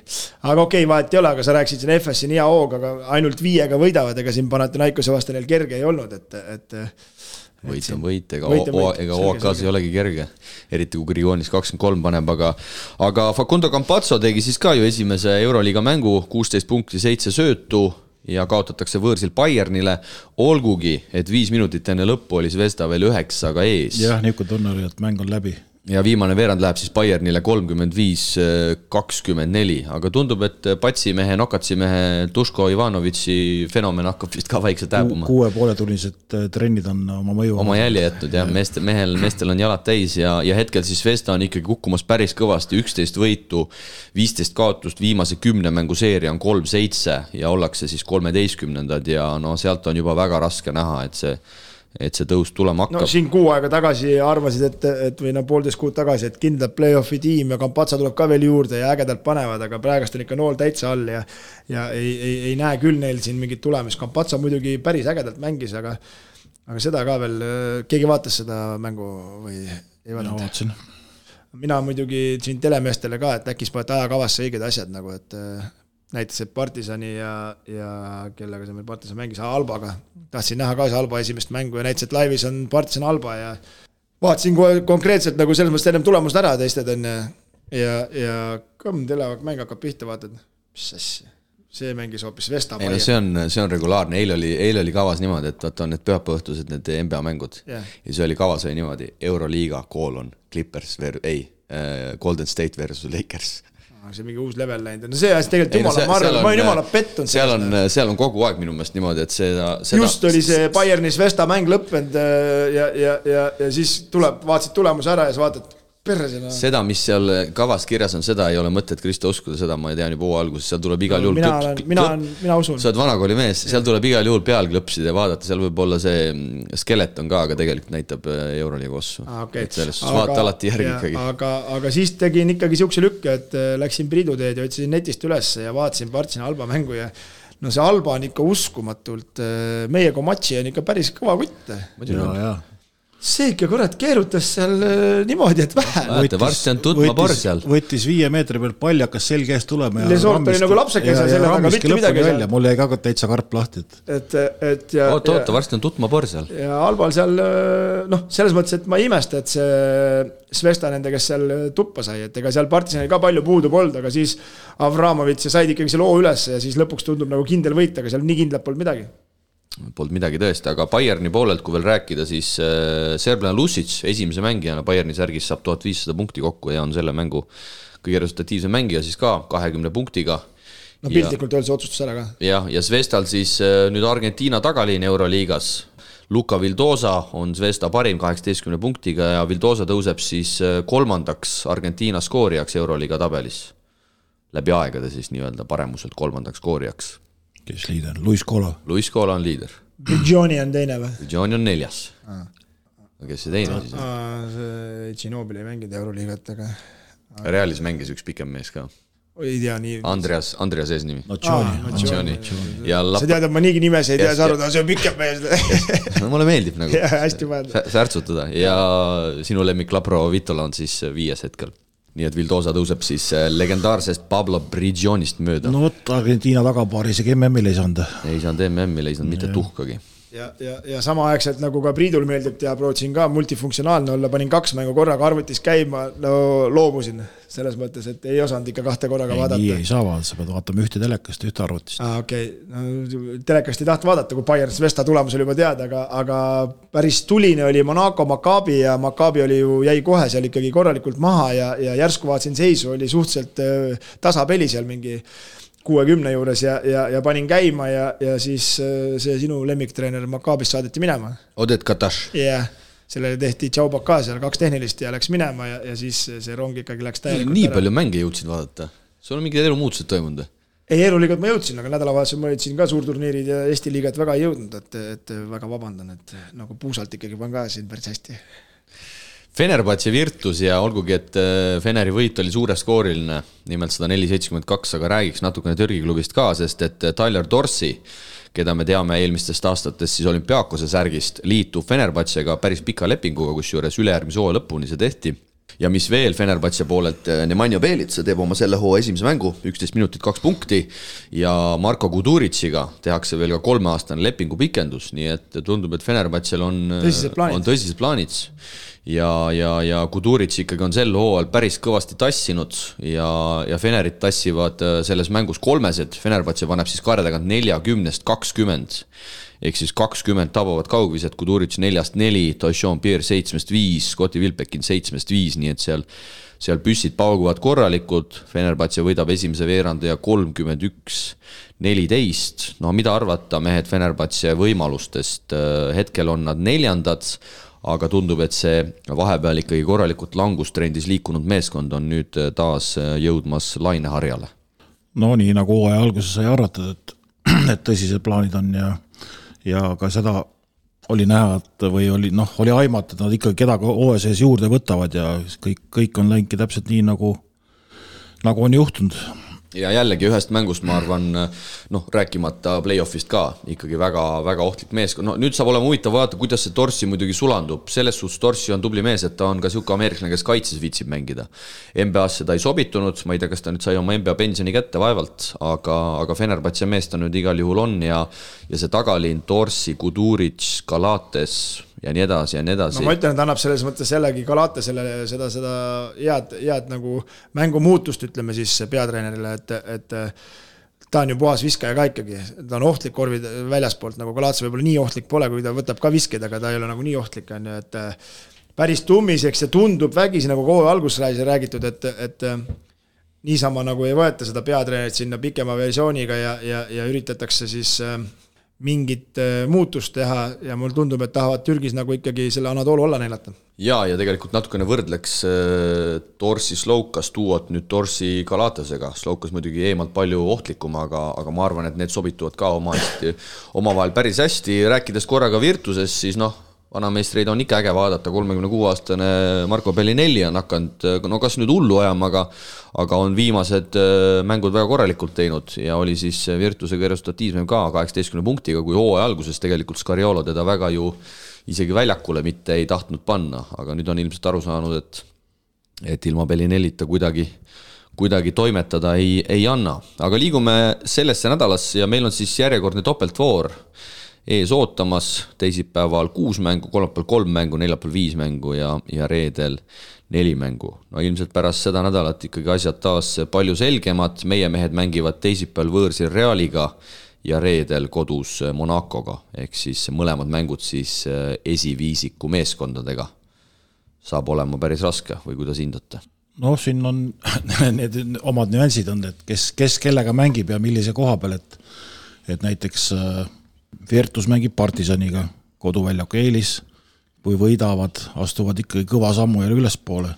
Aga okei, vahet ei ole, aga sa rääksid siin FS siin hea hoog, aga ainult 5 võidavad, ega siin Panathinaikose vastu neil kerge ei olnud, et võit on võit, ega OAK-s ei olegi kerge, eriti kui Grigoonis 23 paneb, aga Facundo Campazzo tegi siis ka ju esimese Euroliiga mängu, 16 punkti, 7 söötu, ja kaotatakse võõrsil Bayernile, olgugi, et 5 minutit enne lõppu oli Zvezda veel 9-ga ees. Jah, niisugune tunne oli, et mäng on läbi. Ja viimane veerand läheb siis Bayernile 35-24, aga tundub, et patsimehe, nokatsimehe Duško Ivanovitši fenomen hakkab vist ka vaikselt hääbuma. 6,5-tunnised trennid on oma mõju. Oma jälje jätnud, jah, meestel on jalad täis ja hetkel siis Zvezda on ikkagi kukkumas päris kõvasti, 11 võitu, 15 kaotust, viimase 10 mängu seeria on 3-7 ja ollakse siis 13-ndad ja no sealt on juba väga raske näha, et see tõus tulema hakkab. No siin kuu aega tagasi arvasid, et või 1,5 kuud tagasi, et kindlalt play-offi tiim ja Campazzo tuleb ka veel juurde ja ägedalt panevad, aga praegust on ikka nool täitsa all ja ei näe küll neil siin mingit tulemist. Campazzo muidugi päris ägedalt mängis, aga seda ka veel, keegi vaatas seda mängu või ei vaadanud? Mina muidugi siin telemeestele ka, et äkis panete ajakavasse õiged asjad nagu, et näiteks, et Partisani ja kellega see meil Partisan mängis, Albaga. Tahtsin näha ka see Alba esimest mängu ja näiteks, et laivis on Partisan Alba ja vaatasin konkreetselt nagu selles mõttes ennem tulemust ära teisted on ja kõmm telemäng hakkab pihta, vaatad, mis asja. See mängis hoopis Vesta. Ei, no see on regulaarne, eile oli kavas niimoodi, et on need pühapäevõhtused need NBA mängud ja see oli kavas oli niimoodi Euroliiga, Clippers, Golden State versus Lakers. See mingi uus level läinud. No see asja tegelikult ma olen jumala pettunud. Seal on kogu aeg minu meelest niimoodi, et seda just oli see Bayernis Vesta mäng lõppenud ja siis vaatasid tulemuse ära ja sa vaatad perresena. Seda, mis seal kavas kirjas on, seda ei ole mõtet Kristo uskuda, seda ma ei tean juba alguses, seal tuleb igal juhul mina usun. Sa oled vanakooli mees, seal tuleb igal juhul peal klõpsida ja vaadata, seal võib olla see skeleton ka, aga tegelikult näitab Euroliiga ossu. Et sellest vaata alati järgi ikkagi. Aga siis tegin ikkagi siukse lükke, et läksin Priiduteed ja ütlesin netist üles ja vaatasin Partsina Alba mängu ja no see Alba on ikka uskumatult, meie Komatši on ikka päris kõva kutt. Ja. See ikka kurat keerutas seal niimoodi, et vähe. Varsti on tutma por seal. Võttis 5 meetri peal palli, hakkas selge eest tulema. Lesort oli nagu lapsekese selle taga, mitte midagi seal. Mul jäi ka täitsa karp lahti. Oota, varsti on tutma por seal. Ja Albal seal, selles mõttes, et ma ei imesta, et see Svesta nende, kes seal tuppa sai, et ega seal Partisanil ka palju puudu polnud, aga siis Avramovitš said ikkagi see loo üles ja siis lõpuks tundub nagu kindel võit, aga seal nii kindlalt polnud midagi. Polnud midagi tõesti, aga Bayerni poolelt, kui veel rääkida, siis Serblana Lusic esimese mängijana Bayerni särgis saab 1500 punkti kokku ja on selle mängu kõige resultatiivse mängija siis ka 20 punktiga. No piltlikult öeldes otsustus ära ka. Ja Zvezdal siis nüüd Argentiina tagaliin Euroliigas. Luka Vildosa on Zvezda parim 18 punktiga ja Vildosa tõuseb siis 3. Argentiina skoorijaks Euroliiga tabelis. Läbi aegade siis nii-öelda paremuselt 3. skoorijaks. Kes liider? Luis Cola. Luis Cola on liider. Brigioni on teine või? Brigioni on 4. Kes see teine siis on? See Ginobili ei mängida Euroliigat, aga Realis mängis üks pikem mees ka. Ei tea nii. Andreas ees nimi. Nocioni. Sa tead, et ma niigi nimes ei tea saruda, see on pikem mees. Mulle meeldib nagu hästi särtsutada ja sinu lemmik Labro Vitola on siis 5. hetkel. Nii et Vildosa tõuseb siis legendaarsest Pablo Brigionist mööda. No võtta Argentiina tagapaari, isegi MM-il ei saanud. Ei saanud MM-il, ei saanud mitte tuhkagi. Ja sama aegselt nagu ka Priidul meeldib teha, prootsin ka multifunktsionaalne olla, panin 2 mängu korraga arvutis käima, loomusin selles mõttes, et ei osanud ikka 2 korraga vaadata. Nii ei saa vaadata, sa pead vaatama ühte telekast, ühte arvutist. Telekast ei taht vaadata, kui Bayern Svesta tulemus oli juba teada, aga päris tuline oli Monaco Maccabi ja Maccabi oli ju jäi kohe seal ikkagi korralikult maha ja järsku vaatasin seisu, oli suhteliselt tasapeli seal mingi 60 juures ja panin käima ja siis see sinu lemmiktreener Maccabist saadeti minema. Odet Katash. Jah, sellele tehti Tšaubaka seal 2 tehnilist ja läks minema ja siis see rong ikkagi läks täielikult nii palju mänge jõudsid vaadata. Sul on mingid elumuutused toimunud? Ei, Euroliigat ma jõudsin, aga nädalavahetusel ma jõudsin ka suurturniirid ja Eesti liigat väga ei jõudnud, et väga vabandan, et nagu puusalt ikkagi pan ka siin päris hästi. Fenerbahce Virtus ja olgugi, et Feneri võit oli suureskooriline, nimelt 104-72, aga räägiks natukene Türgi klubist ka, sest et Tyler Dorsey, keda me teame eelmistest aastatest siis Olümpiakose särgist, liitub Fenerbahcega päris pika lepinguga, kus juures ülejärgmise hooaja lõpuni see tehti. ja mis veel Fenerbahce poolelt, Nemanja Bjelica teeb oma selle hoo esimese mängu, 11 minutit 2 punkti ja Marko Kuduritsiga tehakse veel ka 3-aastane lepingu pikendus, nii et tundub, et Fenerbahcel on tõsised plaanid ja Kudurits ikkagi on sel hooajal päris kõvasti tassinud ja Fenerit tassivad selles mängus 3, Fenerbahce paneb siis kaare tagant 40-20 ehk siis 20 tabavad kaugvised, Kudurits 4-4, Taishon Pierre 7-5, Scotti Wilbekin 7-5, nii et seal püssid pauguvad korralikud, Fenerbahce võidab esimese veeranda ja 31-14, no mida arvata mehed Fenerbahce võimalustest, hetkel on nad 4, aga tundub, et see vahepeal ikkagi korralikult langustrendis liikunud meeskond on nüüd taas jõudmas laineharjale. No nii nagu hooaja alguses sai arvatud, et tõsised plaanid on ja ka seda oli näha, et või oli aimata, et nad ikkagi kedagi hooaja sees juurde võtavad ja kõik on läinudki täpselt nii, nagu on juhtunud. Ja jällegi ühest mängust, ma arvan, rääkimata play-offist ka, ikkagi väga, väga ohtlik meeskond. No nüüd saab olema huvitav vaadata, kuidas see Torsi muidugi sulandub. Selles suhtes Torsi on tubli mees, et ta on ka siuke ameeriklane, kes kaitses viitsib mängida. NBA-sse ta ei sobitunud, ma ei tea, kas ta nüüd sai oma NBA pensioni kätte vaevalt, aga Fenerbahce mees ta nüüd igal juhul on ja see tagalinn Torsi, Kuduric, Galates ja nii edasi ja nii edasi. No ma ütlen, et annab selles mõttes jällegi Galatesele seda head nagu mängumuutust, ütleme siis peatreenerile, et ta on ju puhas viskaja ka ikkagi, ta on ohtlik korvid väljaspoolt, nagu Galates võib-olla nii ohtlik pole, kui ta võtab ka viskeid, aga ta ei ole nagu nii ohtlik, on ju, et päris tummiseks ja tundub vägisi, nagu kohe alguses räägitud, et niisama nagu ei võeta seda peatreenerit sinna pikema versiooniga ja üritatakse siis mingit muutust teha ja mul tundub, et tahavad Türgis nagu ikkagi selle Anadolu olla neilata. Ja tegelikult natukene võrdleks Torsi Slovkas tuuot nüüd Torsi Galatesega. Slovkas muidugi eemalt palju ohtlikum, aga ma arvan, et need sobituvad ka omavahel päris hästi. Rääkides korraga Virtuses, siis vanameistreid on ikka äge vaadata, 36-aastane Marko Bellinelli on hakanud, kas nüüd hullu ajama, aga on viimased mängud väga korralikult teinud ja oli siis Virtusega resultatiivsem ka 18 punktiga, kui hooaja alguses tegelikult Scariolo teda väga ju isegi väljakule mitte ei tahtnud panna, aga nüüd on ilmselt aru saanud, et ilma Bellinellita kuidagi toimetada ei anna. Aga liigume sellesse nädalasse ja meil on siis järjekordne topeltvoor ees ootamas, teisipäeval 6 mängu, kolmapäeval 3 mängu, neljapäeval 5 mängu ja reedel 4 mängu. No ilmselt pärast seda nädalat ikkagi asjad taas palju selgemad, meie mehed mängivad teisipäeval võõrsil Realiga ja reedel kodus Monacoga, ehk siis mõlemad mängud siis esiviisiku meeskondadega. Saab olema päris raske või kuidas hindate? No siin on need omad nüansid on, et kes kellega mängib ja millise koha peal, et näiteks Virtus mängib Partisaniga, koduväljaku eelis, kui võidavad, astuvad ikkagi kõva sammu jälle ülespoole.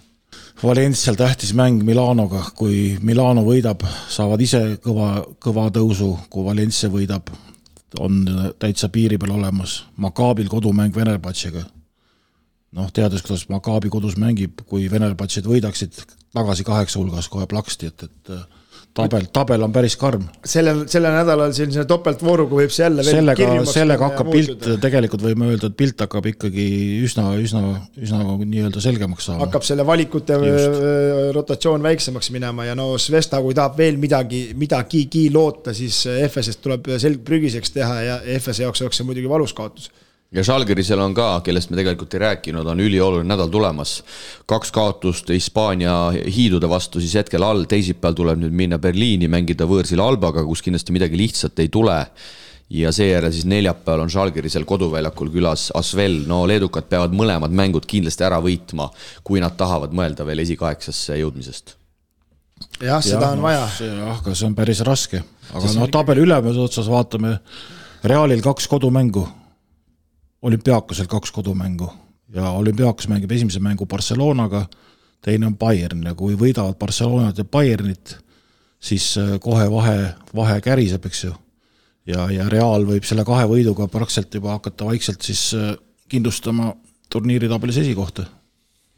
Valencial tähtis mäng Milanoga, kui Milano võidab, saavad ise kõva tõusu, kui Valencia võidab, on täitsa piiri peal olemas. Maccabil kodumäng Fenerbahcega. Teades, kuidas Maccabi kodus mängib, kui Fenerbahced võidaksid tagasi 8 hulgas kohe plaksti, et tabel on päris karm. Selle nädalal selline topeltvooruga võib see jälle sellega hakkab pilt, tegelikult võime öelda, et pilt hakkab ikkagi üsna nii-öelda selgemaks saama. Hakkab selle valikute rotatsioon väiksemaks minema ja Svesta, kui tahab veel midagi loota, siis FS-est tuleb prügiseks teha ja FS jaoks oleks see muidugi valus kaotus. Ja Žalgirisel on ka, kellest me tegelikult ei rääkinud, on ülioluline nädal tulemas. 2 kaotust Hispaania hiidude vastu siis hetkel all, teisipäeval tuleb nüüd minna Berliini, mängida võõrsil Albaga, kus kindlasti midagi lihtsalt ei tule. Ja seejärel siis neljapäeval on Žalgirisel koduväljakul külas Asvel. Leedukad peavad mõlemad mängud kindlasti ära võitma, kui nad tahavad mõelda veel esikaeksasse jõudmisest. Jah, seda on vaja. Aga see on päris raske. Aga tabeli ülemes otsas vaatame Realil 2 kodumängu. Olümpiakosel 2 kodumängu ja Olümpiakos mängib esimese mängu Barcelonaga, teine on Bayern ja kui võidavad Barcelonat ja Bayernit, siis kohe vahe käriseb, eks ju. Ja Real võib selle 2 võiduga praktiliselt juba hakata vaikselt siis kindlustama turniiritabelis esikohta.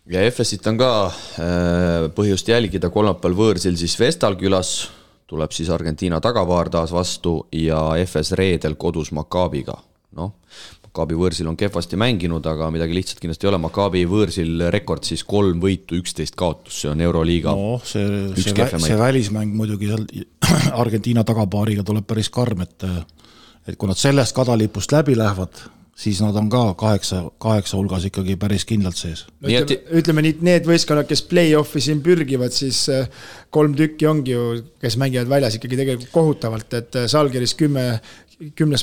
Ja FS-it on ka põhjust jälgida, kolmapäeval võõrsil siis Vestal külas, tuleb siis Argentiina tagapaar taas vastu ja FS reedel kodus Maccabiga. Maccabi võõrsil on kehvasti mänginud, aga midagi lihtsalt kindlasti ei ole. Maccabi võõrsil rekord siis 3 võitu, 11 kaotus, see on Euroliiga. No, see välismäng muidugi seal Argentiina tagapaariga tuleb päris karm, et kui nad sellest kadalipust läbi lähevad, siis nad on ka 8 hulgas ikkagi päris kindlalt sees. No, ütleme nii, need võistkonnad, kes play-offi siin pürgivad, siis 3 tükki ongi ju, kes mängivad väljas ikkagi tegelikult kohutavalt, et Salgeris 10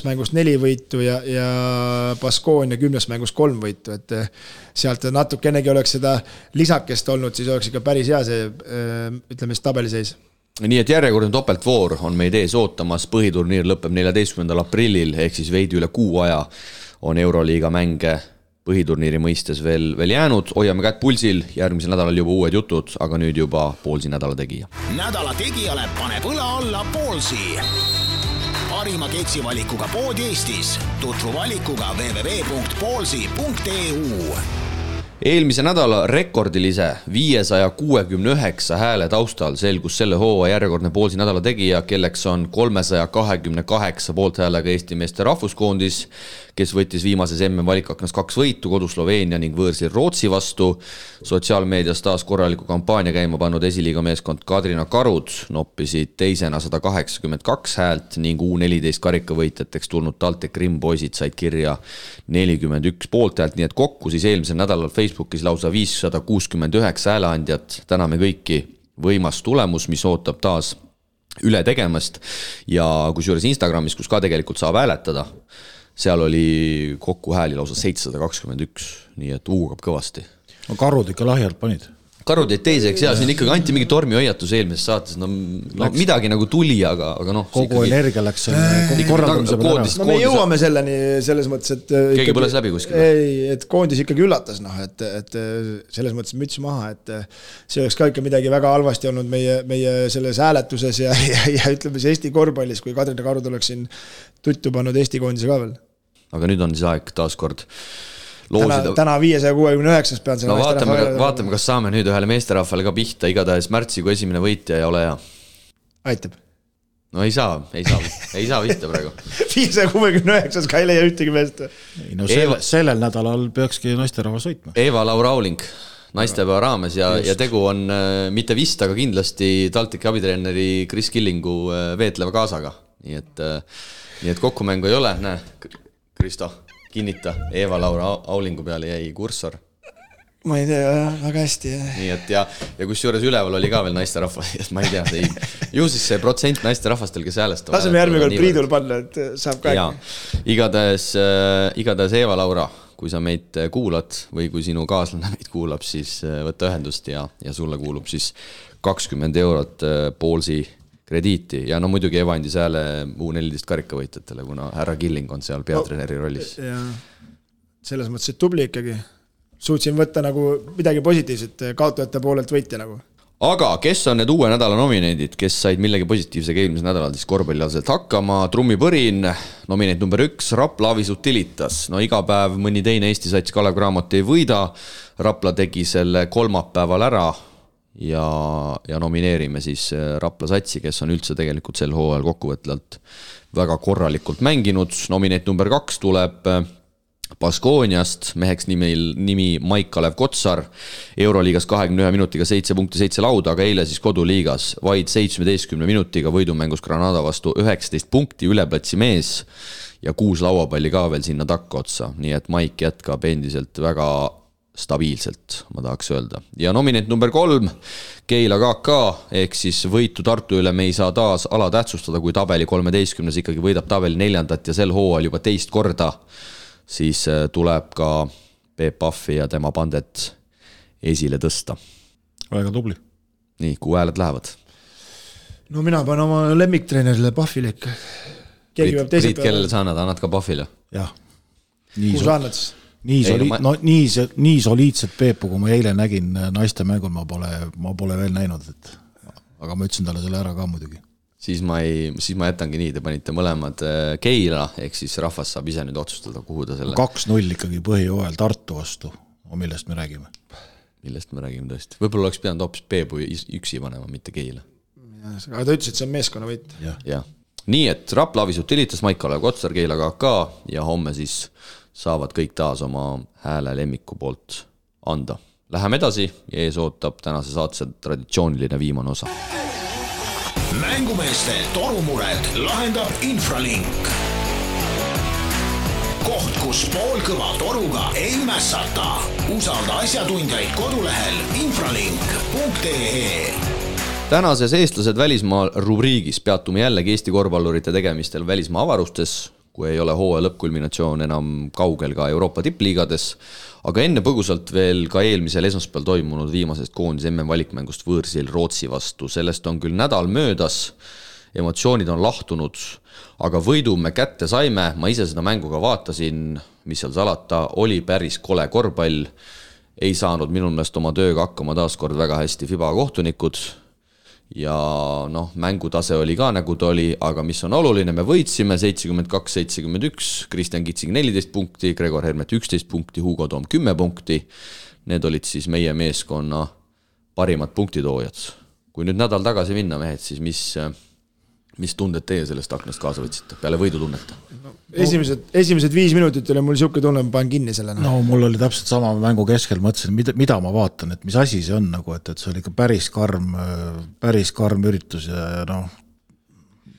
mängust 4 võitu ja Baskonia 10 mängust 3 võitu, et sealt natukenegi oleks seda lisakest olnud, siis oleks ikka päris hea see, ütleme siis tabeliseis. Nii et järjekordne topeltvoor on meid ees ootamas, põhiturniir lõpeb 14. aprillil, ehk siis veidi üle kuu aja on Euroliiga mänge põhiturniiri mõistes veel jäänud. Hoiame kätt pulsil, järgmisel nädalal juba uued jutud, aga nüüd juba Poolsi nädala tegija. Nädala tegijale paneb õla alla Poolsi. Parima keksivalikuga pood Eestis. Tutvu valikuga www.poolsi.eu. Eelmise nädala rekordilise 569 hääle taustal selgus selle hooa järjekordne Poolsi nädala tegija, kelleks on 328 poolthäälega Eesti meeste rahvuskoondis, kes võttis viimases MM-valikaknas 2 võitu, kodu Sloveenia ning võõrsil Rootsi vastu. Sotsiaalmeedias taas korraliku kampaania käima pannud esiliiga meeskond Kadrina Karud noppisid teisena 182 häält ning U14 karikavõitjateks tulnud TalTech Rim poisid said kirja 41 poolthäält, nii et kokku siis eelmisel nädalal Facebookis lausa 569 hääleandjat. Täname kõiki, võimas tulemus, mis ootab taas üle tegemast ja kusjuures Instagramis, kus ka tegelikult saab hääletada, seal oli kokku hääli lausa 721, nii et uugab kõvasti. No Karud ikka lahjalt panid. Karud jäid teiseks ja siin ikkagi anti mingi tormihoiatus eelmises saates, no midagi nagu tuli, aga noh. Kogu energia läks selle korraldamise peale ära. No me jõuame selleni selles mõttes, et keegi põles läbi kuskil. Ei, et koondis ikkagi üllatas, et selles mõttes müts maha, et see oleks ka ikka midagi väga halvasti olnud meie selles hääletuses ja ütleme see Eesti korvpallis, kui Kadrina Karud oleks siin tuttu pannud Eesti koondise ka veel. Aga nüüd on siis aeg taaskord Täna 569 pean selle vaatame, kas saame nüüd ühele meesterahvale ka pihta, igatahes märtsi kui esimene võitja ei ole hea. Aitab. No ei saa vihta praegu. 569 ka ei leia ühtegi meest. No sellel nädalal peakski naisterahvas võitma. Eva-Laura Auling naistepäeva raames ja tegu on mitte vist, aga kindlasti TalTechi abitreeneri Kris Killingu veetleva kaasaga. Nii et kokkumängu ei ole, näe, Kristo kinnita, Eva-Laura Aulingu peale jäi kursor. Ma ei tea, väga hästi. Nii et ja kusjuures üleval oli ka veel naisterahvas, ma ei tea, ju siis see protsent naisterahvastel, kes häälestavad. Laseme järgmine kord Priidul panna, et saab ka. Igatahes Eva-Laura, kui sa meid kuulad või kui sinu kaaslane meid kuulab, siis võtta ühendust ja sulle kuulub siis 20 eurot Poolsi krediiti ja no muidugi Eva andis hääle U14 karikavõitjatele, kuna härra Killing on seal peatreeneri rollis. Ja selles mõttes, et tubli ikkagi. Suutsin võtta nagu midagi positiivset kaotajate poolelt võitja nagu. Aga kes on need uue nädala nominendid, kes said millegi positiivsega eelmisel nädalal siis korvpallialaselt hakkama? Trummipõrin, nominent number 1, Rapla Avis Utilitas. No iga päev mõni teine Eesti sats Kalev Cramot ei võida. Rapla tegi selle kolmapäeval ära ja nomineerime siis Rapla satsi, kes on üldse tegelikult sel hooajal kokkuvõtlalt väga korralikult mänginud. Nominent number 2 tuleb Baskooniast, meheks nimi Maik Kalev Kotsar, Euroliigas 21 minutiga 7 punkti 7 lauda, aga eile siis koduliigas vaid 17 minutiga võidumängus Granada vastu 19 punkti, üleplatsi mees ja 6 lauapalli ka veel sinna takka otsa, nii et Maik jätkab endiselt väga stabiilselt, ma tahaks öelda. Ja nominent number 3, Keila KK, ehk siis võitu Tartu üle me ei saa taas alatähtsustada, kui tabeli 13 ikkagi võidab tabeli 4. ja sel hooajal juba teist korda, siis tuleb ka Peep Pahvi ja tema bandet esile tõsta. Väga tubli. Nii, kuhu hääled lähevad? No mina panen oma lemmiktreenerile Pahvile ikka. Priit, kellele sa annad ka Pahvile? Jah. Kuhu sa annad siis? Nii soliidset Peepu, kui ma eile nägin naiste mängul, ma pole veel näinud, aga ma ütlesin talle selle ära ka muidugi. Siis ma jätangi nii, te panite mõlemad Keila, ehk siis rahvas saab ise nüüd otsustada, kuhu ta selle 2-0 ikkagi põhijooajal Tartu vastu, millest me räägime. Millest me räägime tõesti. Võib-olla oleks pidanud hoopis Peepu üksi panema, mitte Keila. Aga ta ütles, et see on meeskonna võit. Ja. Nii et Rapla Avis Utilitas, Maik Kalev Kotsar, Keila KK ja homme siis saavad kõik taas oma hääle lemmiku poolt anda. Läheme edasi ja ees ootab tänase saatse traditsiooniline viimane osa. Mängumeeste torumured lahendab Infralink. Koht, kus poolkõva toruga ei mässata. Usalda asjatundjaid kodulehel infralink.ee. Tänases eestlased välismaal rubriigis peatume jällegi Eesti korvpallurite tegemistel välismaa avarustes, kui ei ole hooaja lõppkulminatsioon enam kaugel ka Euroopa tippliigades, aga enne põgusalt veel ka eelmisel esmaspäeval toimunud viimasest koondise MM valikmängust võõrsil Rootsi vastu. Sellest on küll nädal möödas, emotsioonid on lahtunud, aga võidu me kätte saime, ma ise seda mängu ka vaatasin, mis seal salata, oli päris kole korvpall, ei saanud minu meelest oma tööga hakkama taaskord väga hästi FIBA kohtunikud ja mängutase oli ka nagu ta oli, aga mis on oluline, me võitsime 72-71, Kristjan Kitsing 14 punkti, Gregor Hermet 11 punkti, Hugo Toom 10 punkti, need olid siis meie meeskonna parimad punktitoojad. Kui nüüd nädal tagasi minna, mehed, siis mis tunded teie sellest aknast kaasa võtsite, peale võidu tunneta? Esimesed 5 minutit oli mul siuke tunne, ma panen kinni selle. No mul oli täpselt sama mängu keskel, mõtlesin, mida ma vaatan, et mis asi see on, nagu, et see oli ikka päris karm üritus ja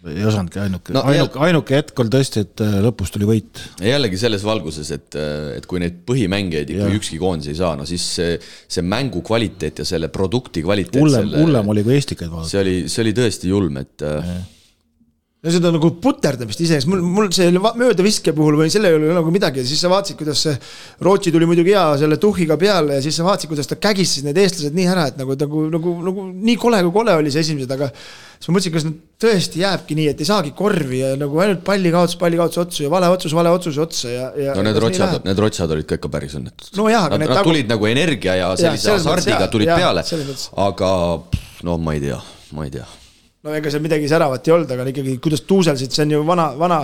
ei osanudki ainuke hetk oli tõesti, et lõpus tuli võit. Ja jällegi selles valguses, et kui neid põhimängijaid ikka ükski koondis ei saa, siis see mängu kvaliteet ja selle produkti kvaliteet hullem oli kui eestikaid vaadata. See oli tõesti julm, et ja seda nagu puterdamist iseenesest, mul see mööda viske puhul või selle ei ole nagu midagi ja siis sa vaatsid, kuidas see Rootsi tuli muidugi hea selle tuhhiga peale ja siis sa vaatsid, kuidas ta kägis need eestlased nii ära, et nagu nii kole kui kole oli see esimesed, aga siis ma mõtlesin, kas nad tõesti jääbki nii, et ei saagi korvi ja nagu ainult pallikaotus otsu ja vale otsus otsa ja no need rotsad olid ka ikka päris õnnetud. No jah, aga nad tulid nagu energia ja sellise hasardiga tulid peale, aga ma ei tea. No ega seal midagi säravat ei olnud, aga ikkagi kuidas tuuselsid, see on ju vana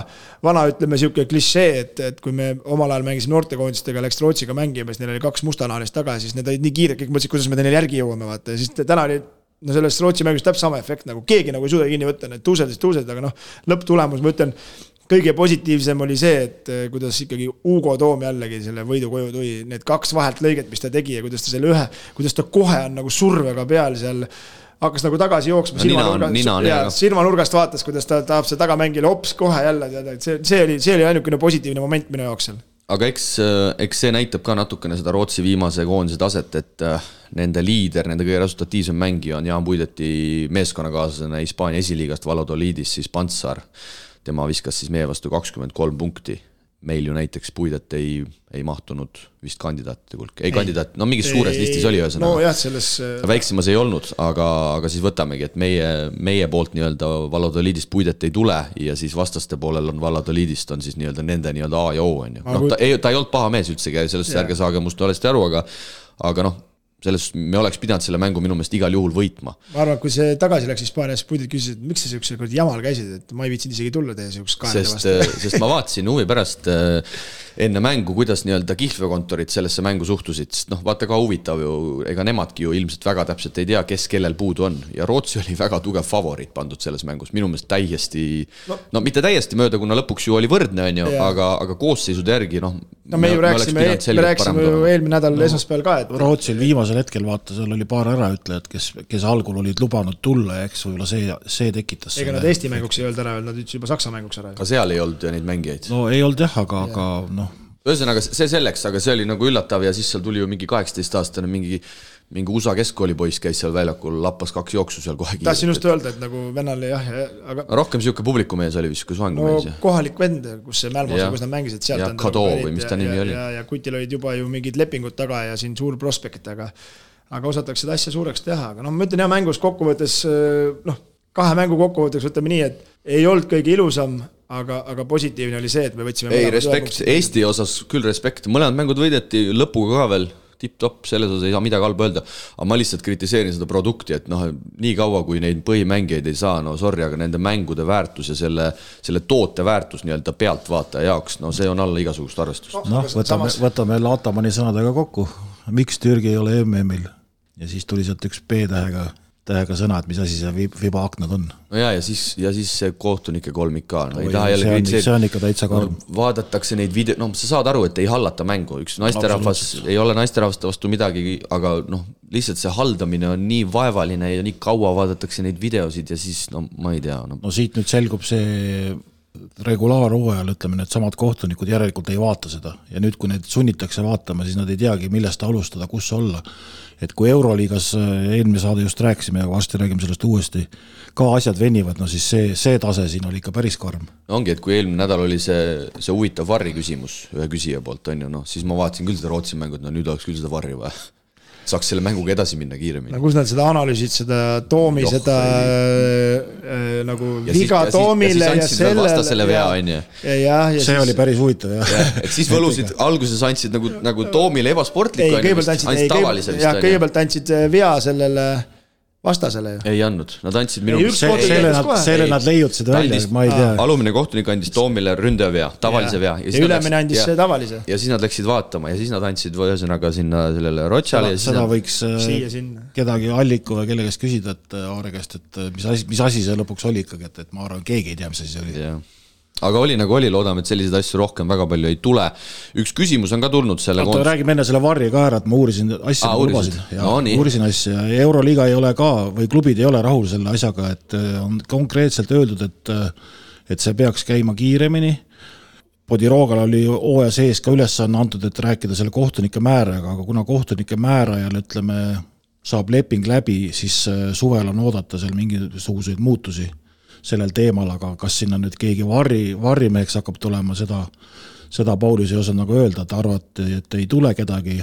ütleme siuke klišee, et kui me omal ajal mängisime noortekoondistega, läks Rootsiga mängima, siis neil oli 2 mustanaanist taga ja siis need olid nii kiired, kõik mõtlesid, kuidas me neil järgi jõuame, vaata. Ja siis täna oli selles Rootsi mängus täpselt sama efekt, nagu keegi nagu ei suuda kinni võtta, need tuuselid, aga lõpptulemus, ma ütlen, kõige positiivsem oli see, et kuidas ikkagi Hugo Toom jällegi selle võidu koju tuli, need 2 vahelt lõiget, mis ta tegi ja kuidas ta kohe on nagu survega peal seal hakkas nagu tagasi jooksma, silmanurgast vaatas, kuidas ta tahab see tagamängile hops kohe jälle, see oli ainukene positiivne moment minu jaoks seal. Aga eks see näitab ka natukene seda Rootsi viimase koondise taset, et nende liider, nende kõige resultatiivsem mängija on Jaan Puideti meeskonnakaaslasena Hispaania esiliigast Valladolidis, siis Pantsar. Tema viskas siis meie vastu 23 punkti. Meil ju näiteks Puidet ei mahtunud vist kandidaatide hulka. Kandidaat, mingis suures listis oli ühesõnaga. No jah, selles väiksemas ei olnud, aga siis võtamegi, et meie poolt nii-öelda Valladolidist Puidet ei tule ja siis vastaste poolel on Valladolidist on siis nii-öelda nende nii-öelda A ja O on ju. Ta ei olnud paha mees üldsegi, sellest ärge saage must valesti aru, aga selles me oleks pidanud selle mängu minu meelest igal juhul võitma. Ma arvan, kui see tagasi läks Hispaanias, Puidet küsis, et miks sa siukse jamal käisid, et ma ei viitsinud isegi tulla teie siukse kaanede vastu. Sest ma vaatasin huvi pärast enne mängu, kuidas nii-öelda kihlveokontorid sellesse mängu suhtusid, sest vaata ka huvitav ju, ega nemadki ju ilmselt väga täpselt ei tea, kes kellel puudu on ja Rootsi oli väga tugev favoriit pandud selles mängus, minu meelest täiesti, mitte täiesti mööda, kuna lõpuks ju oli võrdne, on ju, aga koosseisude järgi, me rääksime ju eelmine nädal esmaspäeval ka, et Rootsil viimasel hetkel vaata, seal oli paar äraütlejad, kes algul olid lubanud tulla ja eks võib-olla see tekitas ega nad Eesti mänguks ei olnud ära, nad ütles juba Saksa mänguks ära. Aga seal ei olnud ju neid mängijaid. No ei olnud jah, aga ühesõnaga see selleks, aga see oli nagu üllatav ja siis seal tuli ju mingi 18-aastane mingi USA keskkoolipoiss käis seal väljakul, lappas 2 jooksu seal kohe kiirelt. Tahtsin just öelda, et nagu vennal aga rohkem siuke publikumees oli vist, kui svangumees. Kohalik vend, kus see Mälmosa, kus nad mängisid sealt. Ja Kado või mis ta nimi oli. Ja Kutil olid juba ju mingid lepingud taga ja siin suur prospekt, aga osatakse seda asja suureks teha. Aga ma ütlen mängus kokkuvõttes, 2 mängu kokkuvõtteks võtame nii, et ei olnud kõige ilusam, aga positiivne oli see, et me võtsime respekt, Eesti osas küll respekt, mõlemad mängud võideti lõpuga ka veel tipp-topp, selles osas ei saa midagi halba öelda, aga ma lihtsalt kritiseerin seda produkti, et nii kaua kui neid põhimängijaid ei saa, sorry, aga nende mängude väärtus ja selle toote väärtus nii-öelda pealtvaataja jaoks, see on alla igasugust arvestust. Võtame Latamani sõnadega kokku, miks Türgi ei ole MM-il ja siis tuli sealt üks P-tähega tähega sõna, et mis asi see FIBA aknad on. No ja siis see kohtunike kolmik ka. No, see on ikka täitsa karm. Vaadatakse neid sa saad aru, et ei hallata mängu. Üks naisterahvas ei ole naisterahvaste vastu midagi, aga lihtsalt see haldamine on nii vaevaline ja nii kaua vaadatakse neid videosid ja siis, ma ei tea. No siit nüüd selgub see regulaarhooajal, ütleme, need samad kohtunikud järelikult ei vaata seda ja nüüd, kui need sunnitakse vaatama, siis nad ei teagi, millest alustada, kus olla. Et kui Euroliigas eelmine saade just rääkisime ja varsti räägime sellest uuesti, ka asjad venivad, no siis see tase siin oli ikka päris karm. Ongi, et kui eelmine nädal oli see huvitav varri küsimus ühe küsija poolt, on ju, siis ma vaatasin küll seda Rootsi mängu, et nüüd oleks küll seda varri vaja. Saaks selle mänguga edasi minna kiiremini. Kus nad seda analüüsid, seda Toomi, seda nagu viga Toomile ja selle vastasele vea, on ju. See oli päris huvitav, jah. Et siis võlusid, alguses andsid nagu Toomile ebasportliku, kõigepealt andsid vea sellele vastasele ju. Ei andnud, nad andsid minu... Selle nad leiutasid välja, ma ei tea. Alumine kohtunik andis Toomile ründaja vea, tavalise vea. Ja ülemine andis tavalise. Ja siis nad läksid vaatama ja siis nad andsid ühesõnaga sinna sellele Rotšale. Seda võiks kedagi Alliku või kelle käest küsida, et Aare käest, et mis asi see lõpuks oli ikkagi, et ma arvan, keegi ei tea, mis asi see oli. Aga oli nagu oli, loodame, et selliseid asju rohkem väga palju ei tule. Üks küsimus on ka tulnud selle... Räägime enne selle varri ka ära, et ma uurisin asja, uurisin asja. Euroliiga ei ole ka, või klubid ei ole rahul selle asjaga, et on konkreetselt öeldud, et see peaks käima kiiremini. Podiroogale oli hooaja sees ka ülesanne antud, et rääkida selle kohtunike määraga, aga kuna kohtunike määrajal, ütleme, saab leping läbi, siis suvel on oodata seal mingisuguseid muutusi sellel teemal, aga kas sinna nüüd keegi varrimeheks hakkab tulema, seda Paulis ei osanud nagu öelda, et arvati, et ei tule kedagi,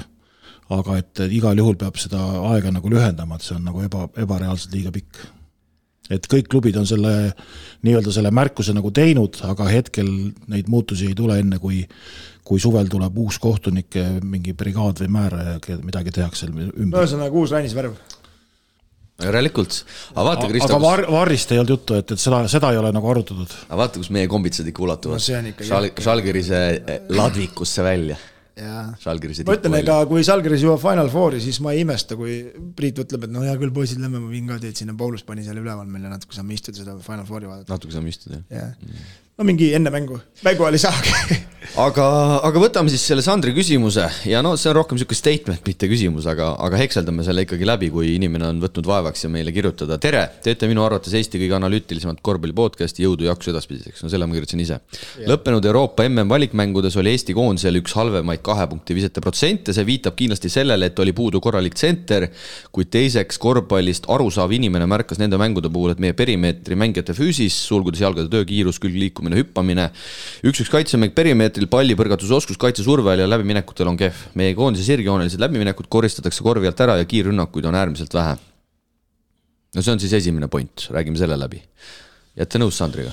aga et igal juhul peab seda aega nagu lühendama, et see on nagu ebareaalselt liiga pikk. Et kõik klubid on selle märkuse nagu teinud, aga hetkel neid muutusi ei tule enne, kui suvel tuleb uus kohtunik, mingi brigaad või määra ja midagi tehakse ümber. Ühesõnaga uus Rainis-värv. Järelikult. Aga varrist ei olnud juttu, et seda ei ole nagu arutatud. Aga vaata, kus meie kombitsad ikka ulatuvad. Žalgirise ladvikusse välja. Ma ütlen, ega kui Žalgiris jõuab Final Fouri, siis ma ei imesta, kui Priit ütleb, et hea küll, poisid, lämme, ma viin ka teed sinna, Paulus pani selle üleval meile natuke saame istuda seda Final Fouri vaadata. Natuke saame istuda, jah. No mingi enne mängu oli saagi. aga võtame siis selle Sandri küsimuse ja see on rohkem selline statement, mitte küsimus, aga hekseldame selle ikkagi läbi, kui inimene on võtnud vaevaks ja meile kirjutada. Tere, teete minu arvates Eesti kõige analüütilisemat korvpalli podcasti, jõudu jaksu edaspidiseks. No selle ma kirjutasin ise. Lõppenud Euroopa MM valikmängudes oli Eesti koondisel üks halvemaid 2 punkti visete protsente, see viitab kindlasti sellele, et oli puudu korralik tsenter, kuid teiseks korvpallist arusaav inimene märkas nende mängude puhul, et meie perimeetri mängijate füüsis, sulgudes jalgade töö, külg liikumine, hüppamine, üks kaitsemäng perimeetril, palli põrgatusoskus, kaitsesurvel ja läbiminekutel on kehv. Meie koondise sirgjoonelised läbiminekud koristatakse korvi alt ära ja kiirrünnakuid on äärmiselt vähe. No see on siis esimene point, räägime selle läbi. Jätte nõus Sandriga?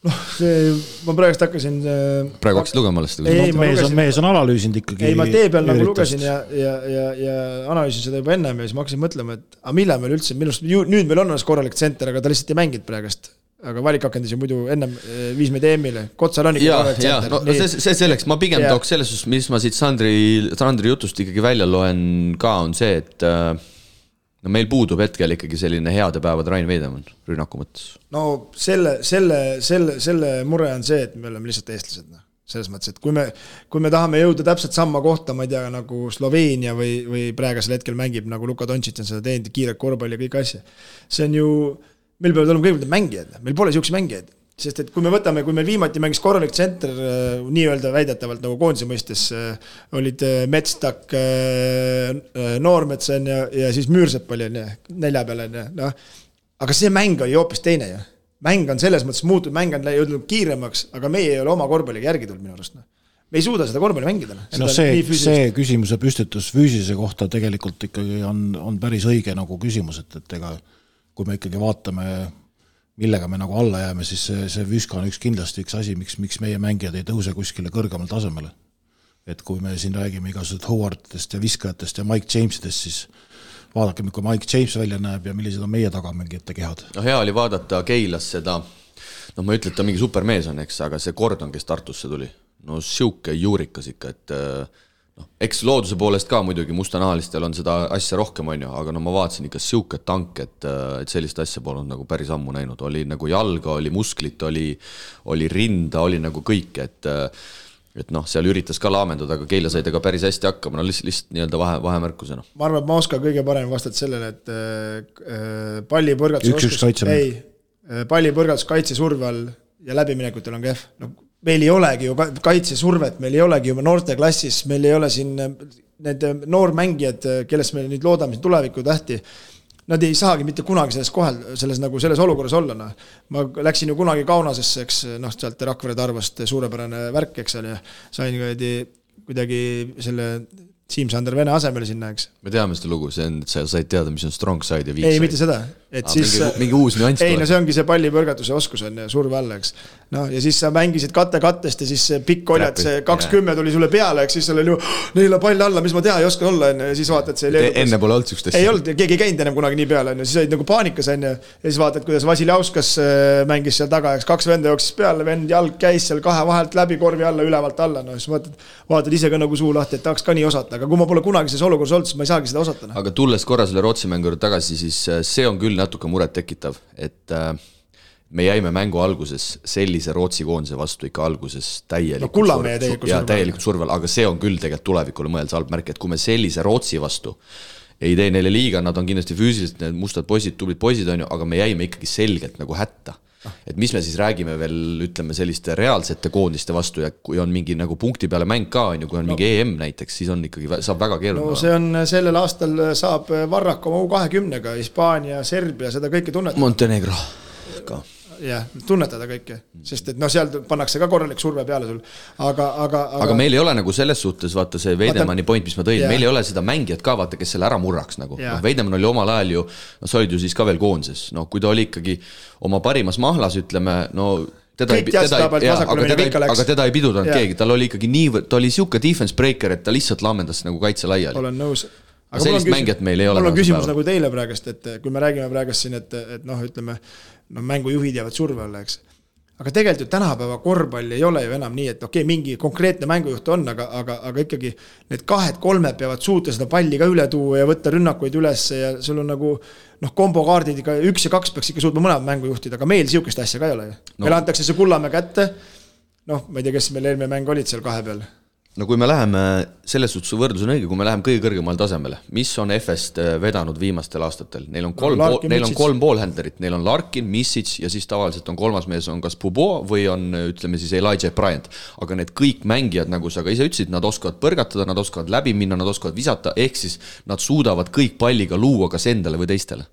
Ma praegust hakkasin... Praegu hakkasid lugema alles? Mees on analüüsinud ikkagi. Ei, ma tee peal nagu lugesin ja analüüsin seda juba ennem ja siis ma hakkasin mõtlema, et millal meil üldse, nüüd meil on korralik tsenter, aga ta lihtsalt ei mängid praegust. Aga valikakendis ju muidu ennem 5 meid EM-ile. Kotsal on ikka korralik tsenter. No see selleks, ma pigem tooks selles, mis ma siit Sandri jutust ikkagi välja loen ka, on see, et meil puudub hetkel ikkagi selline heade päevad Rain Veidemann rünnaku mõttes. No selle mure on see, et me oleme lihtsalt eestlased. Selles mõttes, et kui me tahame jõuda täpselt samma kohta, ma ei tea, nagu Sloveenia või praegusel hetkel mängib, nagu Luka Doncic on seda teinud, kiired korvpalli ja kõik asja. See on ju... Meil peavad olema kõigepealt mängijad, meil pole siukse mängijaid, sest et kui meil viimati mängis korralik tsenter, nii-öelda väidetavalt nagu koondise mõistes, olid Metstak, Noormetsen ja siis Müürsepp oli 4 peale. Aga see mäng oli hoopis teine. Mäng on selles mõttes muutunud, mäng on jõudnud kiiremaks, aga meie ei ole oma korvpalliga järgi tulnud minu arust. Me ei suuda seda korvpalli mängida. See küsimuse püstitus füüsilise kohta tegelikult ikkagi on päris õige nagu küsimus, et ega kui me ikkagi vaatame, millega me nagu alla jääme, siis see Vüska on kindlasti üks asi, miks meie mängijad ei tõuse kuskile kõrgemal tasemele. Et kui me siin räägime igasugused Howardist ja viskajatest ja Mike James'idest, siis vaadake, kui Mike James välja näeb ja millised on meie tagamängijate kehad. No hea oli vaadata Keilas seda, ma ütlen, et ta mingi supermees on, eks, aga see Gordon, kes Tartusse tuli, no siuke juurikas ikka, et eks looduse poolest ka muidugi mustanahalistel on seda asja rohkem, on ju, aga no ma vaatasin ikka siuke tank, et sellist asja polnud nagu päris ammu näinud. Oli nagu jalga, oli musklit, oli rinda, oli nagu kõik, et noh, seal üritas ka laamendada, aga Keila sai tega päris hästi hakkama, no lihtsalt nii-öelda vahemärkusena. Ma arvan, et ma oskan kõige parem vastata sellele, et pallipõrgatus kaitsesurve all ja läbiminekutel on kehv. No, meil ei olegi ju kaitsesurvet, meil ei olegi juba noorteklassis, meil ei ole siin need noormängijad, kellest me nüüd loodame tuleviku tähti, nad ei saagi mitte kunagi selles olukorras olla. No. Ma läksin ju kunagi Kaunasesse, eks, sealt Rakvere Tarvast suurepärane värk, eks, ja sain kuidagi selle Siim-Sander Vene asemel sinna, eks. Me teame seda lugu, see on, et sa said teada, mis on strong side ja weak side. Ei, mitte seda. Et siis, mingi uus nüanss. Ei, no see ongi see pallipõrgatuse oskus on surve alla, eks. No, ja siis sa mängisid kattest ja siis pikk oljad, see 20 tuli sulle peale, eks, siis seal oli ju neile pall alla, mis ma teha ei oska olla, ja siis vaatad see leedukas. Enne pole olnud sükstest. Ei olnud, keegi ei käinud ennem kunagi nii peale, siis olid nagu paanikas, ja siis vaatad, kuidas Vasiljauskas mängis seal taga, eks 2 venda jooksis peale, vend jalg käis seal 2 vahelt läbi korvi alla, ülevalt alla, no siis vaatad ise ka nagu suu lahti, et tahaks ka nii osata, aga kui ma pole kunagi selles olukorras olnud, siis ma ei saagi seda osata. Aga tulles korra selle Rootsi mängu tagasi, siis see on küll natuke muret tekitav, et me jäime mängu alguses sellise Rootsi koondise vastu ikka alguses täielikult survel, aga see on küll tegelikult tulevikule mõeldes halb märk, et kui me sellise Rootsi vastu ei tee neile liiga, nad on kindlasti füüsiliselt need mustad poisid, tublid poisid on ju, aga me jäime ikkagi selgelt nagu hätta. Et mis me siis räägime veel, ütleme, selliste reaalsete koondiste vastu ja kui on mingi nagu punkti peale mäng ka, on ju, kui on mingi EM näiteks, siis on ikkagi, saab väga keeruline. No see on, sellel aastal saab Varrak oma U20-ga, Hispaania, Serbia, seda kõike tunnetada. Montenegro ka. Jah, tunnetada kõike, sest et seal pannakse ka korralik surve peale sul. Aga meil ei ole nagu selles suhtes, vaata see Veidemanni point, mis ma tõin, meil ei ole seda mängijat ka, vaata, kes selle ära murraks nagu. Veidemann oli omal ajal ju, sa olid ju siis ka veel koonses, kui ta oli ikkagi oma parimas mahlas, ütleme, teda ei pidudanud keegi, tal oli ikkagi nii, ta oli siuke defense breaker, et ta lihtsalt laamendas nagu kaitse laiali. Olen nõus. Aga sellist mängijat meil ei ole. Mul on küsimus nagu teile praegust, et kui me räägime praegust siin, et ütleme, mängujuhid jäävad surve alla, eks. Aga tegelikult ju tänapäeva korvpall ei ole ju enam nii, et mingi konkreetne mängujuht on, aga ikkagi need 2-3 peavad suuta seda palli ka üle tuua ja võtta rünnakuid üles ja sul on nagu kombokaardid, 1 ja 2 peaks ikka suutma mõlemad mängujuhtid, aga meil siukest asja ka ei ole ju. Meil antakse see Kullamäe kätte, ma ei tea, kes meil eelmine mäng olid seal 2 peal. No kui me läheme, selles suhtes võrdlus on õige, kui me läheme kõige kõrgemal tasemele, mis on FS-t vedanud viimastel aastatel? Neil on 3 poolhändlerit, neil on Larkin, Misic ja siis tavaliselt on 3. mees on kas Pubo või on, ütleme siis Elijah Bryant. Aga need kõik mängijad, nagu sa ka ise ütlesid, nad oskavad põrgatada, nad oskavad läbi minna, nad oskavad visata, ehk siis nad suudavad kõik palliga luua kas endale või teistele.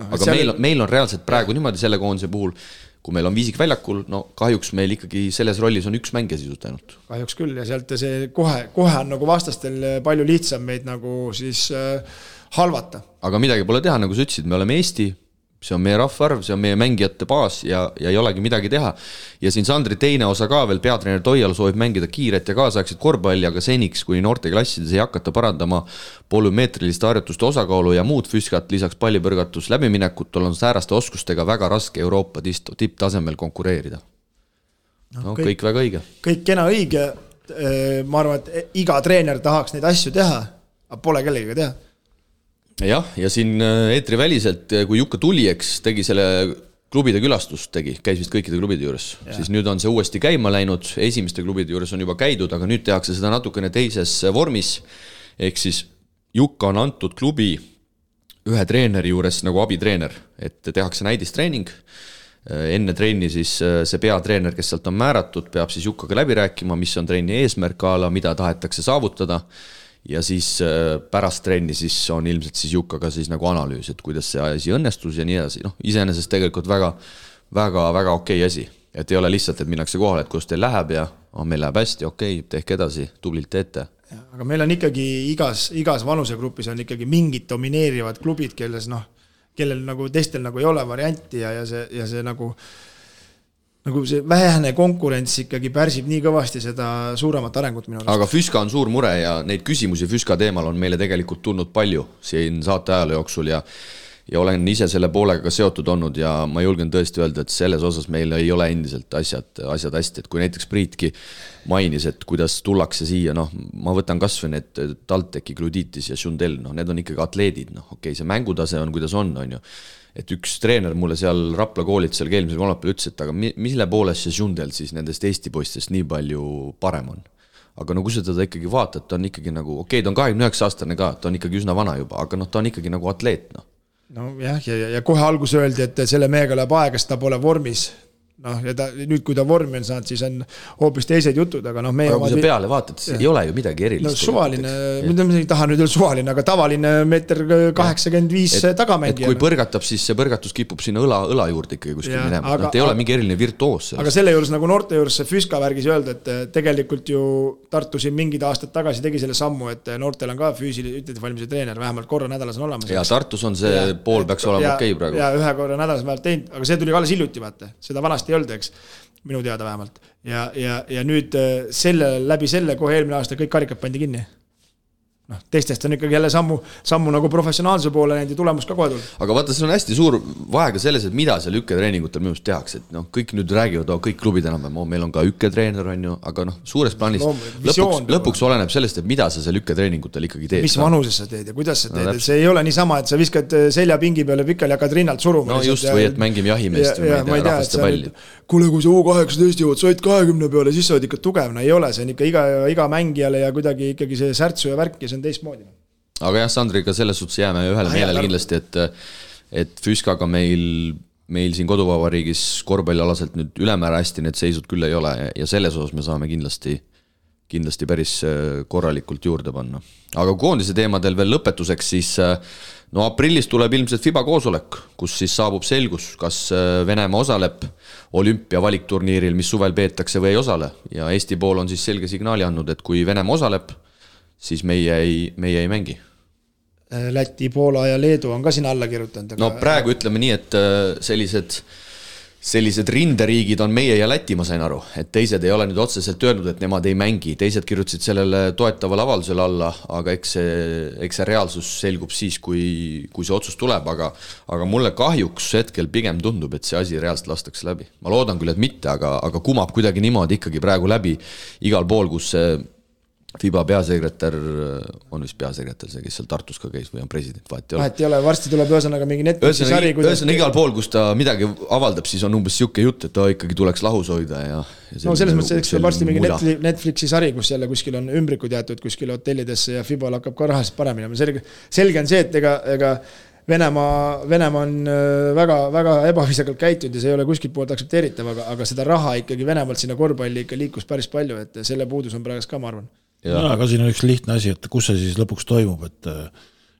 Aga meil on reaalselt praegu niimoodi selle koondise puhul, kui meil on Viisik väljakul, kahjuks meil ikkagi selles rollis on 1 mängija sisult ainult. Kahjuks küll ja sealt see kohe on nagu vastastel palju lihtsam meid nagu siis halvata. Aga midagi pole teha, nagu sa ütlesid, me oleme Eesti, see on meie rahvaarv, see on meie mängijate baas ja ei olegi midagi teha. Ja siin Sandri teine osa ka veel, peatreener Toial soovib mängida kiiret ja kaasaegset korvpalli, aga seniks, kui noorteklassides ei hakata parandama polümeetriliste harjutuste osakaalu ja muud füüskat, lisaks pallipõrgatus läbiminekut, on sääraste oskustega väga raske Euroopa tipptasemel konkureerida. Kõik väga õige. Kõik kena õige, ma arvan, et iga treener tahaks neid asju teha, aga pole kellegagi teha. Jah, ja siin eetriväliselt, kui Jukka tuli, eks tegi selle klubide külastust, käis vist kõikide klubide juures, siis nüüd on see uuesti käima läinud, esimeste klubide juures on juba käidud, aga nüüd tehakse seda natukene teises vormis, ehk siis Jukka on antud klubi ühe treeneri juures nagu abitreener, et tehakse näidistreening, enne trenni siis see peatreener, kes sealt on määratud, peab siis Jukkaga läbi rääkima, mis on trenni eesmärk ala, mida tahetakse saavutada, ja siis pärast trenni siis on ilmselt siis Jukkaga siis nagu analüüs, et kuidas see asi õnnestus ja nii edasi. Iseenesest tegelikult väga okei asi, et ei ole lihtsalt, et minnakse kohale, et kus teil läheb ja meil läheb hästi, okei, tehke edasi, tublilt teete. Aga meil on ikkagi igas vanusegrupis on ikkagi mingid domineerivad klubid, kellel nagu teistel nagu ei ole varianti ja see nagu see vähene konkurents ikkagi pärsib nii kõvasti seda suuremat arengut minu arust. Aga Füska on suur mure ja neid küsimusi Füska teemal on meile tegelikult tulnud palju siin saate ajalu jooksul ja ja olen ise selle poolega ka seotud olnud ja ma julgen tõesti öelda, et selles osas meil ei ole endiselt asjad hästi, et kui näiteks Priitki mainis, et kuidas tullakse siia, noh, ma võtan kas või need Talteki, Gluditis ja Šundel, noh, need on ikkagi atleedid, noh, okei, see mängutase on, kuidas on ju. Et üks treener mulle seal Rapla koolid seal eelmisel kolmapäeval ütles, et aga mille poolest see Šundel siis nendest Eesti poistest nii palju parem on? Aga no kui sa teda ikkagi vaatad, ta on ikkagi nagu, okei, ta on 29-aastane ka, ta on ikkagi üsna vana juba, aga noh, ta on ikkagi nagu atleet, noh. No jah, ja kohe algus öeldi, et selle mehega läheb aega, sest ta pole vormis. Noh, ja nüüd kui ta vormi on saanud, siis on hoopis teised jutud, aga noh, meie... Aga kui sa peale vaatad, siis ei ole ju midagi erilist. No suvaline, mida ma ei taha nüüd öelda suvaline, aga tavaline 1,85 tagamängija. Et kui põrgatab, siis see põrgatus kipub sinna õla juurde ikkagi kuskil minema. Nad ei ole mingi eriline virtuoos. Aga selle juures nagu noorte juures see Füska värgis öelda, et tegelikult ju Tartu siin mingid aastad tagasi tegi selle sammu, et noortel on ka füüsilise valmise treener, vähemalt korra nädalas on olemas. Ja Tartus on see pool peaks olema okei praegu. Ja ühe korra nädalas vähemalt teinud, aga see tuli alles hiljuti, vaata. Seda vanasti ei olnud, eks, minu teada vähemalt. Ja nüüd läbi selle kohe eelmine aasta kõik karikad pandi kinni. Noh, teistest on ikkagi jälle sammu nagu professionaalse poole näinud ja tulemus ka kohe tulnud. Aga vaata, see on hästi suur vaega selles, et mida seal ükketreeningutel minu arust tehakse. Et noh, kõik nüüd räägivad, kõik klubid enam, meil on ka ükketreener, on ju, aga noh, suures plaanis lõpuks oleneb sellest, et mida sa seal ükketreeningutel ikkagi teed. Mis vanuses sa teed ja kuidas sa teed. See ei ole niisama, et sa viskad seljapingi peale pikali ja hakkad rinnalt suruma. No just, või et mängime jahimeest või rahvaste palli. Kuule, kui sa U18 jõuad, sa oled 20 peale, siis sa oled ikka tugev. No ei ole, see on ikka iga mängijale ja kuidagi ikkagi see särtsu ja värk ja see on teistmoodi. Aga jah, Sandriga selles suhtes jääme ühele meelele kindlasti, et Füskaga meil siin koduvabariigis korvpallialaselt nüüd ülemäära hästi need seisud küll ei ole ja selles osas me saame kindlasti päris korralikult juurde panna. Aga koondise teemadel veel lõpetuseks, siis no aprillis tuleb ilmselt FIBA koosolek, kus siis saabub selgus, kas Venemaa osaleb olümpia valikturniiril, mis suvel peetakse või ei osale. Ja Eesti pool on siis selge signaali andnud, et kui Venemaa osaleb, siis meie ei mängi. Läti, Poola ja Leedu on ka siin alla kirjutanud. No praegu ütleme nii, et sellised rinderiigid on meie ja Läti, ma sain aru, et teised ei ole nüüd otseselt öelnud, et nemad ei mängi, teised kirjutasid sellele toetavale avaldusele alla, aga eks see reaalsus selgub siis, kui see otsus tuleb, aga mulle kahjuks hetkel pigem tundub, et see asi reaalselt lastakse läbi. Ma loodan küll, et mitte, aga kumab kuidagi niimoodi ikkagi praegu läbi igal pool, kus see FIBA peasekretär on vist peasekretär, see, kes seal Tartus ka käis või on president, vahet ei ole. Varsti tuleb ühesõnaga mingi Netflixi sari. Ühesõnaga igal pool, kus ta midagi avaldab, siis on umbes siuke jutt, et ta ikkagi tuleks lahus hoida. No selles mõttes, et varsti mingi Netflixi sari, kus jälle kuskil on ümbrikud jäetud kuskil hotellidesse ja FIBA hakkab ka rahast paremini. Selge on see, et ega Venemaa on väga, väga ebaviisakalt käitunud ja see ei ole kuskilt poolt aktsepteeritav, aga seda raha ikkagi Venemaalt sinna korvpalli ikka liikus päris palju, et selle puudus on praegu ka, ma arvan. Ja, aga siin on üks lihtne asi, et kus see siis lõpuks toimub, et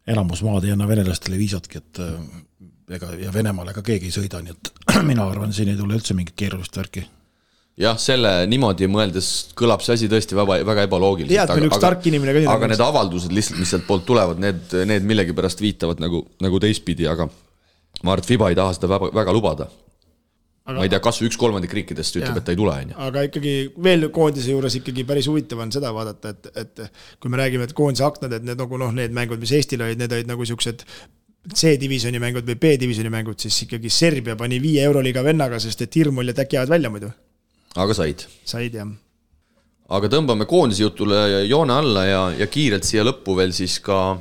enamus maad ei anna venelastele viisatki, et ja Venemaale ka keegi ei sõida, nii et mina arvan, siin ei tule üldse mingit keerulist värki. Jah, selle niimoodi mõeldes kõlab see asi tõesti väga ebaloogiliselt. Aga need avaldused lihtsalt, mis sealt poolt tulevad, need millegi pärast viitavad nagu teistpidi, aga ma arvan, et FIBA ei taha seda väga lubada. Ma ei tea, kas 1/3 riikidest ütleb, et ta ei tule. Aga ikkagi veel koondise juures ikkagi päris huvitav on seda vaadata, et kui me räägime, et koondise aknad, et need mängud, mis Eestil olid, need olid nagu siuksed C-divisjoni mängud või B-divisjoni mängud, siis ikkagi Serbia pani 5 Euroliiga vennaga, sest et hirm oli, et äkki jäävad välja muidu. Aga said, jah. Aga tõmbame koondise jutule joone alla ja kiirelt siia lõppu veel siis ka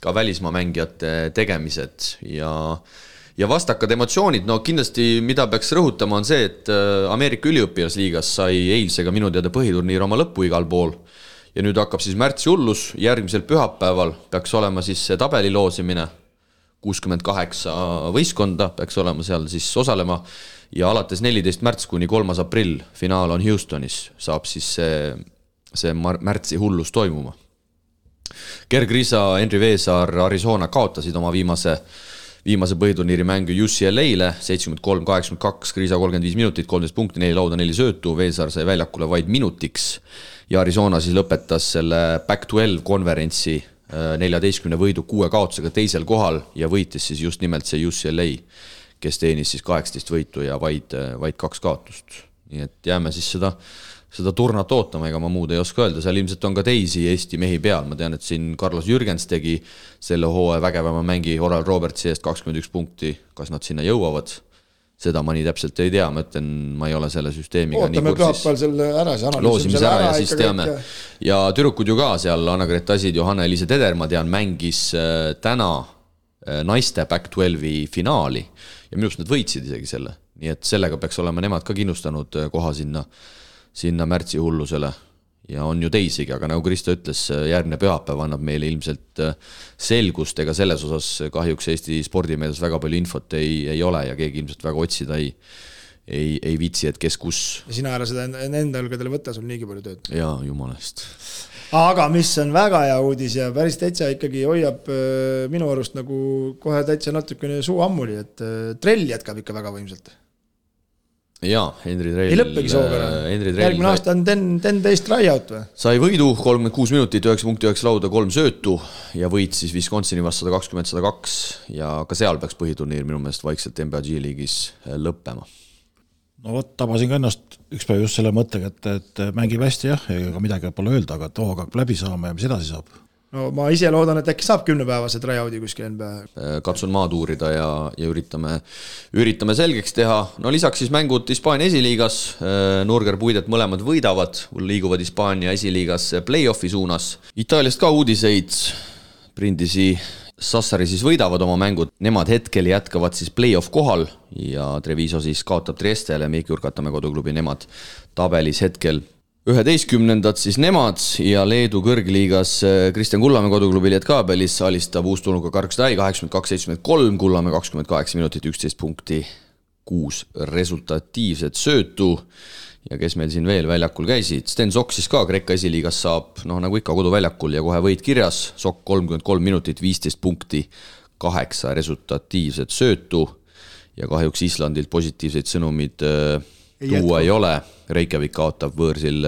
välismaa mängijate tegemised ja vastakad emotsioonid. No kindlasti, mida peaks rõhutama, on see, et Ameerika üliõpilasliigas sai eilsega minu teada põhiturniir oma lõppu igal pool. Ja nüüd hakkab siis märtsi hullus, järgmisel pühapäeval peaks olema siis see tabeli loosimine, 68 võistkonda peaks olema seal siis osalema ja alates 14. märts kuni 3. aprill finaal on Houstonis, saab siis see märtsi hullus toimuma. Gergriisa, Henri Veesaar, Arizona kaotasid oma viimase põhiturniiri mängu UCLA-le, 73-82, Griisa 35 minutit, 13 punkti, 4 lauda, 4 söötu, Veesaar sai väljakule vaid minutiks ja Arizona siis lõpetas selle Pac-12 konverentsi 14 võidu 6 kaotusega teisel kohal ja võitis siis just nimelt see UCLA, kes teenis siis 18 võitu ja vaid 2 kaotust. Nii et jääme siis seda turnat ootama, ega ma muud ei oska öelda, seal ilmselt on ka teisi Eesti mehi peal, ma tean, et siin Carlos Jürgens tegi selle hooaja vägevama mängi Oral Robertsi eest 21 punkti, kas nad sinna jõuavad, seda ma nii täpselt ei tea, ma ütlen, ma ei ole selle süsteemiga ootame pühapäeval selle ära, see loosimise ära ja siis teame. Ja tüdrukud ju ka seal, Anna-Grete Asid, Johanna-Eliise Teder, ma tean, mängis täna naiste Back 12 finaali ja minust nad võitsid isegi selle, nii et sellega peaks olema nemad ka kindlustanud koha sinna märtsi hullusele ja on ju teisigi, aga nagu Kristo ütles, järgmine pühapäev annab meile ilmselt selgust, ega selles osas kahjuks Eesti spordimeeles väga palju infot ei ole ja keegi ilmselt väga otsida ei viitsi, et kes kus. Ja sina ära seda enda õlgadele võtta, sul niigi palju tööd. Jaa, jumalast. Aga mis on väga hea uudis ja päris täitsa ikkagi hoiab minu arust nagu kohe täitsa natukene suu ammuli, et Trell jätkab ikka väga võimselt. Jaa, Henri Trell. Ei lõppegi sooga. Järgmine aasta on 10 tryout või? Sai võidu 36 minutit, 9.9 lauda, 3 söötu ja võit siis Wisconsini vastu 120-102 ja ka seal peaks põhiturniir minu meelest vaikselt NBA G-liigis lõppema. No vot, tabasin ka ennast üks päev just selle mõttega, et mängib hästi jah, ega midagi pole öelda, aga too hakkab läbi saama ja mis edasi saab? No ma ise loodan, et äkki saab 10-päevase tryoudi kuskil NBA. Katsun maad uurida ja üritame selgeks teha. No lisaks siis mängud Hispaania esiliigas, Nurger Puidet mõlemad võidavad, liiguvad Hispaania esiliigas play-offi suunas. Itaaliast ka uudiseid, Brindisi Sassari siis võidavad oma mängud, nemad hetkel jätkavad siis play-off kohal ja Treviso siis kaotab Triestele, Meiki Urkatamäe koduklubi, nemad tabelis hetkel 11. siis nemad ja Leedu kõrgliigas Kristjan Kullamäe koduklubi Lietkabelis alistab uustulnuga Karkstai 82-73, Kullamäe 28 minutit, 11 punkti, 6 resultatiivset söötu ja kes meil siin veel väljakul käisid, Sten Sokk siis ka Kreeka esiliigas saab, nagu ikka koduväljakul ja kohe võit kirjas, Sokk 33 minutit, 15 punkti, 8 resultatiivset söötu ja kahjuks Islandilt positiivseid sõnumid tuua ei ole. Reykjavik kaotab võõrsil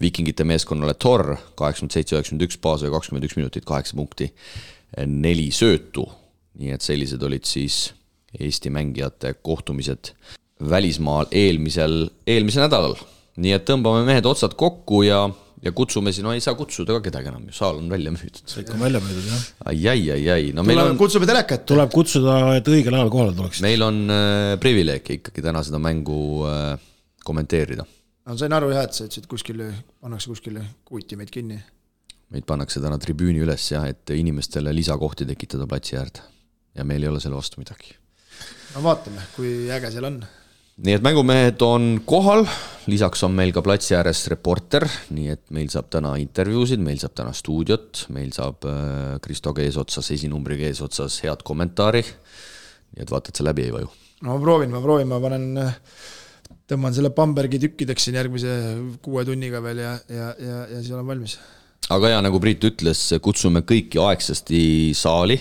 Vikingite meeskonnale Tor 87-91 baas ja 21 minutit, 8 punkti, 4 söötu. Nii et sellised olid siis Eesti mängijate kohtumised välismaal eelmisel nädalal. Nii et tõmbame mehed otsad kokku ja kutsume siin, ei saa kutsuda ka kedagi enam, saal on välja müüdud. See ikka on välja müüdud, jah. Ai. No kutsume telekat. Tuleb kutsuda, et õigel ajal kohale tuleks. Meil on privileeg ikkagi täna seda mängu kommenteerida. No sain aru jah, et sa ütlesid pannakse kuskile kuuti meid kinni. Meid pannakse täna tribüüni üles jah, et inimestele lisakohti tekitada platsi äärde. Ja meil ei ole selle vastu midagi. No vaatame, kui äge seal on. Nii et mängumehed on kohal, lisaks on meil ka platsi ääres reporter, nii et meil saab täna intervjuusid, meil saab täna stuudiot, meil saab Kristo eesotsas, esinumbriga eesotsas head kommentaari, nii et vaata, et see läbi ei vaju. No ma proovin, ma tõmban selle Bambergi tükkideks siin järgmise 6 tunniga veel ja siis olen valmis. Aga ja nagu Priit ütles, kutsume kõiki aegsasti saali,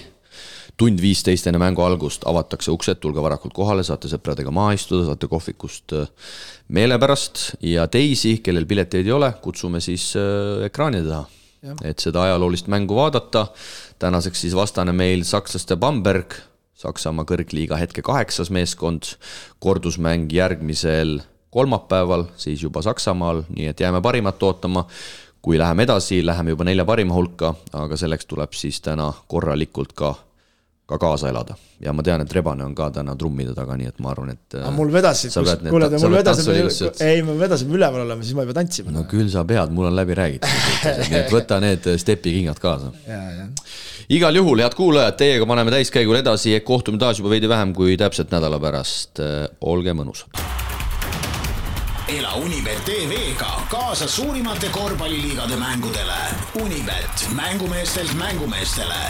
1:15 enne mängu algust avatakse uksed, tulge varakult kohale, saate sõpradega maha istuda, saate kohvikust meele pärast ja teisi, kellel pileteid ei ole, kutsume siis ekraani taha, et seda ajaloolist mängu vaadata. Tänaseks siis vastane meil sakslaste Bamberg, Saksamaa kõrgliiga hetke 8. meeskond, kordusmäng järgmisel kolmapäeval, siis juba Saksamaal, nii et jääme parimat ootama. Kui läheme edasi, läheme juba 4 parima hulka, aga selleks tuleb siis täna korralikult ka kaasa elada. Ja ma tean, et Rebane on ka täna trummide taga, nii et ma arvan, et mul vedasime üleval olema, siis ma ei pea tantsima. No küll sa pead, mul on läbi räägitud. Nii et võta need stepikingad kaasa. Igal juhul, head kuulajad, teiega paneme täiskäigul edasi, kohtume taas juba veidi vähem kui täpselt nädala pärast. Olge mõnus. Ela Unibet TV-ga kaasa suurimate korvpalliliigade mängudele. Unibet, mängumeestelt mängumeestele.